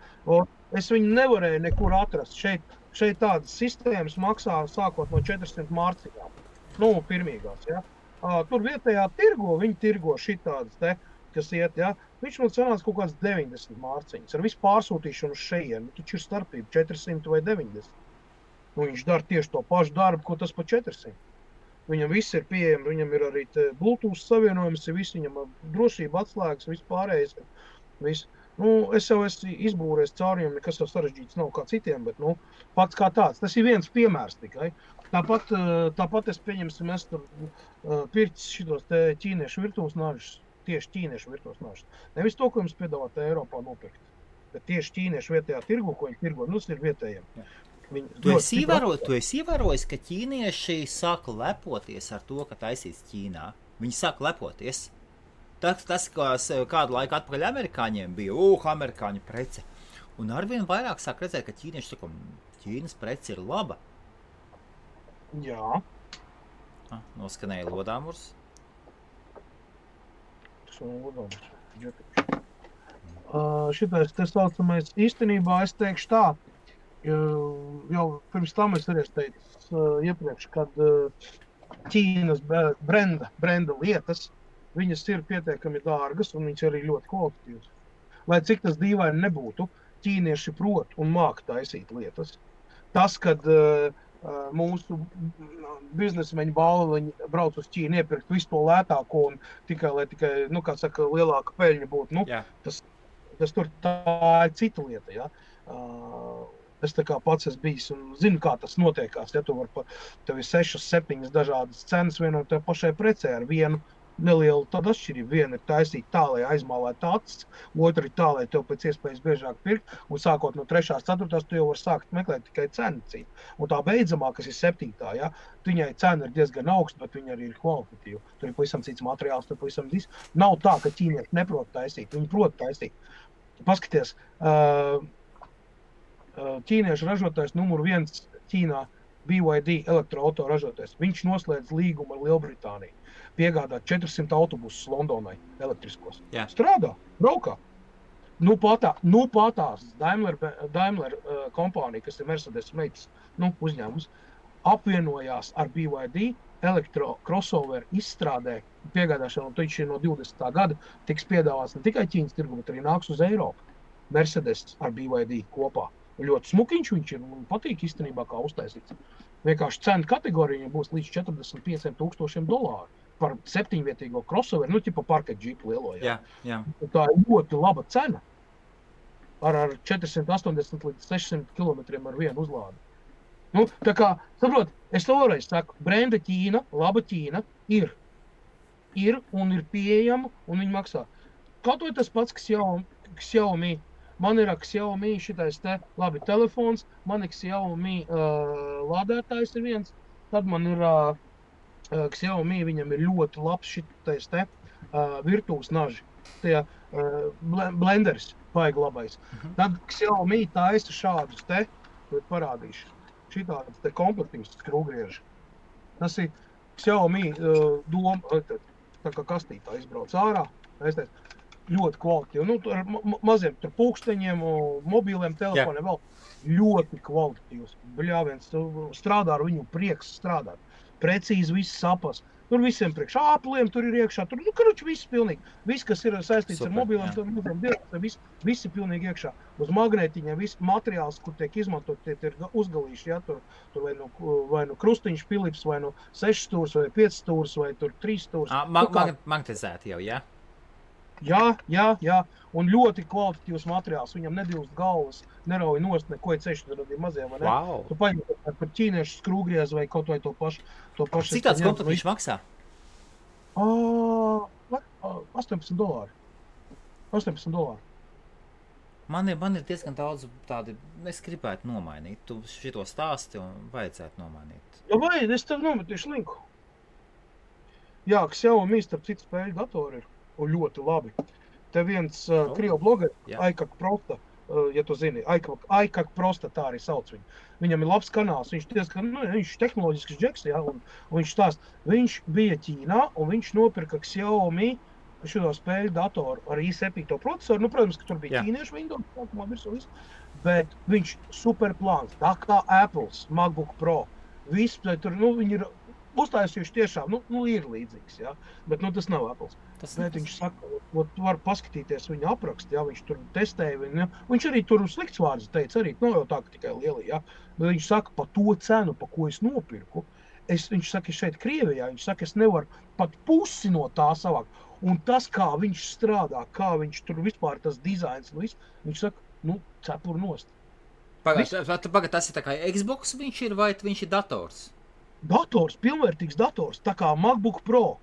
Es viņu nevarēju nekur atrast. Šeit tādas sistēmas maksā sākot no 400 mārciņām. Pirmīgās, ja? Tur vietējā viņi tirgo šitādas te, kas iet, ja? Viņš man sanāca kaut kāds 90 mārciņas. Ar visu pārsūtīšanu uz šejienu. Taču ir starpība 400 vai 90. Viņš dara tieši to pašu darbu, ko tas pa 400. Viņam viss ir pieejams, viņam ir arī Bluetooth savienojums, viņam drošība atslēgas, viss pārējais. Es jau esmu izbūrējis cauriem, nekas jau sarežģīts nav kā citiem, bet pats kā tāds. Tas ir viens piemērs tikai. Tāpat es pieņemsim, es tur pircis šitos ķīniešu virtuves nažus, tieši ķīniešu virtuves nažus. Nevis to, ko jums piedāvāt Eiropā nopirkt, bet tieši ķīniešu vietējā tirgu, ko viņi tirgo, tas ir vietējiem. Tu esi ievērojis, ka ķīnieši sāk lepoties ar to, ka taisīts Ķīnā. Viņi sāk lepoties. Tas kādu laiku atpakaļ amerikāņiem bija, amerikāņu prece. Un arvien vairāk sāk redzēt, ka ķīnieši saka, Ķīnas prece ir laba. Jā. Noskanēja lodāmurs. Tas ir lodāmurs. Šitais te saucamais īstenībā es teikšu tā. Jau pirms tam es arī teicu iepriekš, kad Ķīnas brenda lietas, viņas ir pietiekami dārgas un viņas arī ļoti kvalitatīvas. Lai cik tas dīvaini nebūtu, ķīnieši prot un māk taisīt lietas. Tas, kad mūsu biznesmeņu balviņi brauc uz Ķīnu iepirkt visu to lētāko un lai tikai, lielāka peļņa būtu, tas tur tā ir cita lieta, ja. Es tā kā pats esmu bijis un zinu, kā tas notiekās. Ja tev ir 6-7 dažādas cenas vienai tev pašai precē ar vienu nelielu tādu atšķirību. Viena ir taisīt tā, lai aizmālētu acis, otra ir tā, lai tev pēc iespējas biežāk pirkt, un sākot no 3. 4. tu jau var sākt meklēt tikai cenu cīnu. Un tā beidzamā, kas ir 7. Ja, viņai cena ir diezgan augsta, bet viņa arī ir kvalitatīva. Tur ir pavisam cits materiāls, tur pavisam cits. Nav tā, ka ķīnieši neprot taisīt, viņi prot taisīt. Paskaties, ķīniešu ražotājs numur 1 Ķīnā, BYD elektroauto ražotājs. Viņš noslēdz līgumu ar Lielbritāniju. Piegādā 400 autobusus Londonai elektriskos. Jā. Strādā, braukā. Patās Daimler kompānija, kas ir Mercedes meitas uzņēmums, apvienojās ar BYD elektro crossover izstrādē piegādāšanu, un viņš ir no 20. gada tiks piedāvāts ne tikai Ķīnas tirgu, bet arī nāks uz Eiropu. Mercedes ar BYD kopā. Ļoti smukiņš viņš ir un patīk īstenībā kā uztaisīts. Vienkārši cena kategorija būs līdz $45,000 par 7-vietīgo crossover, parket džipu lielo. Jā. Tā ir ļoti laba cena. Ar 480 līdz 600 km ar vienu uzlādi. Tā kā, saprot, es vēlreiz saku, brenda Ķīna, laba Ķīna ir un ir pieejama un viņi maksā. Kaut vai tas pats, kas Xiaomi. Man ir Xiaomi šitais labi telefons, man ir Xiaomi lādētājs ir viens, tad man ir Xiaomi, viņam ir ļoti labs šitais virtuves naži, tie blenders, baigi labais. Tad Xiaomi taisa šādus parādīšu, šitādas komplektīvas skrūgrieži. Tas ir Xiaomi doma, tā kā kastītā izbrauc ārā, ļoti kvalitatīvi. Ar maziem pulksteņiem, mobīliem telefoniem vēl ļoti kvalitatīvs. Bļāviens, strādā ar viņu prieks strādāt. Precīzi viss sapas. Tur visiem priekš āpliem, tur ir iekšā, tur, viss pilnīgi. Viss, kas ir saistīts ar mobiliem, viss ir pilnīgi iekšā. Uz magnētiņiem, viss materiāls, kur tiek izmantot, tie ir uzgalīši, ja, tur vai nu krustiņš Philips, vai nu 6 stūrs, vai 5 stūrs, vai tur 3 stūrs. Magnetizēti jau, jā? Jā, un ļoti kvalitatīvs materiāls, viņam nedilst galvas, nerauj nost, neko ir ceļš, tur ir maziem, vai ne? Wow. Tu paņem par ķīniešu skrūgriez vai kaut vai to pašu. Cik tāds komplekts maksā? $18. $18. Man ir diezgan daudz tādi, es gribētu nomainīt. Tu šito stāsti un vajadzētu nomainīt. Ja vajag, es tev nometīšu linku. Jā, Xiaomi starp citu spēļu datori ir. Un ļoti labi. Te viens krievu blogeris, Aikak Prosta, ja tu zini, Aikak Prosta, tā arī sauc viņu. Viņam ir labs kanāls, viņš diezgan, viņš tehnoloģisks džeks, ja, un viņš stāst, viņš bija Ķīnā, un viņš nopirka Xiaomi šo spēļu datoru ar i7 procesoru. Protams, ka tur bija ķīniešu Windows, sākumā visu, bet viņš superplāns, tā kā Apples, MacBook Pro, viss, tur, viņi ir uztaisījuši tiešām, ir līdzīgs, ja? Bet tas nav Apples. Bet viņš saka, tu var paskatīties viņa aprakstu, ja? Viņš tur testēja viņu, ja? Viņš arī tur slikts vārds teica, arī nav jau tā, ka tikai lieli, ja? Bet viņš saka, pa to cenu, pa ko es nopirku, viņš saka, šeit Krievijā, viņš saka, es nevaru pat pusi no tā savākt. Un tas, kā viņš strādā, kā viņš tur vispār tas dizains, viņš saka, cepur nost. Pagad, tas ir tā kā Xbox viņš ir, vai viņš ir dators? Dators, pilnvērtīgs dators, tā kā MacBook Pro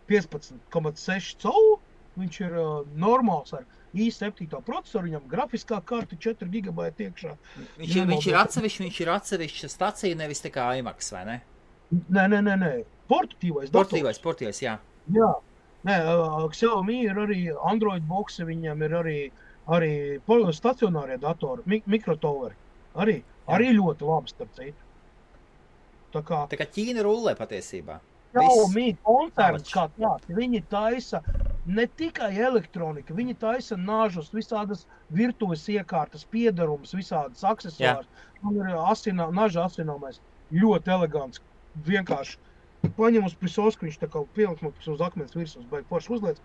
15,6 colu, viņš ir normāls ar i7 procesoru, viņam grafiskā karta 4 GB iekšā. Viņš ir atsevišķa stacija, nevis tā kā iMac, vai ne? Nē, portatīvais dators. Portatīvais, jā. Jā, Xiaomi ir arī Android boxi, viņam ir arī stacionārie datori, mikrotoveri, arī ļoti labi starp citu. Tā kā Ķīna rullē patiesībā. Xiaomi koncerns kā tāds, viņi taisa ne tikai elektronika, viņi taisa nažus, visādas virtuves iekārtas, piedarumus, visādas aksesuārs. Man ir naža asināmais, ļoti elegants, vienkārši paņem uz prisosku, viņš tā kā pieliks uz akmens virsmas, vai forši uzliec,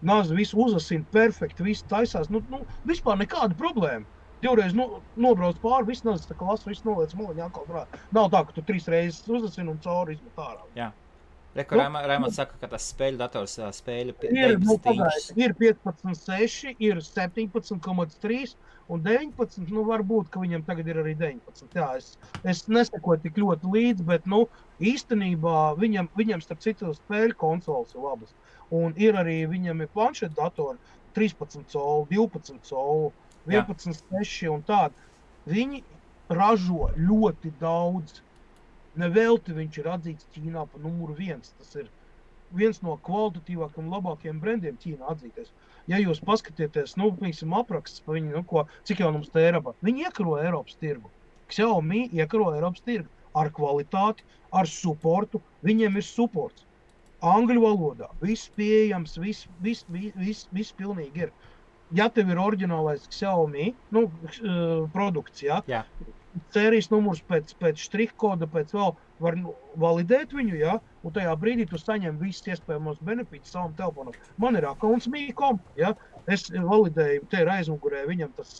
naža visu uzasina perfekti, visu taisās, vispār nekāda problēma. Divreiz nobrauc pāri, viss nazas, tā kā lasu, viss noliec moliņā atkal drāt. Nav tā, ka tu 3 reizes uzasini un cauri izmet ārā. Jā. Reku Raimonds saka, ka tas spēļu dators spēļu 19 inčus. Ir 15,6, ir 17,3 un 19, varbūt, ka viņam tagad ir arī 19. Jā, es nesakoju tik ļoti līdz, bet, īstenībā viņam starp citu spēļu konsoles ir labas. Un ir arī, viņam ir planšeta datori 13 colu, 12 colu, 11,6 un tādi. Viņi ražo ļoti daudz. Nevelti viņš ir atzīts Ķīnā pa numuru 1. Tas ir viens no kvalitatīvākiem, labākiem brendiem Ķīnā atzīties. Ja jūs paskatieties, apraksts pa viņu, cik jau mums te Eiropā, viņi iekaro Eiropas tirgu. Xiaomi iekaro Eiropas tirgu ar kvalitāti, ar supportu, viņiem ir supports. Angļu valodā, viss pieejams, viss pilnīgi ir. Ja tev ir oriģinālais Xiaomi, produkts, jā. Sērijas numurs pēc štrihkoda, pēc vēl var validēt viņu, ja? Un tajā brīdī tu saņem visas iespējamos benefītus savam telefonam. Man ir accounts Me.com, ja? Es validēju, te ir aizmugurē viņam tas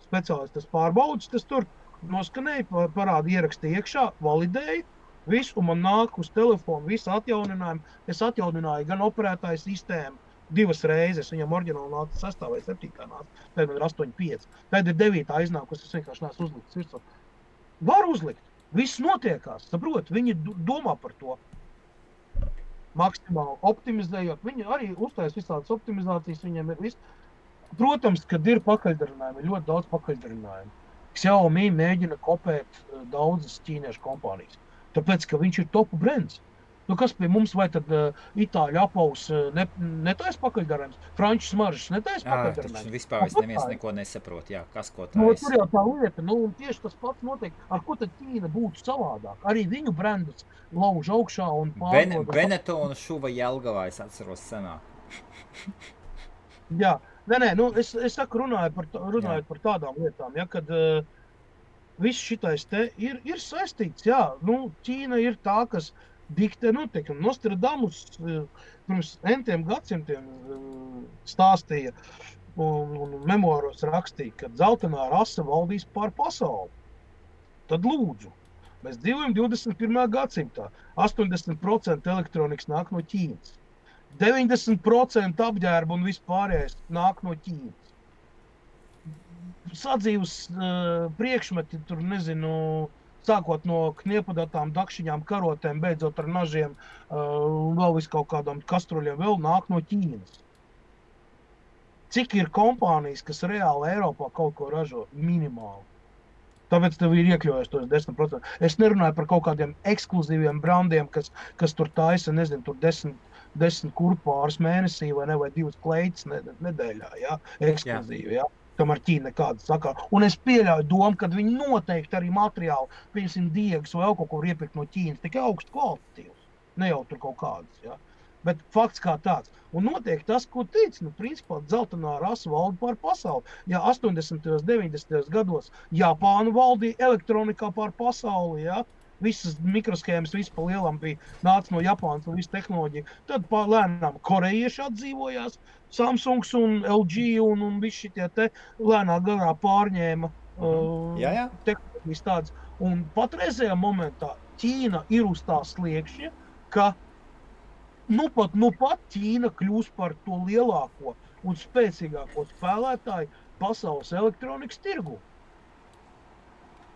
speciālis, tas pārbaudas, tas tur noskanēja, parāda ierakstīja iekšā, validēju, visu, un man nāk uz telefonu visu atjauninājumu. Es atjaunināju gan operētāju sistēmu 2 reizes, viņam oriģināli nāca 6. vai 7. nāca, tad man ir 8,5. Tad ir 9. iznākus, es vienkārši neesmu uzlikts virsū. Var uzlikt, viss notiekās, saprot, viņi domā par to. Maksimāli optimizējot, viņi arī uztais visādas optimizācijas, viņiem ir viss. Protams, kad ir pakaļdarinājumi, ir ļoti daudz pakaļdarinājumu. Xiaomi mēģina kopēt daudzas ķīniešu kompānijas, tāpēc, ka viņš ir topu brands. Kas pie mums, vai tad itāļu apaus netais pakaļdarājums? Franču smaržas netais pakaļdarājums? Vispār neviens neko nesaprot, kas ko tais. Tur jau tā lieta, un tieši tas pats notiek, ar ko tad Ķīna būtu savādāk. Arī viņu brandus lauž augšā un pārdod. Benetonu šuva Jelgavā, es atceros senāk. Jā, es saku, runājot par tādām lietām, kad viss šitais te ir saistīts, Ķīna ir tā, kas diktē noteikti. Nostradamus pirms entiem gadsimtiem stāstīja un memoāros rakstīja, ka dzeltenā rasa valdīs pār pasauli. Tad lūdzu, mēs dzīvojam 21. gadsimtā. 80% elektronikas nāk no Ķīnas. 90% apģērba un vispārējais nāk no Ķīnas. Sadzīves priekšmeti, tur nezinu, sākot no kniepadatām, dakšiņām, karotēm, beidzot ar nažiem, vēl vis kaut kādām kastruļiem, vēl nāk no Ķīnas. Cik ir kompānijas, kas reāli Eiropā kaut ko ražo? Minimāli. Tāpēc tev ir iekļaujas tos 10%. Es nerunāju par kaut kādiem ekskluzīviem brandiem, kas tur taisa, nezinu, tur 10 kurpārs mēnesī vai 2 kleitas nedēļā, ja? Ekskluzīvi, ja? Kamēr Ķīna nekāda sakā. Un es pieļauju domu, kad viņi noteikti arī materiāli, piemēram, diegas vai kaut ko iepirkt no Ķīnas, tikai augstu kvalitatīvs. Ne jau tur kaut kādas, ja? Bet fakts kā tāds. Un notiek tas, ko teica, principā dzeltenā rasa valda pār pasauli. Ja 80. 90. gados Japāna valdīja elektronikā pār pasauli, ja? Visas mikroshēmas, viss pa lielam bija nāca no Japānas un visu tehnoloģiju. Tad lēnām korejieši atdzīvojās, Samsungs un LG un visi šitie te lēnā garā pārņēma tehnoloģijas tādas. Un patreizējā momentā Ķīna ir uz tā sliekšņa, ka nu pat Ķīna kļūs par to lielāko un spēcīgāko spēlētāju pasaules elektronikas tirgu.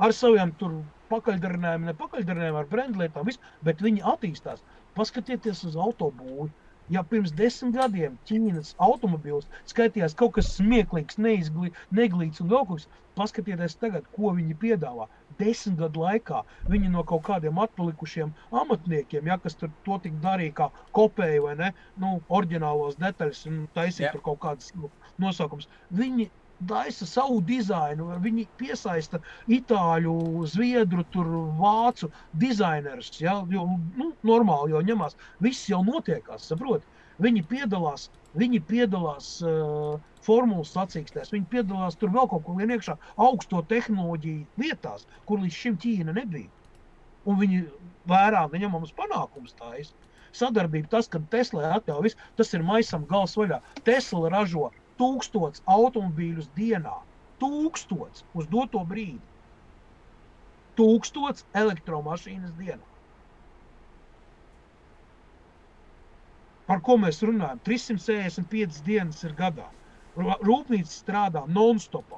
Ar saviem tur pakaļdarinājumiem, nepakaļdarinājumiem, ar brendlietām, bet viņi attīstās. Paskatieties uz autobūvi. Ja pirms 10 gadiem Ķīnas automobīls skaitījās kaut kas smieklīgs, neglīts un vēl kaut kas, paskatieties tagad, ko viņi piedāvā. 10 gadu laikā viņi no kaut kādiem atpalikušiem amatniekiem, ja, kas tur to tik darīja kā kopēja vai ne, oriģinālos detaļas un taisīja tur kaut kādas nosaukums. Viņi daisa savu dizainu, viņi piesaista itāļu, zviedru, tur vācu dizainerus, ja, jo, normāli jau ņemās, viss jau notiekās, saprot. Viņi piedalās formulas sacīkstēs, viņi piedalās tur vēl kaut ko vien iekšā augsto tehnoloģiju lietās, kur līdz šim Ķīna nebija. Un viņi vērā neņemams panākums tājas. Sadarbība tas, kad Tesla atļauj visu, tas ir maisam gals vaļā. Tesla ražo 1000 automobīļus dienā. 1000 uz doto brīdi. 1000 elektromašīnas dienā. Par ko mēs runājam? 365 dienas ir gadā. Rūpnīca strādā non-stopā.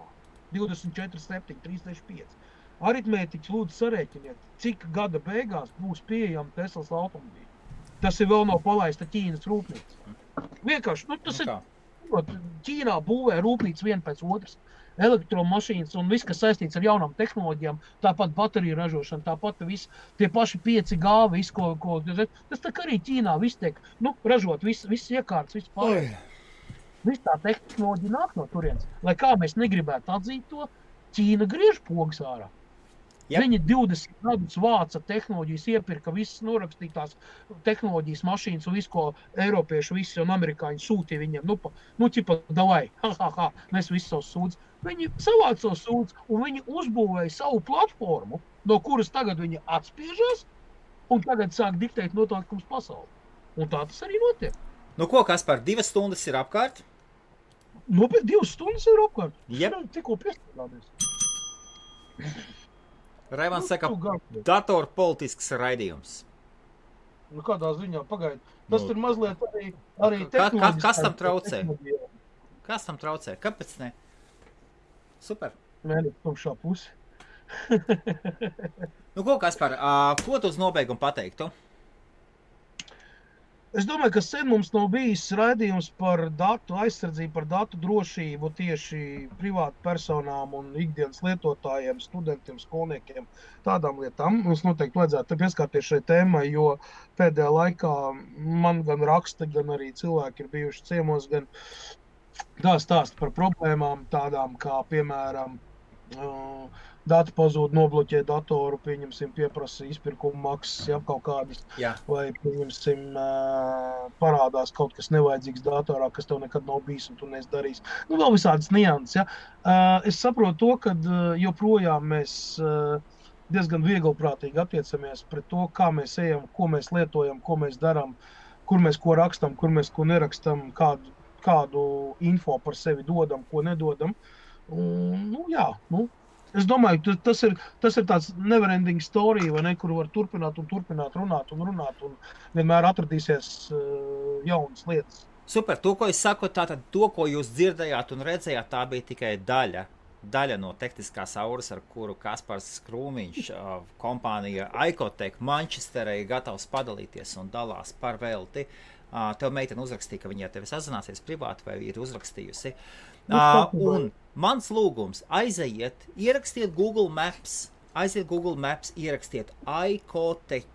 24/7, 365. Aritmētiķi lūdzu sarēķiniet, cik gada beigās būs pieejama Teslas automobīļi. Tas ir vēl nav palaista Ķīnas rūpnīca. Vienkārši, tas ir... Ķīnā būvē rūpnīca viena pēc otras, elektromašīnas un viss, kas saistīts ar jaunām tehnoloģijām, tāpat bateriju ražošana, tāpat viss, tie paši 5G, viss, ko tas tā kā arī Ķīnā viss tiek, ražot, viss iekārts, viss pārējais. Viss tā tehnoloģija nāk no turienes. Lai kā mēs negribētu atzīt to, Ķīna griež pogas ārā. Yep. Viņi 20 gadus vāca tehnoloģijas, iepirka visas norakstītās tehnoloģijas mašīnas un visu, ko eiropieši visi un amerikāņi sūtīja viņiem. Davai, mēs visi savus sūdz. Viņi savāca savus sūdz un viņi uzbūvēja savu platformu, no kuras tagad viņi atspiežas un tagad sāk diktēt noteikums pasauli. Un tā tas arī notiek. Ko, Kaspar, 2 stundas ir apkārt? Bet 2 stundas ir apkārt. Yep. Tikko piestādāmies. Raimans saka, datorpolitisks raidījums. Kādā ziņā, pagaid. Tas ir mazliet arī tehnoloģiski. Kas tam traucē? Kas tam traucē? Kāpēc ne? Super. Mēģināt tumšā pusi. Ko, Kaspar, ko tu uz nobeigumu pateiktu? Es domāju, ka sen mums nav bijis raidījums par datu aizsardzību, par datu drošību tieši privātu personām un ikdienas lietotājiem, studentiem, skolniekiem, tādām lietām. Mums noteikti vajadzētu pieskārties šai tēmai, jo pēdējā laikā man gan raksta, gan arī cilvēki ir bijuši ciemos, gan stāsta par problēmām tādām kā, piemēram, dati pazūd, nobloķē datoru, pieņemsim, pieprasa izpirkuma maksas, ja, kaut kādas, vai, pieņemsim, parādās kaut kas nevajadzīgs datorā, kas tev nekad nav bijis un tu neesi darījis. Vēl visādas nianses, ja. Es saprotu to, ka joprojām mēs diezgan vieglprātīgi attiecamies pret to, kā mēs ejam, ko mēs lietojam, ko mēs darām, kur mēs ko rakstam, kur mēs ko nerakstam, kādu info par sevi dodam, ko nedodam. Un, es domāju, tas ir tāds neverending story, vai ne, kur var turpināt runāt, un vienmēr atradīsies jaunas lietas. Super, to, ko es saku, tātad to, ko jūs dzirdējāt un redzējāt, tā bija tikai daļa no tehniskās auras, ar kuru Kaspars Krūmiņš, kompānija Icotech Manchesterē ir gatavs padalīties un dalās par velti. Tev meitene uzrakstīja, ka viņa tevi sazināsies privāti vai ir uzrakstījusi. Un mans lūgums, ierakstiet Google Maps, ierakstiet Icotech,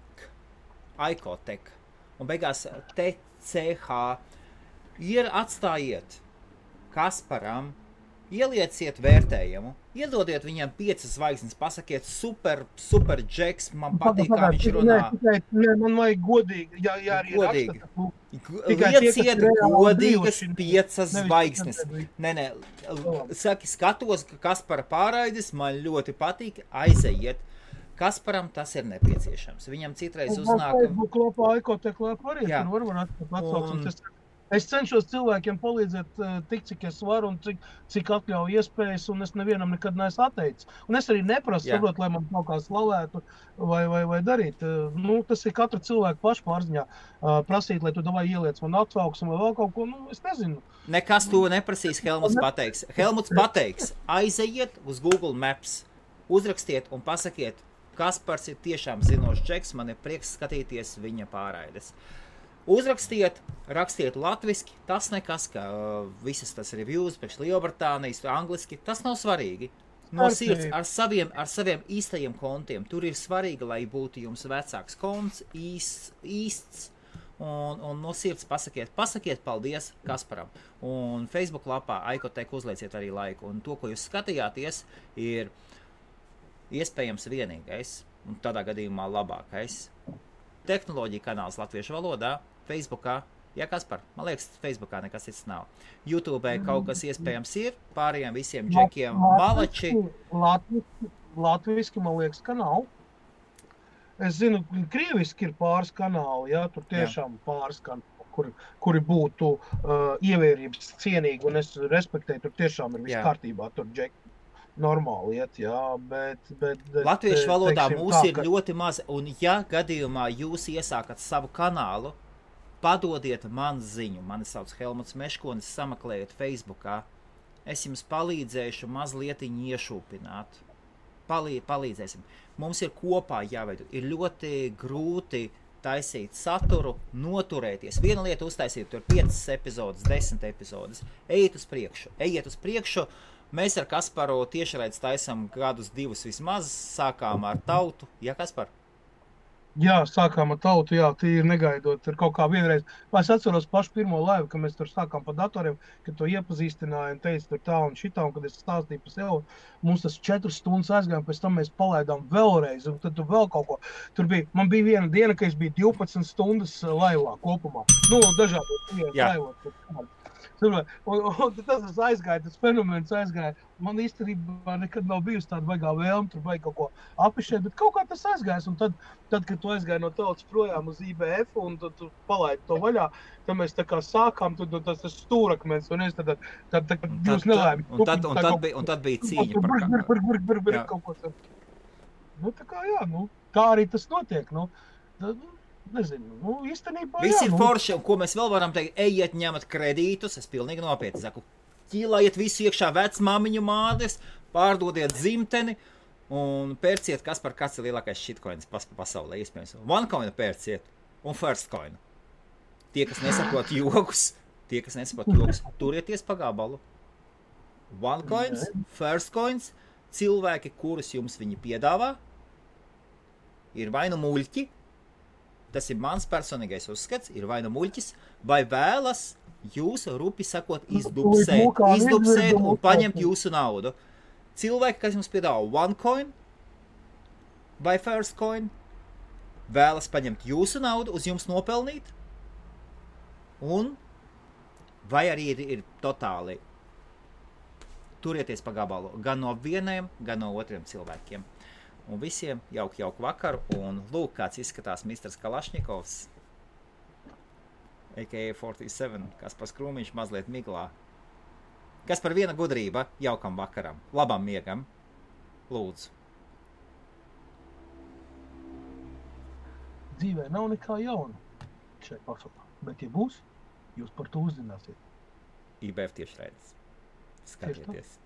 un beigās TCH, atstājiet Kasparam, ielieciet vērtējumu, iedodiet viņam 5 zvaigznes, pasakiet super džeks, man patīk, kā viņš runā. Nē, man vajag godīgi, ja arī godīgi. Raksta. Lieciet godīgas 5 zvaigznes. Nē, saki, skatos, ka Kaspara pārraides man ļoti patīk, aizejiet. Kasparam tas ir nepieciešams. Viņam citreiz uznāk... Facebook lapā, Icotech lapā arī, tur var atsaucams. Es cenšos cilvēkiem palīdzēt tik, cik es varu un cik atļauj iespējas, un es nevienam nekad neesmu atteicis. Un es arī neprasu, saprot, lai man kaut kā slavētu vai darīt. Tas ir katra cilvēka paša pārziņā. Prasīt, lai tu davai ieliec man atsauksmi vai vēl kaut ko, es nezinu. Nekas to neprasīs, Helmuts pateiks. Helmuts pateiks, aizejiet uz Google Maps, uzrakstiet un pasakiet, Kaspars ir tiešām zinošs džeks, man ir prieks skatīties viņa pārraides. Uzrakstiet, rakstiet latviski, tas nekas, ka visas tas reviews priekš Lielbritānijas, angliski, tas nav svarīgi. No sirds, ar saviem īstajiem kontiem. Tur ir svarīgi, lai būtu jums vecāks konts, īsts, un no sirds pasakiet paldies Kasparam. Un Facebook lapā Icotech uzlieciet arī laiku. Un to, ko jūs skatījāties, ir iespējams vienīgais, un tādā gadījumā labākais. Tehnoloģija kanāls latviešu valodā, Facebookā, Kaspar, man liekas, Facebookā nekas cits nav. YouTubē kaut kas iespējams ir, pārējiem visiem džekiem malači. Latviski, man liekas, ka nav. Es zinu, krieviski ir pāris kanāli, tur tiešām pāris kanāli, kuri būtu ievērības cienīgi, un es respektēju, tur tiešām ir viss kārtībā, tur džeki. Normāli iet, bet latviešu valodā mūs ir ļoti maz, un gadījumā jūs iesākat savu kanālu, padodiet man ziņu, mani sauc Helmuts Meškonis, sameklējiet Facebookā, es jums palīdzēšu mazlietiņu iešūpināt, palīdzēsim. Mums ir kopā jāveido, ir ļoti grūti taisīt saturu, noturēties. Viena lieta uztaisīt, tur 5 epizodes, 10 epizodes, ejiet uz priekšu, Mēs ar Kasparu tiešraidz taisam gadus 2 vismaz, sākām ar Tautu. Kaspar? Jā, sākām ar Tautu, tīri negaidot. Ir kaut kā vienreiz. Es atceros pašu pirmo laivu, kad mēs tur sākām pa datoriem, kad to iepazīstināja un teica tur tā un šitā, un kad es stāstīju par sevi, mums tas 4 stundas aizgājām, pēc tam mēs palaidām vēlreiz, un tad tur vēl kaut ko. Man bija viena diena, ka es biju 12 stundas laivā kopumā. Dažādos laivos. Un tas aizgāja, tas fenomens aizgāja. Man īstenībā nekad nav bijusi tāda baigā vēlme, tur vajag kaut ko apišēt, bet kaut kā tas aizgājas. Un tad, kad tu aizgāji no Tautas projām uz IBF un tu palaidi to vaļā, tad mēs tā kā sākām, tas stūrakmens, un es tad jūs nelēmi. Un tad bija cīņa par kaut ko. Tā arī tas notiek, Nezinu, īstenībā Viss ir forši, un ko mēs vēl varam teikt, ejiet ņemat kredītus, es pilnīgi nopietni saku, ķīlājiet visu iekšā vecmāmiņu mādes, pārdodiet dzimteni un pērciet, kāds ir lielākais shitcoins pasaulē, iespējams. OneCoin pērciet un Firstcoin. Tie, kas nesaprot jokus, turieties pa gabalu. OneCoins, Firstcoins, cilvēki, kurus jums viņi piedāvā, ir vai nu muļķi, tas ir mans personīgais uzskats, ir vai nu muļķis, vai vēlas jūs, rupi sakot, izdubsēt un paņemt jūsu naudu. Cilvēki, kas jums piedāvā OneCoin vai Firstcoin, vēlas paņemt jūsu naudu, uz jums nopelnīt, un vai arī ir totāli turieties pa gabalu, gan no vieniem, gan no otriem cilvēkiem. Un visiem jauku vakaru. Un lūk, kāds izskatās Misters Kalašņikovs, a.k.a. 47, Kaspars Krūmiņš mazliet miglā. Kas par viena gudrība jaukam vakaram, labam miegam. Lūdzu. Dzīvē nav nekā jauna šai pasaulē, bet ja būs, jūs par to uzzināsiet. IBF tiešraides. Skatieties.